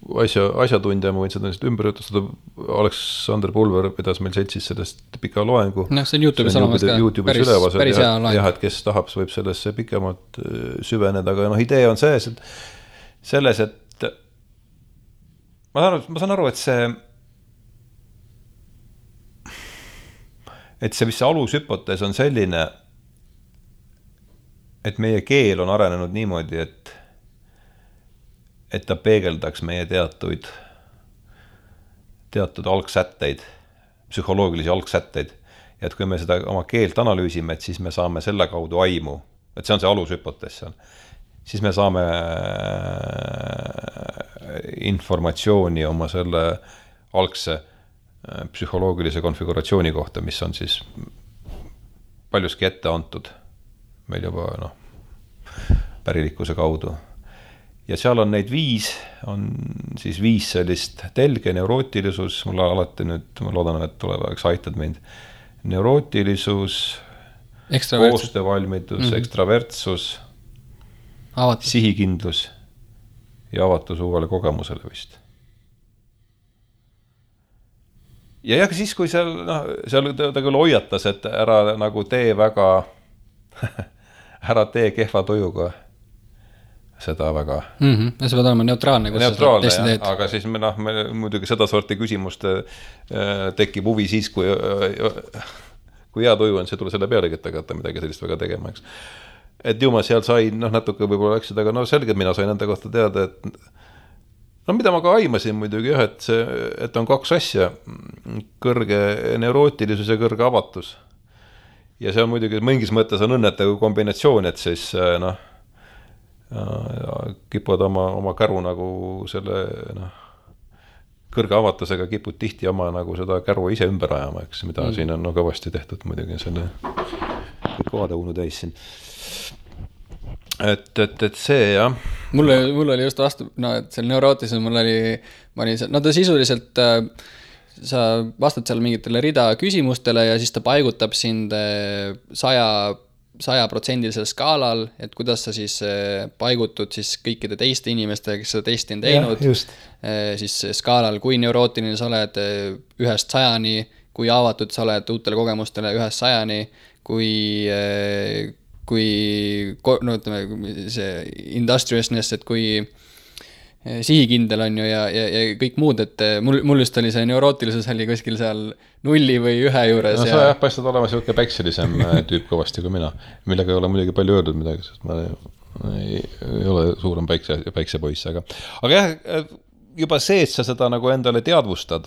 asjatundja, ma võin seda ümber jutustada, Aleksander Pulver pidas meil seltsis sellest pika loengu. See on YouTube'is olemas ka, päris hea loeng. Jah, et kes tahab, võib sellesse pikemalt süveneda, aga idee on selles, et ma saan aru, et see, mis see alushüpotees on selline, et meie keel on arenenud niimoodi, et ta peegeldaks meie teatud algsätteid, psühholoogilisi algsätteid. Ja et kui me seda oma keelt analüüsime, et siis me saame selle kaudu aimu, et see on see alushüpotees seal, siis me saame informatsiooni oma selle algse psühholoogilise konfiguratsiooni kohta, mis on siis paljuski ette antud meil juba pärilikkuse kaudu. Ja seal on neid 5 sellist telge, neurootilisus, mulle alati nüüd, ma loodan, et tulevaks aitad mind, neurootilisus, koostöövalmidus, ekstravertsus, sihikindlus ja avatus uuele kogemusele vist. Ja siis, kui seal ta küll hoiatas, et ära nagu tee väga ära tee kehva tujuga seda väga. Ja see peab olema neutraalne, kus neutraalne, sa teed. Aga siis me muidugi seda sorti küsimust tekib huvi siis, kui hea tuju on, see tule selle pealegi, et hakata midagi sellist väga tegema, eks. Et ju ma seal sain, natuke võib-olla läksid, aga selgelt mina sain enda kohta teada, et mida ma ka aimasin muidugi, et on 2 asja, kõrge neurootilisus ja kõrge avatus. Ja see on muidugi, mingis mõttes on õnnetav kombinatsioon, et siis kipud oma käru nagu selle kõrge avatusega kipud tihti oma nagu seda käru ise ümber ajama, eks, mida siin on kõvasti tehtud muidugi selle kõik kohadeunu täis siin. Et see, jah. Mul oli just vastu, et seal neurootilisel ma olin seal, ta sisuliselt sa vastad seal mingitele rida küsimustele ja siis ta paigutab sind 100% skaalal, et kuidas sa siis paigutud siis kõikide teiste inimestega, kes seda testi on teinud, siis skaalal, kui neurootiline sa oled 1-100, kui avatud sa oled uutele kogemustele 1-100, kui ütleme, see industriousness, et kui sihikindel on ju ja kõik muud, et mul just oli see neurootilisus oli kuskil seal 0 või 1 juures. No sa paistad olema selline päikselisem tüüp kõvasti kui mina, millega ei ole muidugi palju öeldud midagi, sest ma ei ole suurem päiksepoiss, aga jah, juba see, et sa seda nagu endale teadvustad,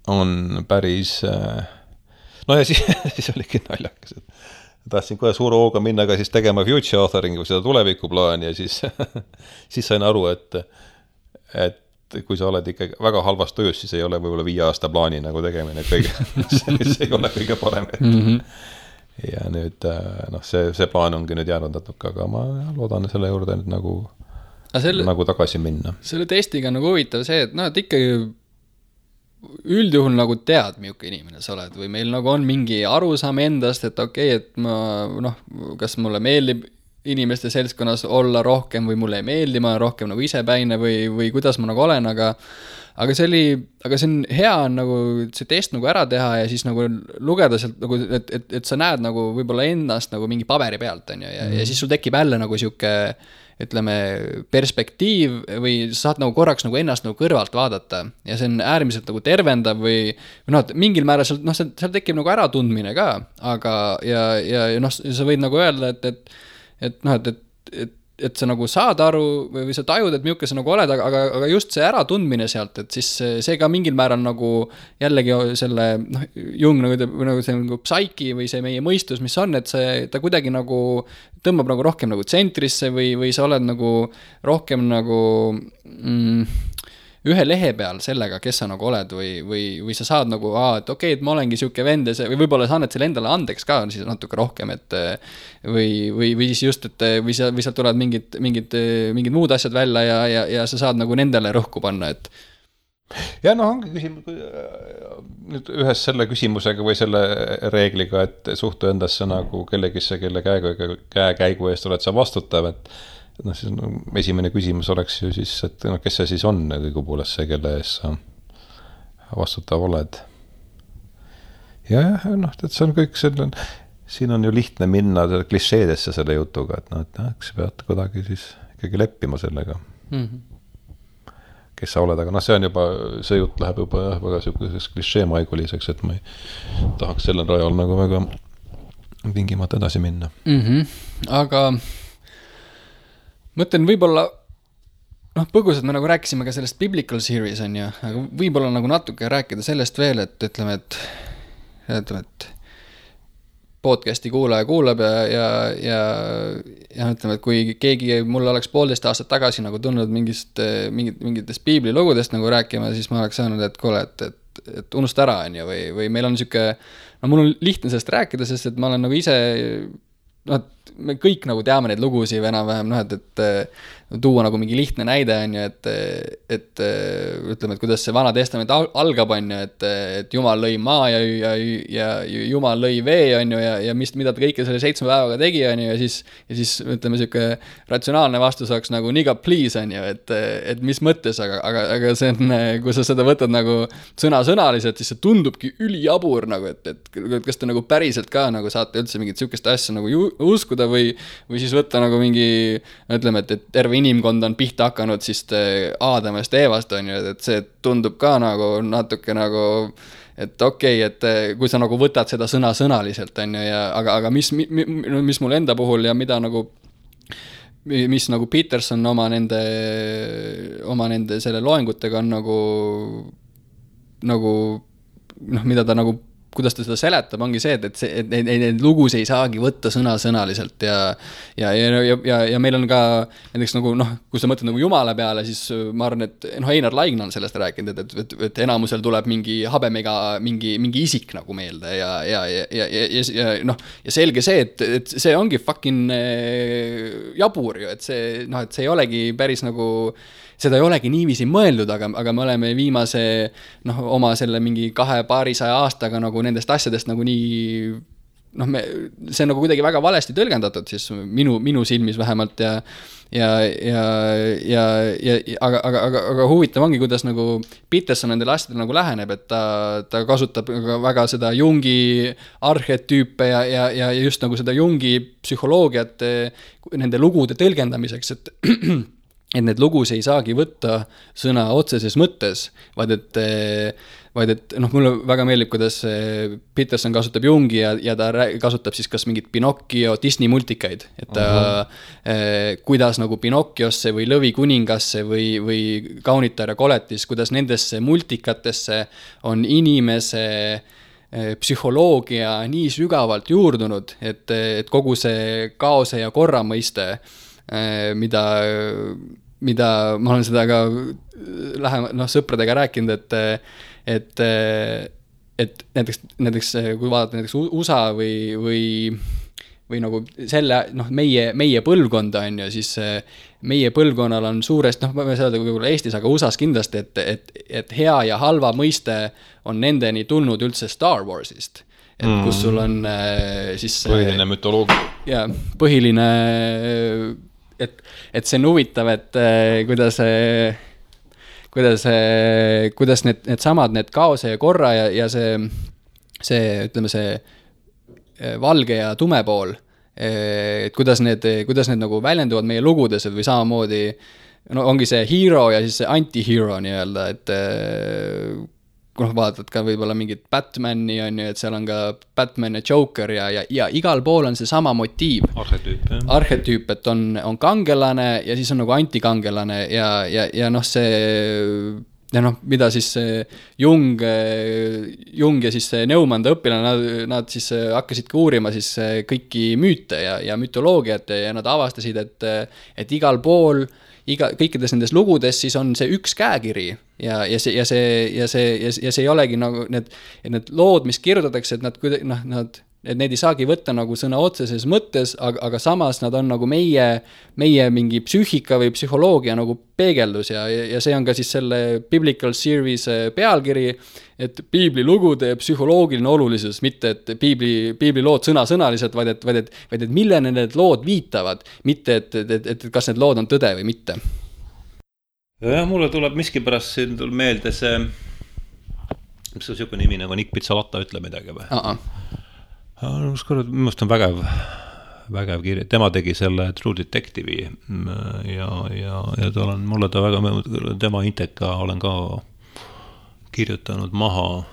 on päris ja siis oligi naljakas, tahtsin kohe suure hooga minna ka siis tegema future authoringu, seda tulevikuplaani ja siis sain aru, et kui sa oled ikka väga halvas töös, siis ei ole võib-olla 5 aasta plaani nagu tegemine see ei ole kõige parem. Ja nüüd see plaan ongi nüüd jäänud natuke, aga ma loodan selle juurde nüüd nagu tagasi minna. Selle testiga on nagu huvitav see, et ikkagi üldjuhul nagu tead, milline inimene sa oled või meil nagu on mingi arusaam endast, et okei, et ma kas mulle meeldib inimeste seltskonnas olla rohkem või mulle ei meeldi, ma olen rohkem nagu isepäine või kuidas ma nagu olen, aga see on hea nagu see test nagu ära teha ja siis nagu lugeda sealt nagu, et sa näed nagu võib-olla ennast nagu mingi paberi pealt on ju, ja siis sul tekib jälle nagu siuke ütleme, perspektiiv või sa saad nagu korraks nagu ennast nagu kõrvalt vaadata ja see on äärmiselt nagu tervendav või mingil määral seal tekib nagu äratundmine ka, aga ja sa võid nagu öelda, et sa nagu saad aru või sa tajud, et milline sa nagu oled, aga just see äratundmine sealt, et siis see ka mingil määral nagu jällegi selle Jung nagu see nagu psaiki või see meie mõistus, mis on, et ta kuidagi nagu tõmbab nagu rohkem nagu tsentrisse või sa oled nagu rohkem nagu ühe lehe peal sellega, kes sa nagu oled või sa saad nagu, et okei, et ma olengi siuke vend või võib-olla sa annad selle endale andeks ka siis natuke rohkem, et või siis just, et või sealt tulevad mingid muud asjad välja ja sa saad nagu nendele rõhku panna, et ja ongi küsimus nüüd ühes selle küsimusega või selle reegliga, et suhtu endasse nagu kellegisse, kelle käekäigu eest oled sa vastutav, noh, siis esimene küsimus oleks ju siis, et noh, kes see siis on õigupoolest see, kelle ees sa vastutav oled. Ja, noh, et see on kõik selle, siin on ju lihtne minna klišeedesse selle jutuga, et noh, et eks pead kuidagi siis ikkagi leppima sellega. Kes sa oled, aga noh, see on juba, see jutt läheb juba väga selliseks klišeemaiguliseks, et ma ei tahaks sellel rajal nagu väga tingimata edasi minna. Aga mõtlen võib-olla, noh, põgusalt me nagu rääkisime ka sellest Biblical Series on ju, aga võib-olla nagu natuke rääkida sellest veel, et ütleme, et podcasti kuulaja kuulab ja ütleme, et kui keegi mulle oleks 1,5 aastat tagasi nagu tulnud mingitest piiblilugudest nagu rääkima, siis ma oleks saanud, et kuule, et unusta ära on ju, või meil on siuke, no mul on lihtne sellest rääkida, sest et ma olen nagu ise, noh, me kõik nagu teame neid lugusid või enam-vähem, noh, et tuua nagu mingi lihtne näide on ju, et ütleme, et kuidas see Vana Testament algab on ju, et Jumal lõi maa ja Jumal lõi vee on ju, ja mida ta kõike selle 7 päevaga tegi on ju, ja siis ütleme, siuke ratsionaalne vastus oleks nagu nigga please on ju, et mis mõttes, aga see on, kui sa seda võtad nagu sõnasõnaliselt, siis see tundubki ülijabur nagu, et kas te nagu päriselt ka nagu saate üldse mingit siukest asja nagu uskuda või siis võtta nagu mingi, ütleme, et terve inimkond on pihta hakanud siis Aadamast Eevast on ju, et see tundub ka nagu natuke nagu, et okei, et kui sa nagu võtad seda sõnaliselt on ju, aga mis mul enda puhul ja mida nagu, mis nagu Peterson oma nende selle loengutega on nagu noh, mida ta nagu kuidas ta seda seletab, ongi see, et neid lugus ei saagi võtta sõnaliselt ja meil on ka näiteks nagu noh, kui sa mõtled nagu Jumala peale, siis ma arvan, et noh, Einar Laigna on sellest rääkinud, et enamusel tuleb mingi habemega mingi isik nagu meelde ja noh, ja selge see, et see ongi fucking jabur ju, et see noh, et see ei olegi päris nagu seda ei olegi niiviisi mõeldud, aga me oleme viimase noh, oma selle mingi 200 aastaga nagu nendest asjadest nagu nii noh, see on nagu kuidagi väga valesti tõlgendatud siis minu silmis vähemalt aga huvitav ongi, kuidas nagu Peterson nendele asjadele nagu läheneb, et ta kasutab väga seda Jungi arhetüüpe ja just nagu seda Jungi psühholoogiat nende lugude tõlgendamiseks, et need lugus ei saagi võtta sõna otseses mõttes, vaid et noh, mulle väga meeldib, kuidas Peterson kasutab Jungi ja ta kasutab siis kas mingit Pinocchio Disney multikaid, et ta kuidas nagu Pinocchiosse või Lõvikuningasse või Kaunitar ja koletis, kuidas nendesse multikatesse on inimese psühholoogia nii sügavalt juurdunud, et kogu see kaose ja korra mõiste, mida ma olen seda ka sõpradega rääkinud, et näiteks kui vaadata näiteks USA või nagu selle, noh, meie põlvkonda on ju, siis meie põlvkonnal on suurest, noh, ma võin öelda võib-olla Eestis, aga USAs kindlasti, et hea ja halva mõiste on nendeni tulnud üldse Star Warsist. Et kus sul on siis põhiline mütoloogia. Ja, põhiline et see on huvitav, et kuidas need samad, need kaose ja korra ja see ütleme see valge ja tume pool, et kuidas need nagu väljenduvad meie lugudes või samamoodi, no ongi see hero ja siis see anti-hero nii-öelda, et noh, vaatad ka võib-olla mingit Batmani on ju, et seal on ka Batman ja Joker ja igal pool on see sama motiiv. Arhetüüp, et on kangelane ja siis on nagu antikangelane ja noh, see ja noh, mida siis Jung ja siis Neumann õpilane, nad siis hakkasidki uurima siis kõiki müüte ja mütoloogiat ja nad avastasid, et igal pool kõikides nendes lugudes siis on see üks käekiri ja see ei olegi nagu need lood, mis kirjutatakse, et nad et need ei saagi võtta nagu sõna otseses mõttes, aga samas nad on nagu meie mingi psüühika või psühholoogia nagu peegeldus ja see on ka siis selle Biblical Series pealkiri, et piiblilugude psühholoogiline olulisus, mitte et piibli lood sõnasõnaliselt, vaid et millene need lood viitavad, mitte et kas need lood on tõde või mitte. Ja mulle tuleb miskipärast siin meelde see, mis on siuke nimi nagu Nick Pizzolatta, ütle midagi või? Minu on vägev kirja, tema tegi selle True Detective'i ja mulle ta väga, tema Inteka olen ka kirjutanud maha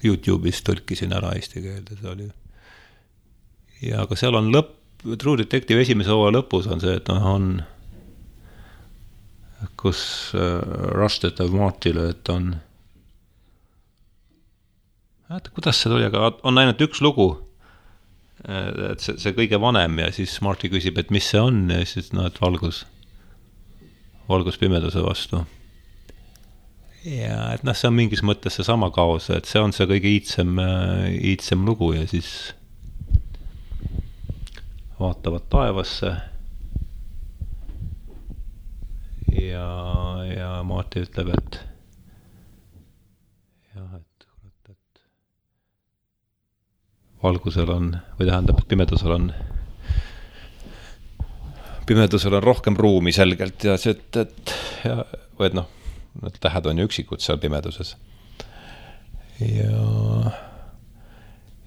YouTube'is, tõlkisin ära eesti keelde, see oli. Ja aga seal on True Detective esimese hooaja lõpus on see, et on kus Rush tetab Martile, et on kuidas see tuli, aga on ainult üks lugu, et see kõige vanem ja siis Marty küsib, et mis see on ja siis et valgus pimeduse vastu. Ja et see on mingis mõttes see sama kaos, et see on see kõige iitsem lugu ja siis vaatavad taevasse ja Marty ütleb, et valgusel on, või tähendab, et pimedusel on rohkem ruumi selgelt ja see, et need tähed on ju üksikud seal pimeduses.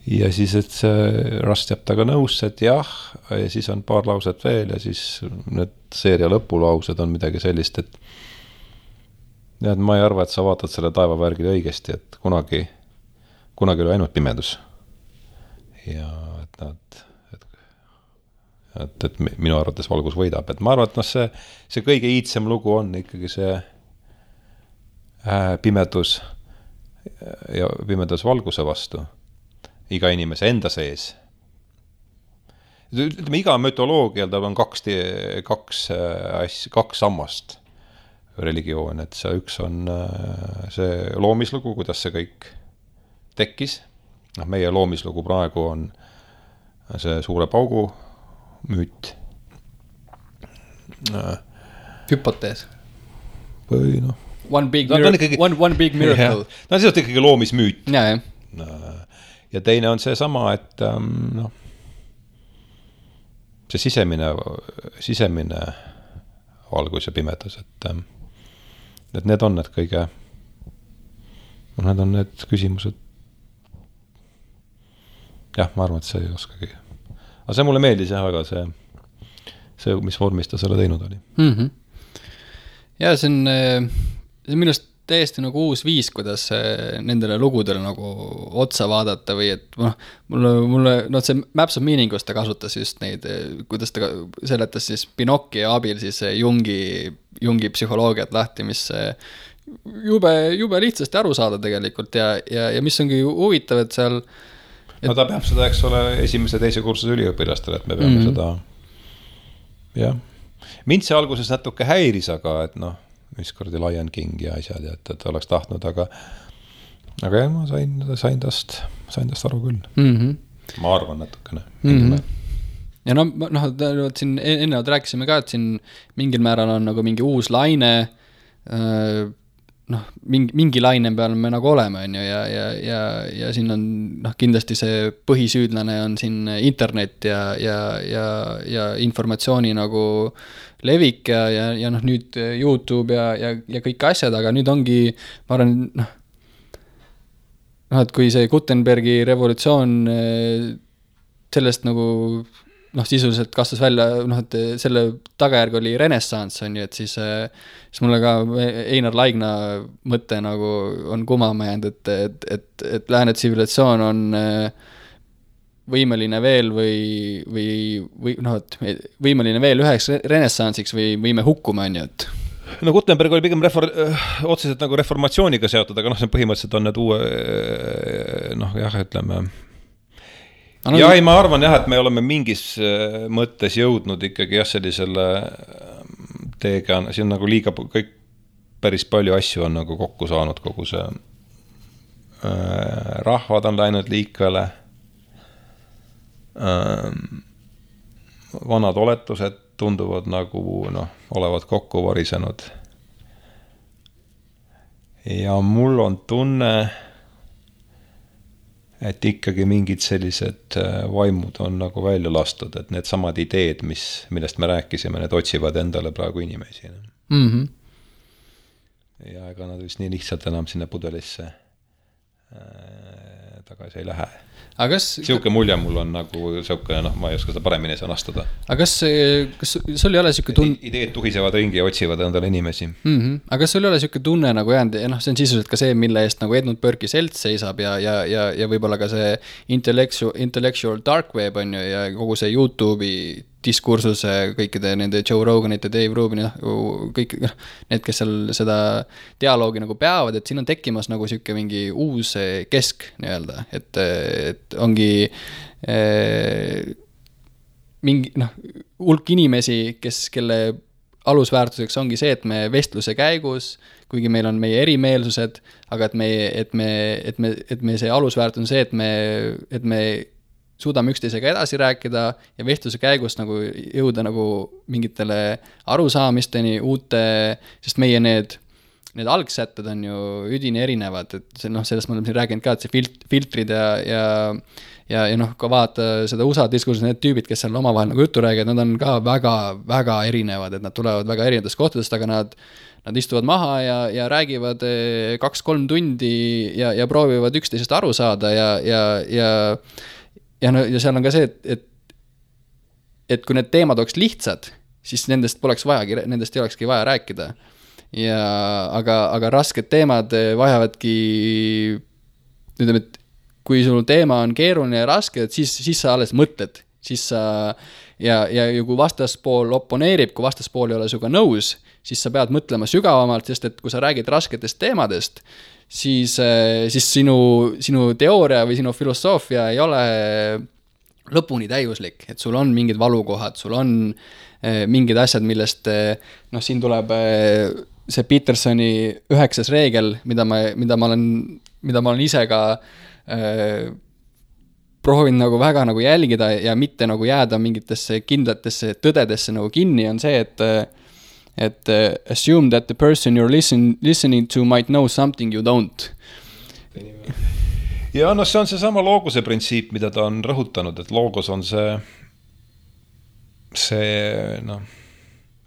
Ja siis, et see Rust jääb taga nõusse, et jah, ja siis on paar lauset veel ja siis need seeria lõpulaused on midagi sellist, et ma ei arva, et sa vaatad selle taevavärgile õigesti, et kunagi oli ainult pimedus. Ja et minu arvates valgus võidab, et ma arvan, et see kõige iitsem lugu on ikkagi see pimedus ja pimedus valguse vastu iga inimese enda sees. Ütleme, iga mütoloogial tal on kaks sammast religioon, et see üks on see loomislugu, kuidas see kõik tekkis. Meie loomislugu praegu on see suure paugu müüt. Hüpotees. Või One big miracle. See on ikkagi loomismüüt. Ja. Ja teine on see sama, et see sisemine valgus ja pimedus, et need on need kõige, need on need küsimused. Jah, ma arvan, et see ei oskagi. Aga see mulle meeldis jah väga see, mis vormis ta selle teinud oli. Ja see on minust täiesti nagu uus viis, kuidas nendele lugudele nagu otsa vaadata või et mulle see Maps of Meaningust ta kasutas just neid, kuidas ta seletas siis Pinocchio abil siis Jungi psühholoogiat lahti, mis jube lihtsasti aru saada tegelikult ja mis ongi huvitav, et seal ta peab seda, eks ole, esimese teise kursuse üliõpilastele, et me peame seda jah. Mind see alguses natuke häiris, aga et mis kordi Lion King ja asjad, et oleks tahtnud, aga jah, ma sain tast aru küll. Ma arvan natukene. Ja siin ennevalt rääkisime ka, et siin mingil määral on nagu mingi uus laine, mingi laine peal me nagu oleme, ja siin on kindlasti see põhisüüdlane on siin internet ja informatsiooni nagu levik ja nüüd YouTube ja kõik asjad, aga nüüd ongi, ma arvan, et kui see Gutenbergi revolutsioon sellest nagu sisuliselt kastas välja, et selle tagajärg oli renessans, on ju, et siis mulle ka Einar Laigna mõte nagu on kumama jäänud, et lääne tsivilisatsioon on võimeline veel või võimeline veel üheks renessansiks või võime hukkuma, on ju, et Gutenberg oli pigem otseselt nagu reformatsiooniga seotud, aga see põhimõtteliselt on need uue ütleme ma arvan jah, et me oleme mingis mõttes jõudnud ikkagi sellisele teega, siin nagu liiga kõik päris palju asju on nagu kokku saanud, kogu see rahvad on läinud liikvele vanad oletused tunduvad nagu olevat kokku varisenud. Ja mul on tunne, et ikkagi mingid sellised vaimud on nagu välja lastud, et need samad ideed, millest me rääkisime, need otsivad endale praegu inimesi. Mm-hmm. Ja ega nad vist nii lihtsalt enam sinna pudelisse tagasi ei lähe. Siuke mulje mul on nagu siuke, ma ei oska seda paremini sõnastada. Aga kas sul ei ole siuke tunne... Ideed tuhisevad ringi ja otsivad endale inimesi. Mm-hmm. Aga kas sul ei ole siuke tunne nagu jäänud, see on sisuliselt ka see, mille eest nagu Edmund Burke'i selts seisab ja võib-olla ka see intellectual dark web on ju ja kogu see YouTube'i diskursuse kõikide nende Joe Roganite, Dave Rubini, kõik need, kes seal seda dialoogi nagu peavad, et siin on tekkimas nagu siuke mingi uus kesk nii-öelda, et ongi mingi hulk inimesi, kelle alusväärtuseks ongi see, et me vestluse käigus, kuigi meil on meie erimeelsused, aga et me see alusväärtus on see, et me suudame üksteisega edasi rääkida ja vestluse käigus nagu jõuda nagu mingitele arusaamisteni sest meie need algsätted on ju üdini erinevad, et sellest ma olen siin rääkinud ka, et see filtrid ja ka vaata seda USA diskursus, need tüübid, kes seal omavahel nagu juttu räägivad, nad on ka väga, väga erinevad, et nad tulevad väga erinevatest kohtadest, aga nad istuvad maha ja räägivad 2-3 tundi ja proovivad üksteisest aru saada ja seal on ka see, et kui need teemad oleks lihtsad, siis nendest ei olekski vaja rääkida. Aga rasked teemad vajavadki, ütleme, et kui sul teema on keeruline ja raske, et siis sa alles mõtled. Ja kui vastaspool oponeerib, kui vastaspool ei ole suga nõus, siis sa pead mõtlema sügavamalt, sest et kui sa räägid rasketest teemadest, siis sinu teooria või sinu filosoofia ei ole lõpuni täiuslik, et sul on mingid valukohad, sul on mingid asjad, millest siin tuleb see Petersoni 9. reegel, mida ma olen ise ka proovinud nagu väga nagu jälgida ja mitte nagu jääda mingitesse kindlatesse tõdedesse nagu kinni, on see, et assume that the person you're listening to might know something you don't. Ja see on seesama loogose printsiip, mida ta on rõhutanud, et loogos on see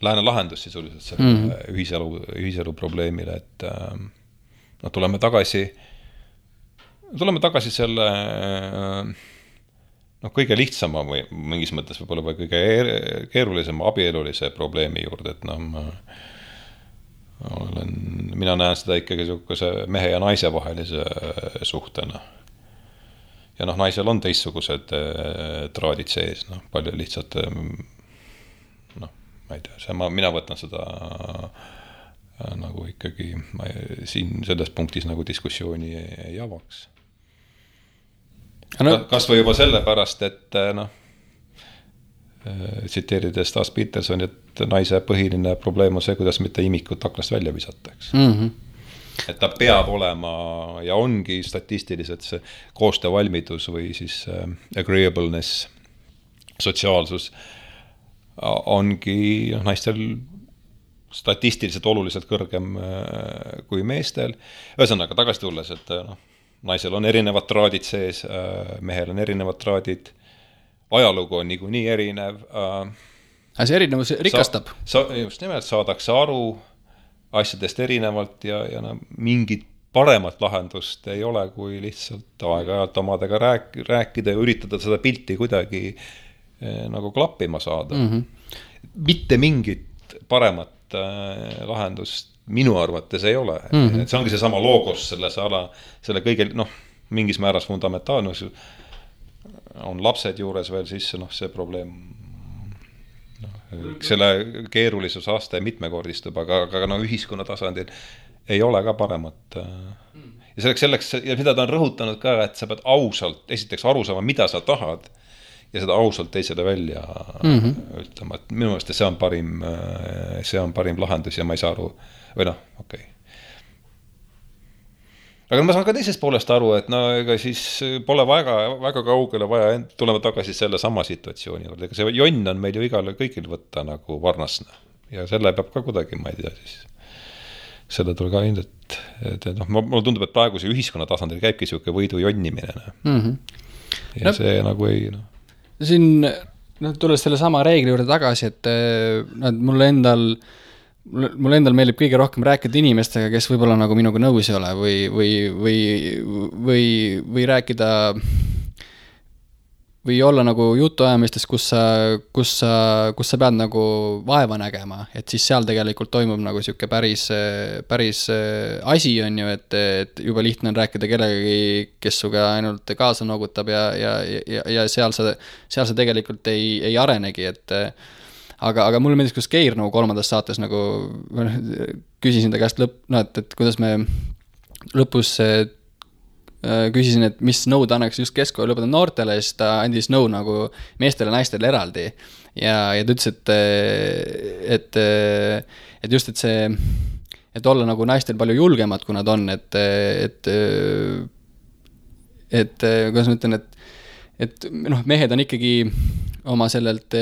lääne lahendus sisuliselt selle ühiselu probleemile, et tuleme tagasi selle kõige lihtsama või mingis mõttes võib-olla või kõige keerulisema abielulise probleemi juurde, et mina näen seda ikkagi niisuguse mehe ja naise vahelise suhtena. Ja naisel on teistsugused traadid sees, palju lihtsalt ma ei tea, mina võtan seda nagu ikkagi siin selles punktis nagu diskussiooni ei avaks. Kas või juba sellepärast, et tsiteerides taas Peterson, et naise põhiline probleem on see, kuidas mitte imikut aknast välja visataks. Mm-hmm. Et ta peab olema ja ongi statistiliselt see koostöövalmidus või siis agreeableness, sotsiaalsus ongi naistel statistiliselt oluliselt kõrgem kui meestel. Ühesõnaga tagasi tulles, et naisel on erinevad traadid sees, mehel on erinevad traadid, ajalugu on niikuinii erinev. See erinevus rikastab. Just nimelt saadakse aru asjadest erinevalt ja mingit paremat lahendust ei ole, kui lihtsalt aeg-ajalt omadega rääkida ja üritada seda pilti kuidagi nagu klappima saada. Mm-hmm. Mitte mingit paremat lahendust minu arvates ei ole. Mm-hmm. Et see ongi seesama loogos selle kõige, mingis määras fundamentaalne, on lapsed juures veel sisse, see probleem, selle keerulisus aste mitmekordistub, aga ühiskonna tasandil ei ole ka paremat. Ja selleks, ja mida ta on rõhutanud ka, et sa pead ausalt, esiteks aru saama, mida sa tahad, ja seda ausalt teisele välja ütlema, et minu meelest see on parim lahendus ja ma ei saa aru, või okei. aga ma saan ka teisest poolest aru, et no ega siis pole väga kaugele vaja tulema tagasi selle sama situatsiooni juurde, ega see jonn on meil ju igale kõigil võtta nagu varnasna ja selle peab ka kuidagi, ma ei tea siis selle tuli ka ilmselt, et noh, mulle tundub, et praegu see ühiskonna tasandil käibki siuke võidu jonnimine ja see nagu ei siin tulles selle sama reegli juurde tagasi, et mulle endal meeldib kõige rohkem rääkida inimestega, kes võib-olla nagu minuga nõus ei ole või rääkida või olla nagu jutuajamistes, kus sa pead nagu vaeva nägema, et siis seal tegelikult toimub nagu siuke päris asi on ju, et juba lihtne on rääkida kellegagi, kes suga ainult kaasa noogutab ja seal sa tegelikult ei arenegi, et aga mulle meeldis, kus Keir nagu 3. saates nagu küsisin ta käest et kuidas me lõpus küsisin, et mis nõu ta annaks just keskkooli lõpetada noortele, siis ta andis nõu nagu meestele ja naistele eraldi ja ta ütles, et just, et see, et olla nagu naistel palju julgemad, kui nad on, et kuidas ma ütlen, et noh, mehed on ikkagi oma sellelt,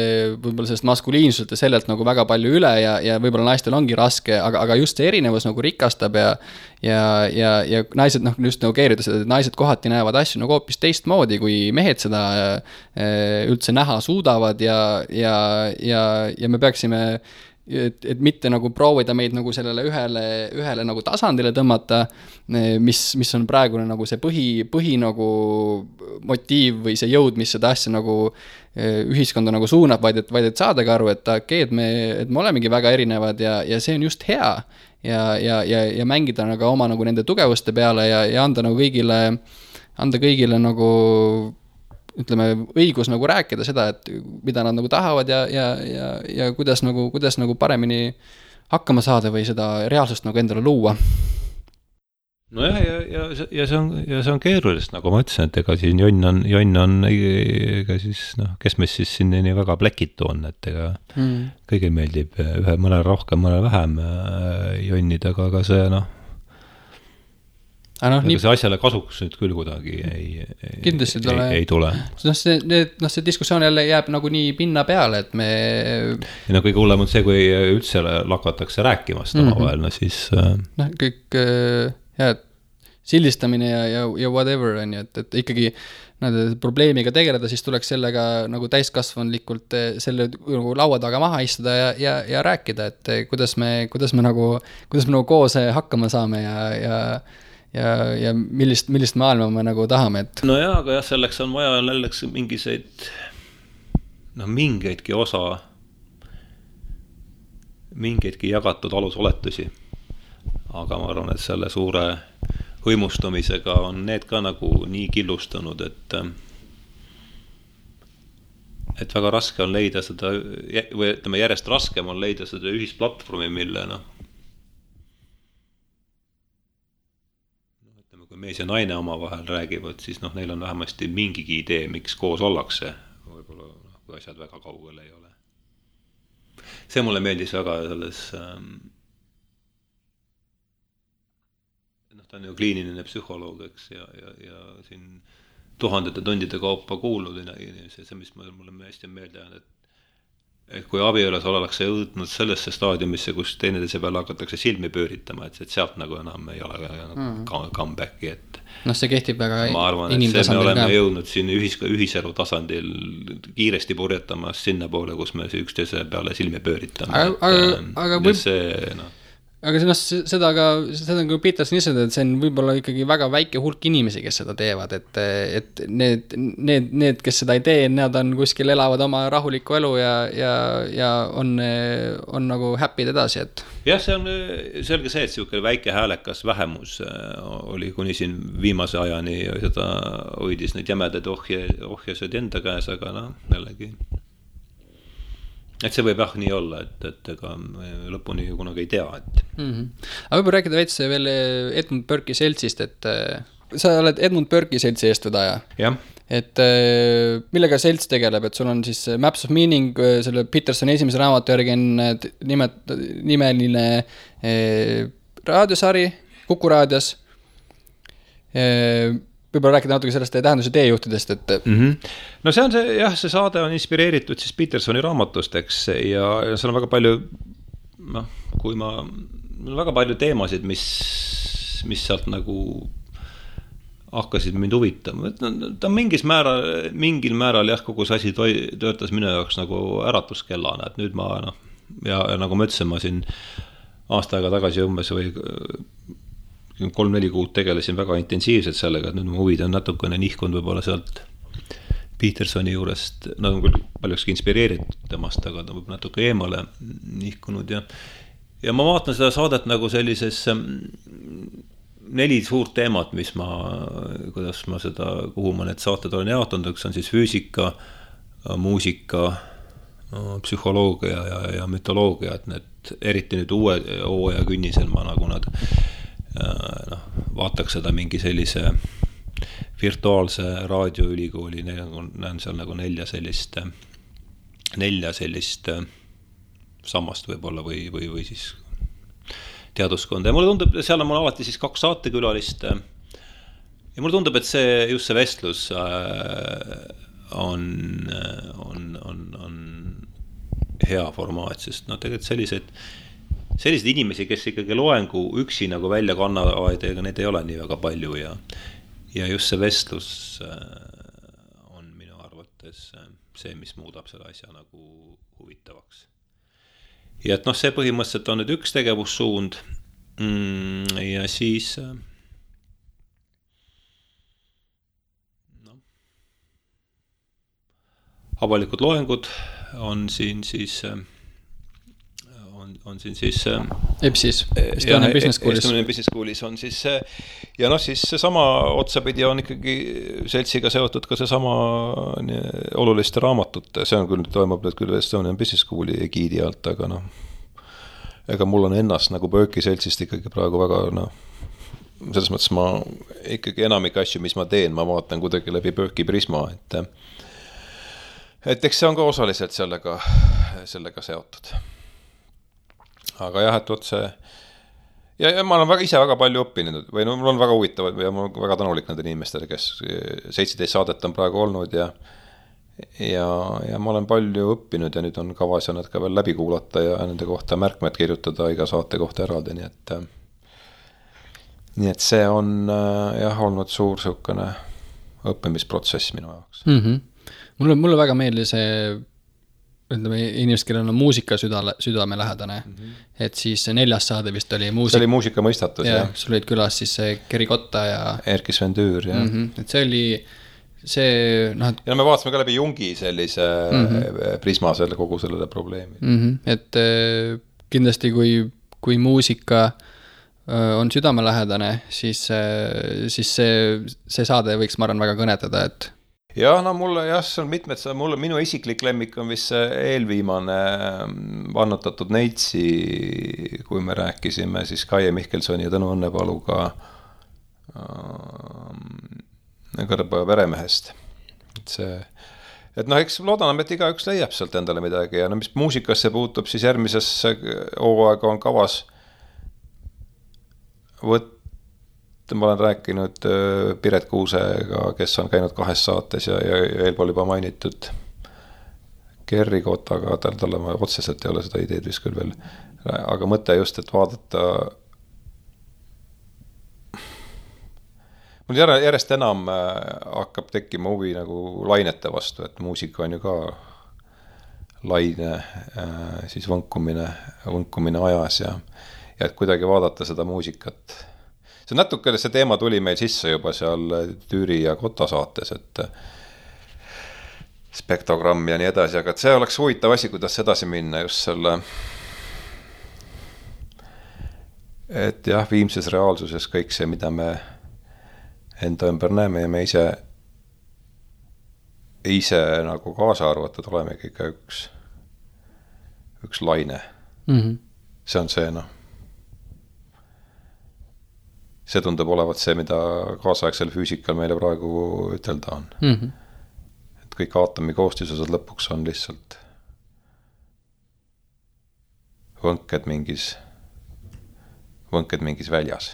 võib-olla sellest maskuliinsuselt ja sellelt nagu väga palju üle ja võib-olla naistel ongi raske, aga just see erinevus nagu rikastab ja naised, noh, just nagu keerides, et naised kohati näevad asju nagu hoopis teistmoodi, kui mehed seda üldse näha suudavad ja me peaksime et mitte nagu proovida meid nagu sellele ühele nagu tasandile tõmmata, mis on praegune nagu see põhi nagu motiiv või see jõud, mis seda asja nagu ühiskonda nagu suunab, vaid et saadagi aru, et me olemegi väga erinevad ja see on just hea ja mängida nagu oma nagu nende tugevuste peale ja anda kõigile nagu ütleme, õigus nagu rääkida seda, et mida nad nagu tahavad ja kuidas nagu paremini hakkama saada või seda reaalsust nagu endale luua. Nojah, ja see on keerulist, nagu ma ütlesin, et ega siin jonn on ega siis, noh, kes meist siis siin nii väga plekitu on, et ega kõigil meeldib mõnel rohkem, mõnel vähem jonnida, aga see, see asjale kasuks nüüd küll kuidagi ei tule. See diskussioon jälle jääb nagu nii pinna peale, et me... Ja kõige hullem on see, kui üldse lakatakse rääkimast omavahel, siis... kõik sildistamine ja whatever on ju, et ikkagi probleemiga tegeleda, siis tuleks sellega nagu täiskasvanlikult selle nagu laua taga maha istuda ja rääkida, et kuidas me nagu koos hakkama saame ja millist maailma me nagu tahame, et... No jaa, aga jah, selleks on vaja mingeidki jagatud alusoletusi. Aga ma arvan, et selle suure hõimustumisega on need ka nagu nii killustunud, et väga raske on leida seda, või ütleme, järjest raskem on leida seda ühisplatvormi, mille kui mees ja naine omavahel räägivad, siis neil on vähemasti mingigi idee, miks koos ollakse, võib-olla kui asjad väga kaugel ei ole. See mulle meeldis väga selles, ta on ju kliiniline psühholoog, eks, ja siin tuhandete tundide kaupa kuulnud, see, mis mulle hästi meelde on, et kui abielus ollakse jõudnud sellesse staadiumisse, kus teineteise peale hakatakse silmi pööritama, et sealt nagu enam ei ole comebacki, et see kehtib väga ma arvan, et see me oleme jõudnud siin ühiselu tasandil kiiresti purjetamas sinna poole, kus me üksteise peale silmi pööritame. Aga seda on kui Peterson ise, et see on võib-olla ikkagi väga väike hulk inimesi, kes seda teevad, et need, kes seda ei tee, nad on kuskil elavad oma rahulikku elu ja on nagu happy'd edasi, et... Jah, see on selge see, et siuke väike häälekas vähemus oli kuni siin viimase ajani seda hoidis neid jämedaid ohjasid enda käes, aga jällegi... Et see võib nii olla, et ega lõpuni kunagi ei tea, et... Aga võib rääkida veits veel Edmund Burke'i seltsist, et sa oled Edmund Burke'i seltsi eestvedaja. Jah. Et millega selts tegeleb, et sul on siis Maps of Meaning, selle Petersoni esimese raamatu järgi on nimeline raadiosari Kuku raadios Võib-olla rääkida natuke sellest tähenduse teejuhtidest, et No see on see, jah, see saade on inspireeritud siis Petersoni raamatust, eks, ja seal on väga palju, noh, väga palju teemasid, mis sealt nagu hakkasid mind huvitama. Ta on mingil määral jah, kogu see asi töötas minu jaoks nagu äratuskellana, et nüüd ma, noh, ja nagu ma ütlesin, ma siin aasta aega tagasi umbes või 3-4 kuud tegelesin väga intensiivselt sellega, et nüüd mu huvid on natukene nihkunud võib-olla sealt Petersoni juurest, nad on küll paljukski inspireeritud temast, aga ta võib natuke eemale nihkunud ja ma vaatan seda saadet nagu sellises 4 suurt teemat, kuhu ma need saated olen jaotanud, üks on siis füüsika, muusika, psühholoogia ja mütoloogia, et need eriti nüüd uue hooaja künnisel ma nagu nad vaataks seda mingi sellise virtuaalse raadioülikooli, näen seal nagu 4 sellist sammast võib-olla või siis teaduskonda ja mulle tundub, seal on mul alati siis 2 saatekülalist ja mulle tundub, et just see vestlus on hea formaat, sest tegelikult selliseid inimesi, kes ikkagi loengu üksi nagu välja kannavad, ega need ei ole nii väga palju ja just see vestlus on minu arvates see, mis muudab selle asja nagu huvitavaks. Ja et noh, see põhimõtteliselt on nüüd üks tegevussuund ja siis avalikud loengud on siin siis EBS-is, Estonian Business Schoolis. Estonian Business Schoolis on siis ja noh, siis seesama otsapidi on ikkagi seltsiga seotud ka seesama oluliste raamatute, see on küll, toimub nüüd küll Estonian Business Schooli egiidi alt, aga noh, ega mul on ennast nagu Berkeley seltsist ikkagi praegu väga, noh, selles mõttes ma ikkagi enamik asju, mis ma teen, ma vaatan kuidagi läbi Berkeley prisma, et eks see on ka osaliselt sellega seotud. Aga jah, et otse ja ma olen ise väga palju õppinud või no mul on väga huvitavad ja ma olen väga tänulik nendele inimestele, kes 17 saadet on praegu olnud ja ma olen palju õppinud ja nüüd on kavas ja nad ka veel läbi kuulata ja nende kohta märkmed kirjutada iga saate kohta eraldi, nii et see on jah olnud suur siukene õppimisprotsess minu jaoks. Mulle väga meeldis see, ütleme, inimesed, kellel on muusika südame lähedane, et siis 4. saade vist oli muusika. See oli muusika mõistatus, jah. Sul olid külas siis Keri Kotta ja Erkki Sven Tüür, jah. Et see oli see, noh, ja me vaatasime ka läbi Jungi sellise prisma kogu sellele probleemi. Et kindlasti kui muusika on südamelähedane, siis see saade võiks, ma arvan, väga kõnetada, et jah, no mulle jah, see on mitmed, minu isiklik lemmik on vist see eelviimane vannutatud Neitsi, kui me rääkisime siis Kaie Mihkelsoni ja Tõnu Õnnepaluga Kõrbeoja veremehest. Et noh, eks loodame, et igaüks leiab sealt endale midagi ja no mis muusikasse puutub, siis järgmises hooaega on kavas ma olen rääkinud Piret Kuusega, kes on käinud 2 saates ja eelpool juba mainitud Kerri Kotaga, talle ma otseselt ei ole seda ideed vist küll veel, aga mõte just, et vaadata mul järjest enam hakkab tekkima huvi nagu lainete vastu, et muusika on ju ka laine, siis võnkumine ajas ja et kuidagi vaadata seda muusikat. See natuke, see teema tuli meil sisse juba seal Tüüri ja Kotta saates, et spektogramm ja nii edasi, aga see oleks huvitav asi, kuidas edasi minna just selle, et jah, viimses reaalsuses kõik see, mida me enda ümber näeme ja me ise nagu kaasa arvatud olemegi ikka üks laine. See on see, noh. See tundub olevat see, mida kaasaegsel füüsikal meile praegu ütelda on. Et kõik aatomi koostisosad lõpuks on lihtsalt võnked mingis väljas.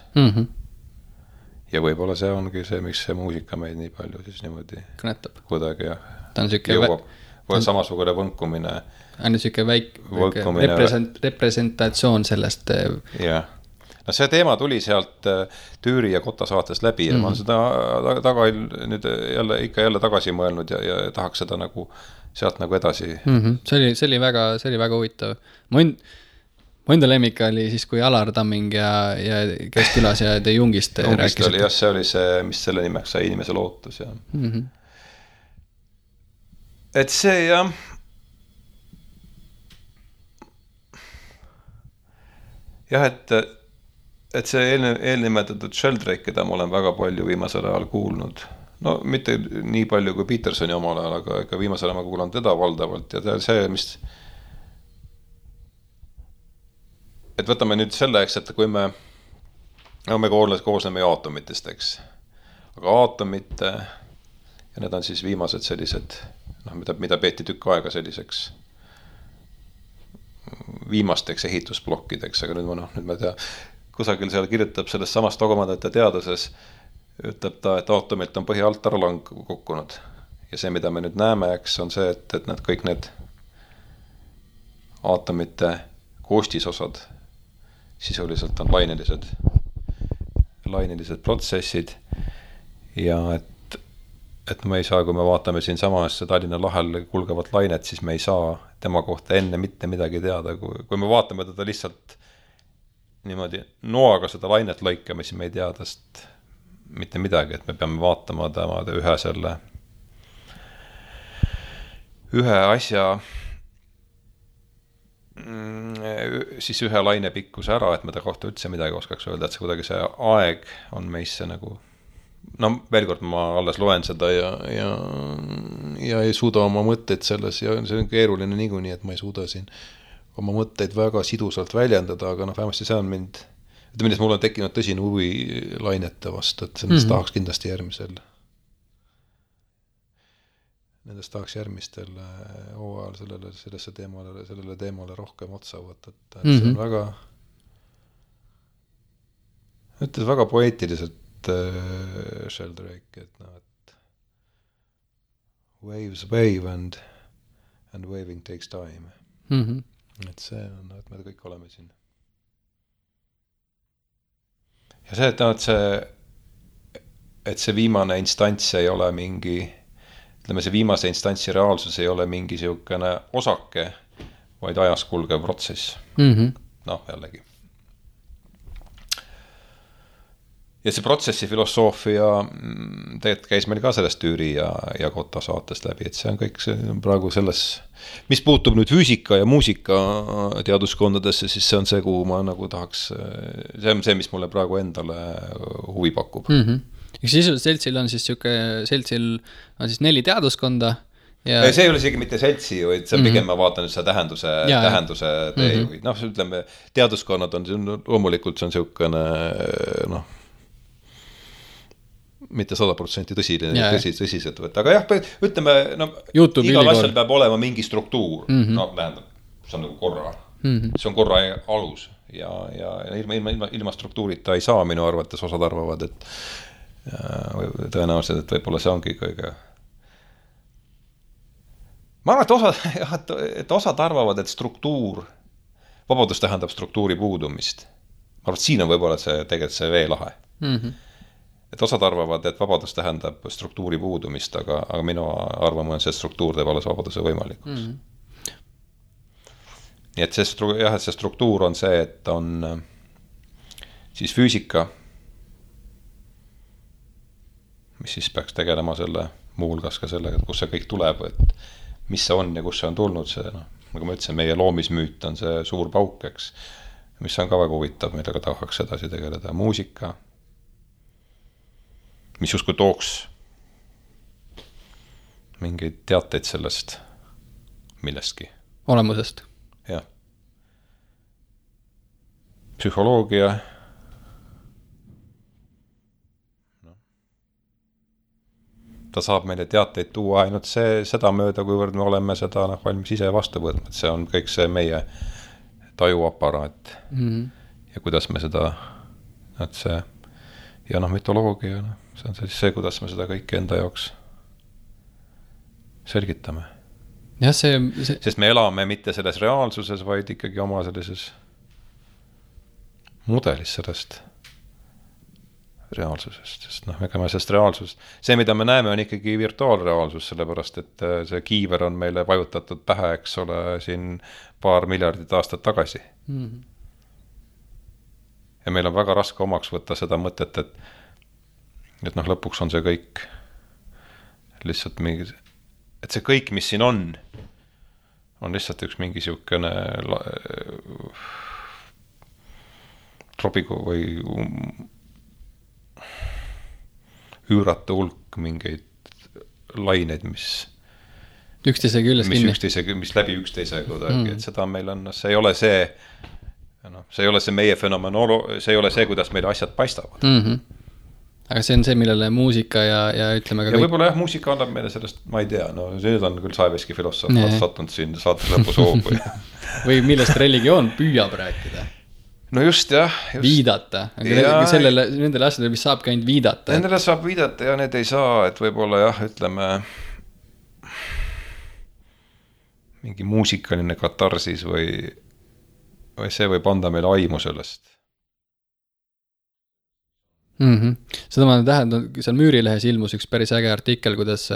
ja võib-olla see ongi see, miks see muusika meid nii palju siis niimoodi kõnetab. Kuidagi ta on siuke jõuab. Või samasugune võnkumine. On siuke representatsioon sellest. Jah. No see teema tuli sealt Tüüri ja Kotta saates läbi ja ma olen seda nüüd jälle tagasi mõelnud ja tahaks seda nagu sealt nagu edasi. See oli väga huvitav. Mu enda lemmik oli siis, kui Alar Tamming ja kes külas ja De Jungist rääkisid. Jah, see oli see, mis selle nimeks sai inimese lootus. Ja. Et see jah jah, et see eelnimetatud Sheldrake, keda ma olen väga palju viimasel ajal kuulnud, no mitte nii palju kui Petersoni omal ajal, aga viimasel ajal ma kuulan teda valdavalt ja see, mis et võtame nüüd selleks, et kui me koosneme aatomitest, eks, aga aatomite ja need on siis viimased sellised, mida peeti tükk aega selliseks viimasteks ehitusplokkideks, aga nüüd ma tea, kusagil seal kirjutab sellest samast dogmadate teaduses, ütleb ta, et aatomilt on põhi alt ära kukkunud. Ja see, mida me nüüd näeme, eks, on see, et need kõik need aatomite koostisosad sisuliselt on lainelised protsessid ja et me ei saa, kui me vaatame siin samas Tallinna lahel kulgevat lainet, siis me ei saa tema kohta enne mitte midagi teada. Kui me vaatame teda lihtsalt niimoodi noaga seda lainet lõikame, siis me ei tea tast mitte midagi, et me peame vaatama tema ühe asja siis ühe laine pikkuse ära, et me ta kohta üldse midagi oskaks öelda, et see kuidagi see aeg on meisse nagu veel kord ma alles loen seda ja ei suuda oma mõtteid selles ja see on keeruline niikuinii, et ma ei suuda siin oma mõtteid väga sidusalt väljendada, aga vähemasti see on mind, et millest mul on tekkinud tõsine huvi lainete vastu, et sellest tahaks kindlasti nendest tahaks järgmistel hooajal sellele teemale rohkem otsa võtta, et see on väga ütles väga poeetiliselt Sheldrake, et waves wave and waving takes time. Et see on, et me kõik oleme siin. Ja see, et see viimane instants ei ole mingi, ütleme see viimase instantsi reaalsus ei ole mingi siukene osake, vaid ajas kulgev protsess. Jällegi. Ja see protsessi filosoofia tegelikult käis meil ka sellest Tüüri ja Kotta saatest läbi, et see on kõik praegu selles, mis puutub nüüd füüsika ja muusika teaduskondadesse, siis see on see, kuhu ma nagu tahaks, see on see, mis mulle praegu endale huvi pakub. Seltsil on siis 4 teaduskonda. Ja... See ei ole isegi mitte seltsi, vaid see pigem ma vaatan nüüd seda tähenduse teejuhi. Ütleme, teaduskonnad on, loomulikult see on siukene, mitte 100% tõsiselt võtta, aga jah, ütleme, igal asjal peab olema mingi struktuur, tähendab, see on nagu korra, see on korra alus ja ilma struktuurita ei saa minu arvates, osad arvavad, et tõenäoliselt, et võib-olla see ongi kõige. Ma arvan, et osad arvavad, et vabadus tähendab struktuuri puudumist. Ma arvan, et siin on võib-olla tegelikult see veelahe. Et osad arvavad, et vabadus tähendab struktuuri puudumist, aga minu arvamus on see, et struktuur teeb alles vabaduse võimalikuks. Nii et see struktuur on see, et on siis füüsika, mis siis peaks tegelema selle muuhulgas ka sellega, et kus see kõik tuleb, et mis see on ja kus see on tulnud see, nagu ma ütlesin, meie loomismüüt on see suur pauk, eks, mis on ka väga huvitav, millega tahaks edasi tegeleda. Muusika, mis justkui tooks mingeid teateid sellest millestki. Olemusest. Jah. Psühholoogia. Ta saab meile teateid tuua ainult seda mööda, kuivõrd me oleme seda valmis ise vastu võtma. See on kõik see meie tajuaparaat. Ja kuidas me seda, ja mütoloogia, see on see, kuidas me seda kõike enda jaoks selgitame. Jah, sest me elame mitte selles reaalsuses, vaid ikkagi oma sellises mudelis sellest reaalsusest, sest ega me sellest reaalsusest, see, mida me näeme, on ikkagi virtuaalreaalsus, sellepärast, et see kiiver on meile vajutatud pähe, eks ole, siin paar miljardit aastat tagasi. Ja meil on väga raske omaks võtta seda mõtet, et lõpuks on see kõik lihtsalt mingi, et see kõik, mis siin on lihtsalt üks mingi siukene trobigu või üüratu hulk mingeid laineid, mis üksteise küljes kinni. Mis läbi üksteise kuidagi, et seda meil on, see ei ole see meie fenomenolo, see ei ole see, kuidas meile asjad paistavad. Aga see on see, millele muusika ja ütleme ka ja võib-olla muusika annab meile sellest, ma ei tea, see on küll Saeveski filosoof sattunud siin saate lõpus hoogu. või millest religioon püüab rääkida. No just, jah. Viidata. Aga nendele asjadele, mis saabki ainult viidata. Nendele saab viidata ja need ei saa, et võib-olla jah, ütleme mingi muusikaline katarsis või see võib anda meile aimu sellest. Seda ma tähendan, seal Müürilehes ilmus üks päris äge artikkel, kuidas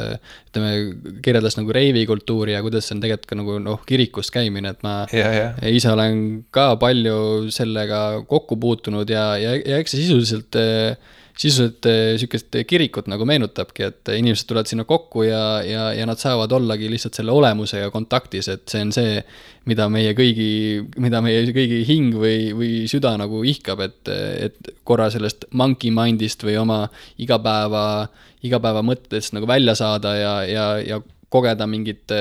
kirjeldas nagu reivikultuuri ja kuidas see on tegelikult ka nagu kirikus käimine, et ma ise olen ka palju sellega kokku puutunud ja eks see sisuliselt sükest kirikut nagu meenutabki, et inimesed tulevad sinna kokku ja nad saavad ollagi lihtsalt selle olemusega kontaktis, et see on see, mida meie kõigi hing või süda nagu ihkab, et korra sellest monkey mindist või oma igapäeva mõttest nagu välja saada ja kogeda mingit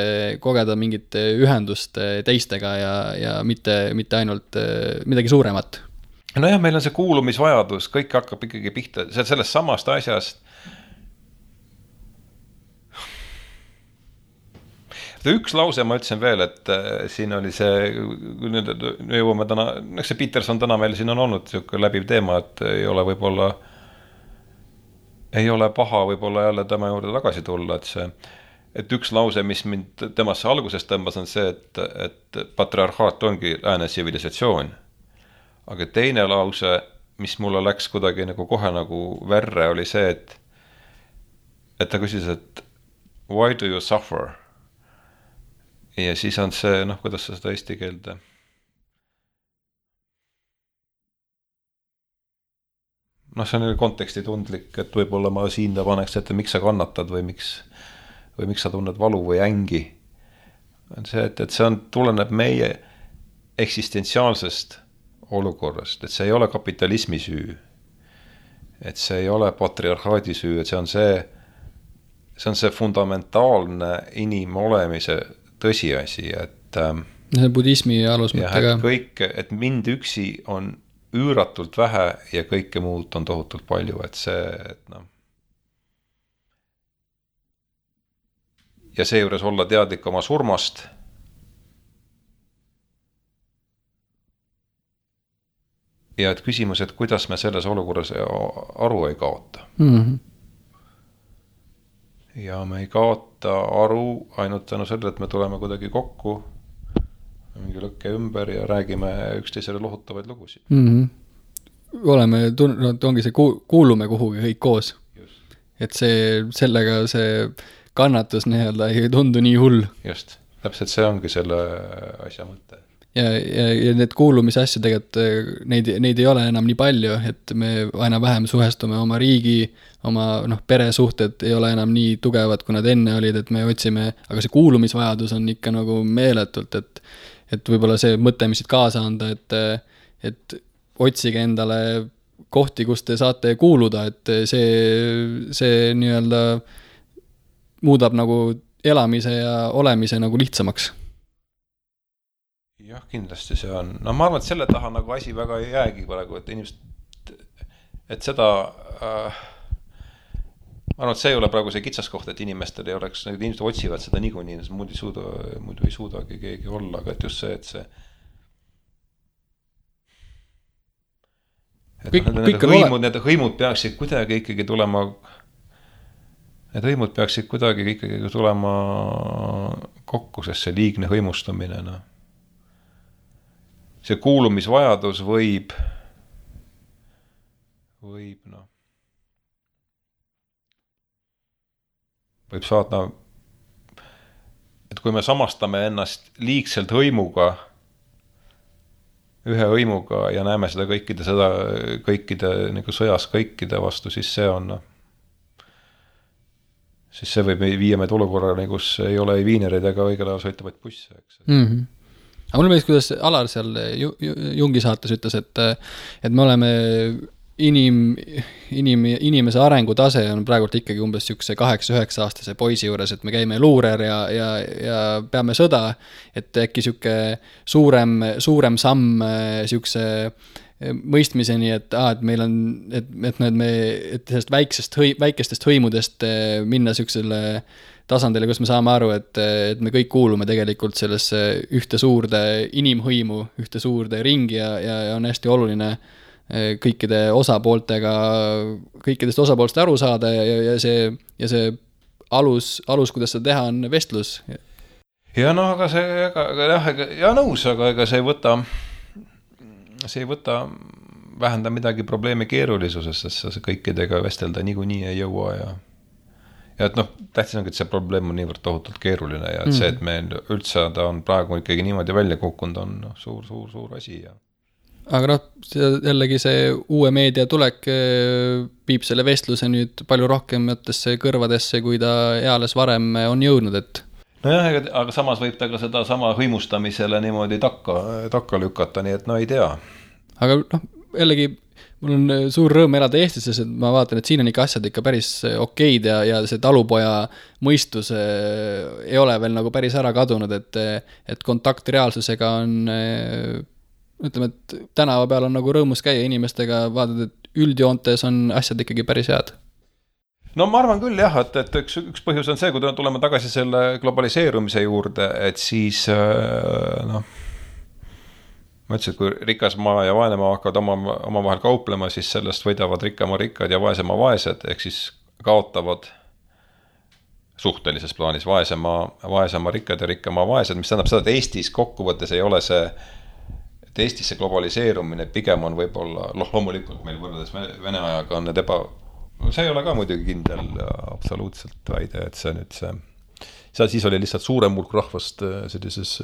ühendust teistega ja mitte ainult midagi suuremat. Nojah, meil on see kuulumisvajadus, kõik hakkab ikkagi pihta sellest samast asjast. Üks lause ma ütlesin veel, et siin oli see, nüüd jõuame täna, see Peterson täna meil siin on olnud läbiv teema, et ei ole paha võib-olla jälle tema juurde tagasi tulla, et üks lause, mis mind temasse algusest tõmbas, on see, et patriarhaat ongi lääne tsivilisatsioon. Aga teine lause, mis mulle läks kuidagi nagu kohe nagu verre, oli see, et ta küsis, et why do you suffer? Ja siis on see, kuidas sa seda eesti keelde? See on konteksti tundlik, et võib-olla ma siin paneks ette, miks sa kannatad või miks sa tunned valu või ängi. On see, et see tuleneb meie eksistentsiaalsest olukorrast, et see ei ole kapitalismi süü, et see ei ole patriarhaadi süü, et see on see fundamentaalne inimolemise tõsiasi, et see budismi alusmõttega. Et mind üksi on üüratult vähe ja kõike muud on tohutult palju, et see, ja seejuures olla teadlik oma surmast. Ja et küsimus, et kuidas me selles olukorras aru ei kaota. Ja me ei kaota aru ainult tänu sellele, et me tuleme kuidagi kokku mingi lõkke ümber ja räägime üksteisele lohutavaid lugusid. Ongi see, kuulume kuhugi kõik koos. Just. Et sellega see kannatus ei tundu nii hull. Just, täpselt see ongi selle asja mõte. Ja need kuulumise asju tegelikult, neid ei ole enam nii palju, et me aina vähem suhestume oma riigi, oma peresuhted ei ole enam nii tugevad, kui nad enne olid, et me otsime, aga see kuulumisvajadus on ikka nagu meeletult, et võib-olla see mõte, mis siit kaasa anda, et otsige endale kohti, kus te saate kuuluda, et see nii-öelda muudab nagu elamise ja olemise nagu lihtsamaks. Jah, kindlasti see on. Ma arvan, et selle taha nagu asi väga ei jäägi praegu, et inimesed, et seda, ma arvan, et see ei ole praegu see kitsaskoht, et inimestel ei oleks, inimesed otsivad seda niikuinii, muidu ei suudagi keegi olla, aga et just see, Need hõimud peaksid kuidagi ikkagi tulema, kokku, sest see liigne hõimustamine, no. See kuulumisvajadus võib saada, et kui me samastame ennast liigselt hõimuga, ühe hõimuga ja näeme seda kõikide nagu sõjas kõikide vastu, siis see on, siis see võib viia meid olukorrale, kus ei ole ei viinereid ega õigel ajal sõitavaid busse, eks. Aga mulle meeldis, kuidas Alar seal Jungi saates ütles, et me oleme inimese arengutase on praegult ikkagi umbes siukse 8-9 aastase poisi juures, et me käime luurer ja peame sõda, et äkki siuke suurem samm siukse mõistmiseni, et meil on, et sellest väikestest hõimudest minna siuksele tasandile, kus me saame aru, et me kõik kuulume tegelikult sellesse ühte suurde inimhõimu, ühte suurde ringi ja on hästi oluline kõikidest osapoolest aru saada ja see alus, kuidas seda teha, on vestlus. Ja no, aga nõus, aga ega see ei võta vähenda midagi probleemi keerulisusest, sest sa kõikidega vestelda niikuinii ei jõua ja et tähtis on, et see probleem on niivõrd tohutult keeruline ja et see, et meil üldse ta on praegu ikkagi niimoodi välja kukkunud, on suur asi ja aga jällegi see uue meedia tulek viib selle vestluse nüüd palju rohkematesse kõrvadesse, kui ta eales varem on jõudnud, et nojah, aga samas võib ta ka seda sama hõimustamisele niimoodi takka lükata, nii et ei tea. Aga jällegi mul on suur rõõm elada Eestis, sest ma vaatan, et siin on ikka asjad ikka päris okeid ja see talupoja mõistus ei ole veel nagu päris ära kadunud, et kontakt reaalsusega on ütleme, et tänava peal on nagu rõõmus käia inimestega, vaatad, et üldjoontes on asjad ikkagi päris head. No ma arvan küll jah, et üks põhjus on see, kui tuleme tagasi selle globaliseerumise juurde, et siis ma ütlesin, et kui rikas maa ja vaene maa hakkavad omavahel kauplema, siis sellest võidavad rikkama rikkad ja vaesema vaesed, ehk siis kaotavad suhtelises plaanis vaesema rikkad ja rikkama vaesed, mis tähendab seda, et Eestis kokkuvõttes ei ole see, et Eestis see globaliseerumine pigem on võib-olla, loomulikult meil võrreldes Vene ajaga on need see ei ole ka muidugi kindel absoluutselt väide, et see nüüd siis oli lihtsalt suurem hulk rahvast sellises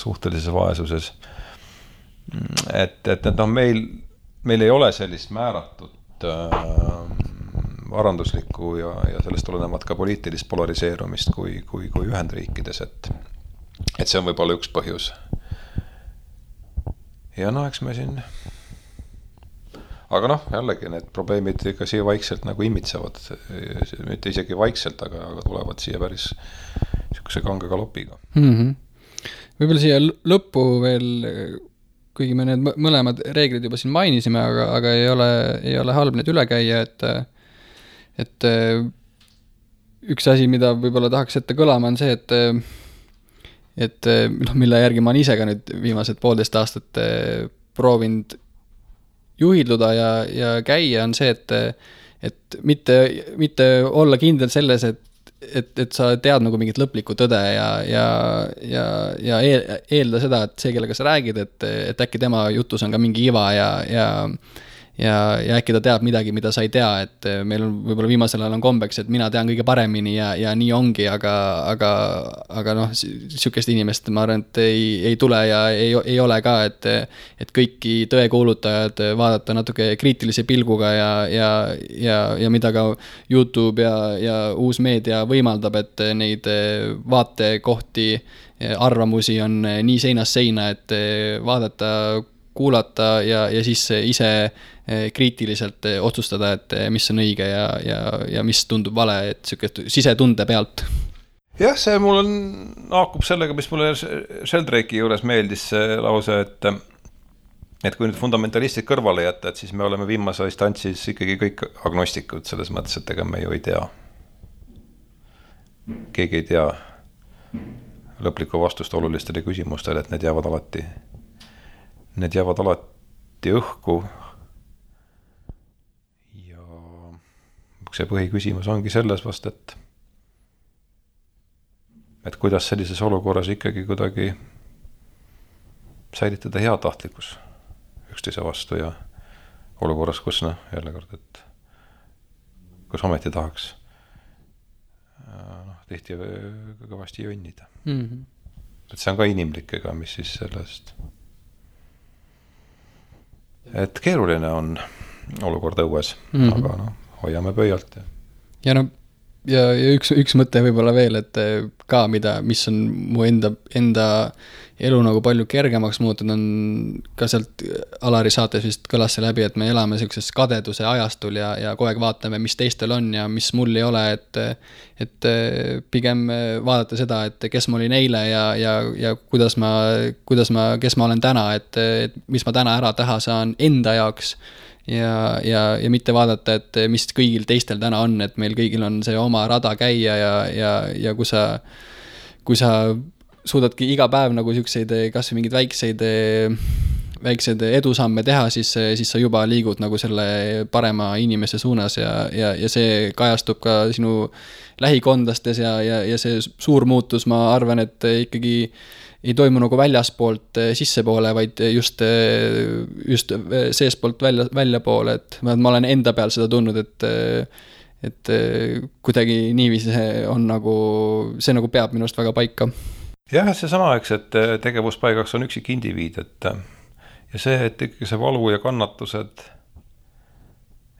suhtelises vaesuses. Et meil ei ole sellist määratud varanduslikku ja sellest tulenevat ka poliitilist polariseerumist kui Ühendriikides, et see on võib-olla üks põhjus. Ja eks me siin aga jällegi need probleemid ikka siia vaikselt nagu imitsevad, mitte isegi vaikselt, aga tulevad siia päris niisuguse kange galopiga. Võib-olla siia lõppu veel, kuigi me need mõlemad reeglid juba siin mainisime, aga ei ole halb need üle käia, et üks asi, mida võib-olla tahaks ette kõlama, on see, et mille järgi ma olen ise ka nüüd viimased 1,5 aastat proovinud juhilduda ja käia, on see, et mitte olla kindel selles, et sa tead nagu mingit lõplikku tõde ja eelda seda, et see, kellega sa räägid, et äkki tema jutus on ka mingi iva ja äkki ta teab midagi, mida sa ei tea, et meil on võib-olla viimasel ajal on kombeks, et mina tean kõige paremini ja nii ongi, aga sihukest inimest ma arvan, et ei tule ja ei ole ka, et kõiki tõekuulutajad vaadata natuke kriitilise pilguga ja mida ka YouTube ja uus meedia võimaldab, et neid vaatekohti, arvamusi on nii seinast seina, et vaadata, kuulata ja siis ise kriitiliselt otsustada, et mis on õige ja mis tundub vale, et siukest sisetunde pealt. Jah, see mul haakub sellega, mis mulle Sheldrake'i juures meeldis see lause, et kui nüüd fundamentalistid kõrvale jätta, et siis me oleme viimase instantsis ikkagi kõik agnostikud selles mõttes, et ega me ju ei tea. Keegi ei tea lõplikku vastust olulistele küsimustele, et need jäävad alati anti õhku. Ja see põhiküsimus ongi selles vast, et kuidas sellises olukorras ikkagi kuidagi säilitada heatahtlikkus üksteise vastu ja olukorras, kus jälle kord, et kus ometi tahaks tihti kõvasti jonnida. Et see on ka inimlik, ega mis siis sellest. Et keeruline on olukord õues, aga hoiame pöialt. Ja üks mõte võib-olla veel, et ka mis on mu enda elu nagu palju kergemaks muutunud, on ka sealt Alari saates vist kõlas see läbi, et me elame sellises kadeduse ajastul ja kogu aeg vaatame, mis teistel on ja mis mul ei ole, et pigem vaadata seda, et kes ma olin eile ja kes ma olen täna, et mis ma täna ära teha saan enda jaoks ja mitte vaadata, et mis kõigil teistel täna on, et meil kõigil on see oma rada käia ja kui sa suudadki iga päev nagu siukseid kas või mingid väikseid edusamme teha, siis sa juba liigud nagu selle parema inimese suunas ja see kajastub ka sinu lähikondlastes ja see suur muutus, ma arvan, et ikkagi ei toimu nagu väljaspoolt sissepoole, vaid just seespoolt välja poole, et ma olen enda peal seda tundnud, et kuidagi niiviisi on nagu, see nagu peab minust väga paika. Jah, see sama, eks, et tegevuspaigaks on üksik indiviid, ja see, et ikkagi see valu ja kannatused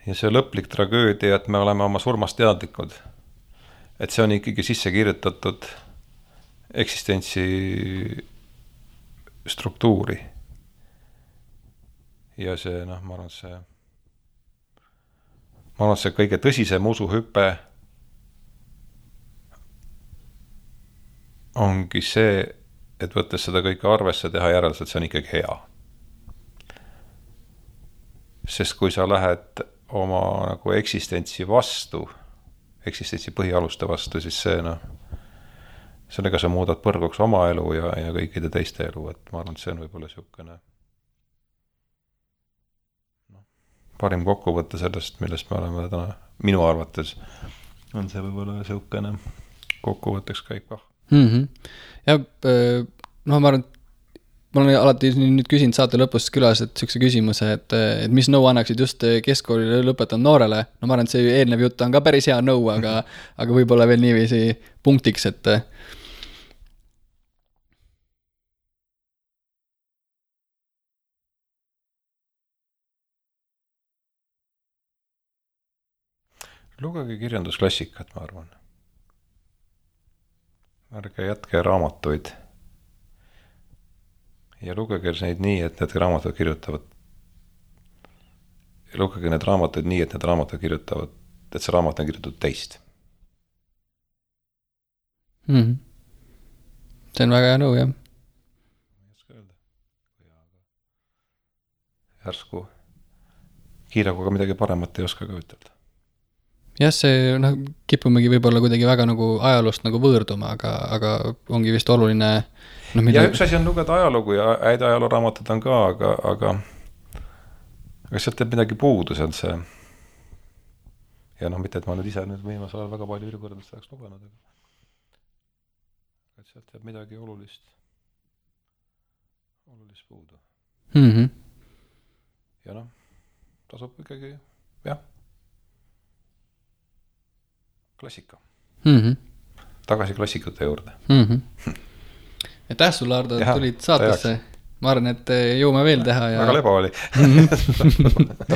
ja see lõplik tragöödia, et me oleme oma surmast teadlikud, et see on ikkagi sisse kirjutatud eksistentsi struktuuri. Ja see, ma arvan, see kõige tõsisem usuhüpe ongi see, et võttes seda kõike arvesse teha järelselt, see on ikkagi hea. Sest kui sa lähed oma nagu eksistentsi vastu, eksistentsi põhialuste vastu, siis see, sellega sa muudad põrguks oma elu ja kõikide teiste elu, et ma arvan, et see on võib-olla siukene parim kokkuvõte sellest, millest me oleme täna, minu arvates on see võib-olla siukene kokkuvõtteks käik kah. Ja ma arvan, ma olen alati nüüd küsinud saate lõpus külas, et siukse küsimuse, et mis nõu annaksid just keskkooli lõpetanud noorele. Ma arvan, et see eelnev jutt on ka päris hea nõu, aga võib-olla veel niiviisi punktiks, et lugege kirjandusklassikat, ma arvan. Ärge jätke raamatuid ja lugege neid nii, et need raamatud kirjutavad. Ja lugege need raamatuid nii, et need raamatud kirjutavad, et see raamat on kirjutatud teist. See on väga hea nõu, jah. Järsku kiiraguga midagi paremat ei oska ka ütelda. Jah, see kipumegi võib-olla kuidagi väga nagu ajaloost nagu võõrduma, aga ongi vist oluline. Ja üks asi on lugeda ajalugu ja häid ajalooraamatud on ka, aga sealt teeb midagi puudu, see on see. Ja mitte, et ma nüüd ise viimasel ajal väga palju ülikoolidest oleks lugenud, aga sealt teeb midagi olulist puudu. Ja tasub ikkagi, jah. Klassika. Tagasi klassikute juurde. Aitäh sulle, Ardo, et tulid saatesse. Ma arvan, et jõuame veel teha. Väga leba oli.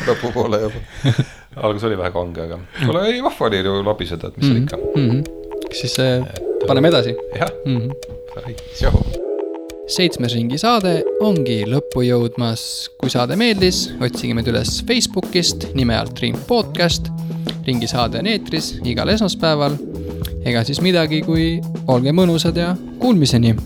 Lõpu poole juba. Algus oli vähe kange, aga ei vahva oli ju labiseda, et mis see ikka. Siis paneme edasi. Jah. 7. ringi saade ongi lõppu jõudmas. Kui saade meeldis, otsige meid üles Facebookist nime alt Ring Podcast. Ringi saade on eetris igal esmaspäeval. Ega siis midagi, kui olge mõnusad ja kuulmiseni.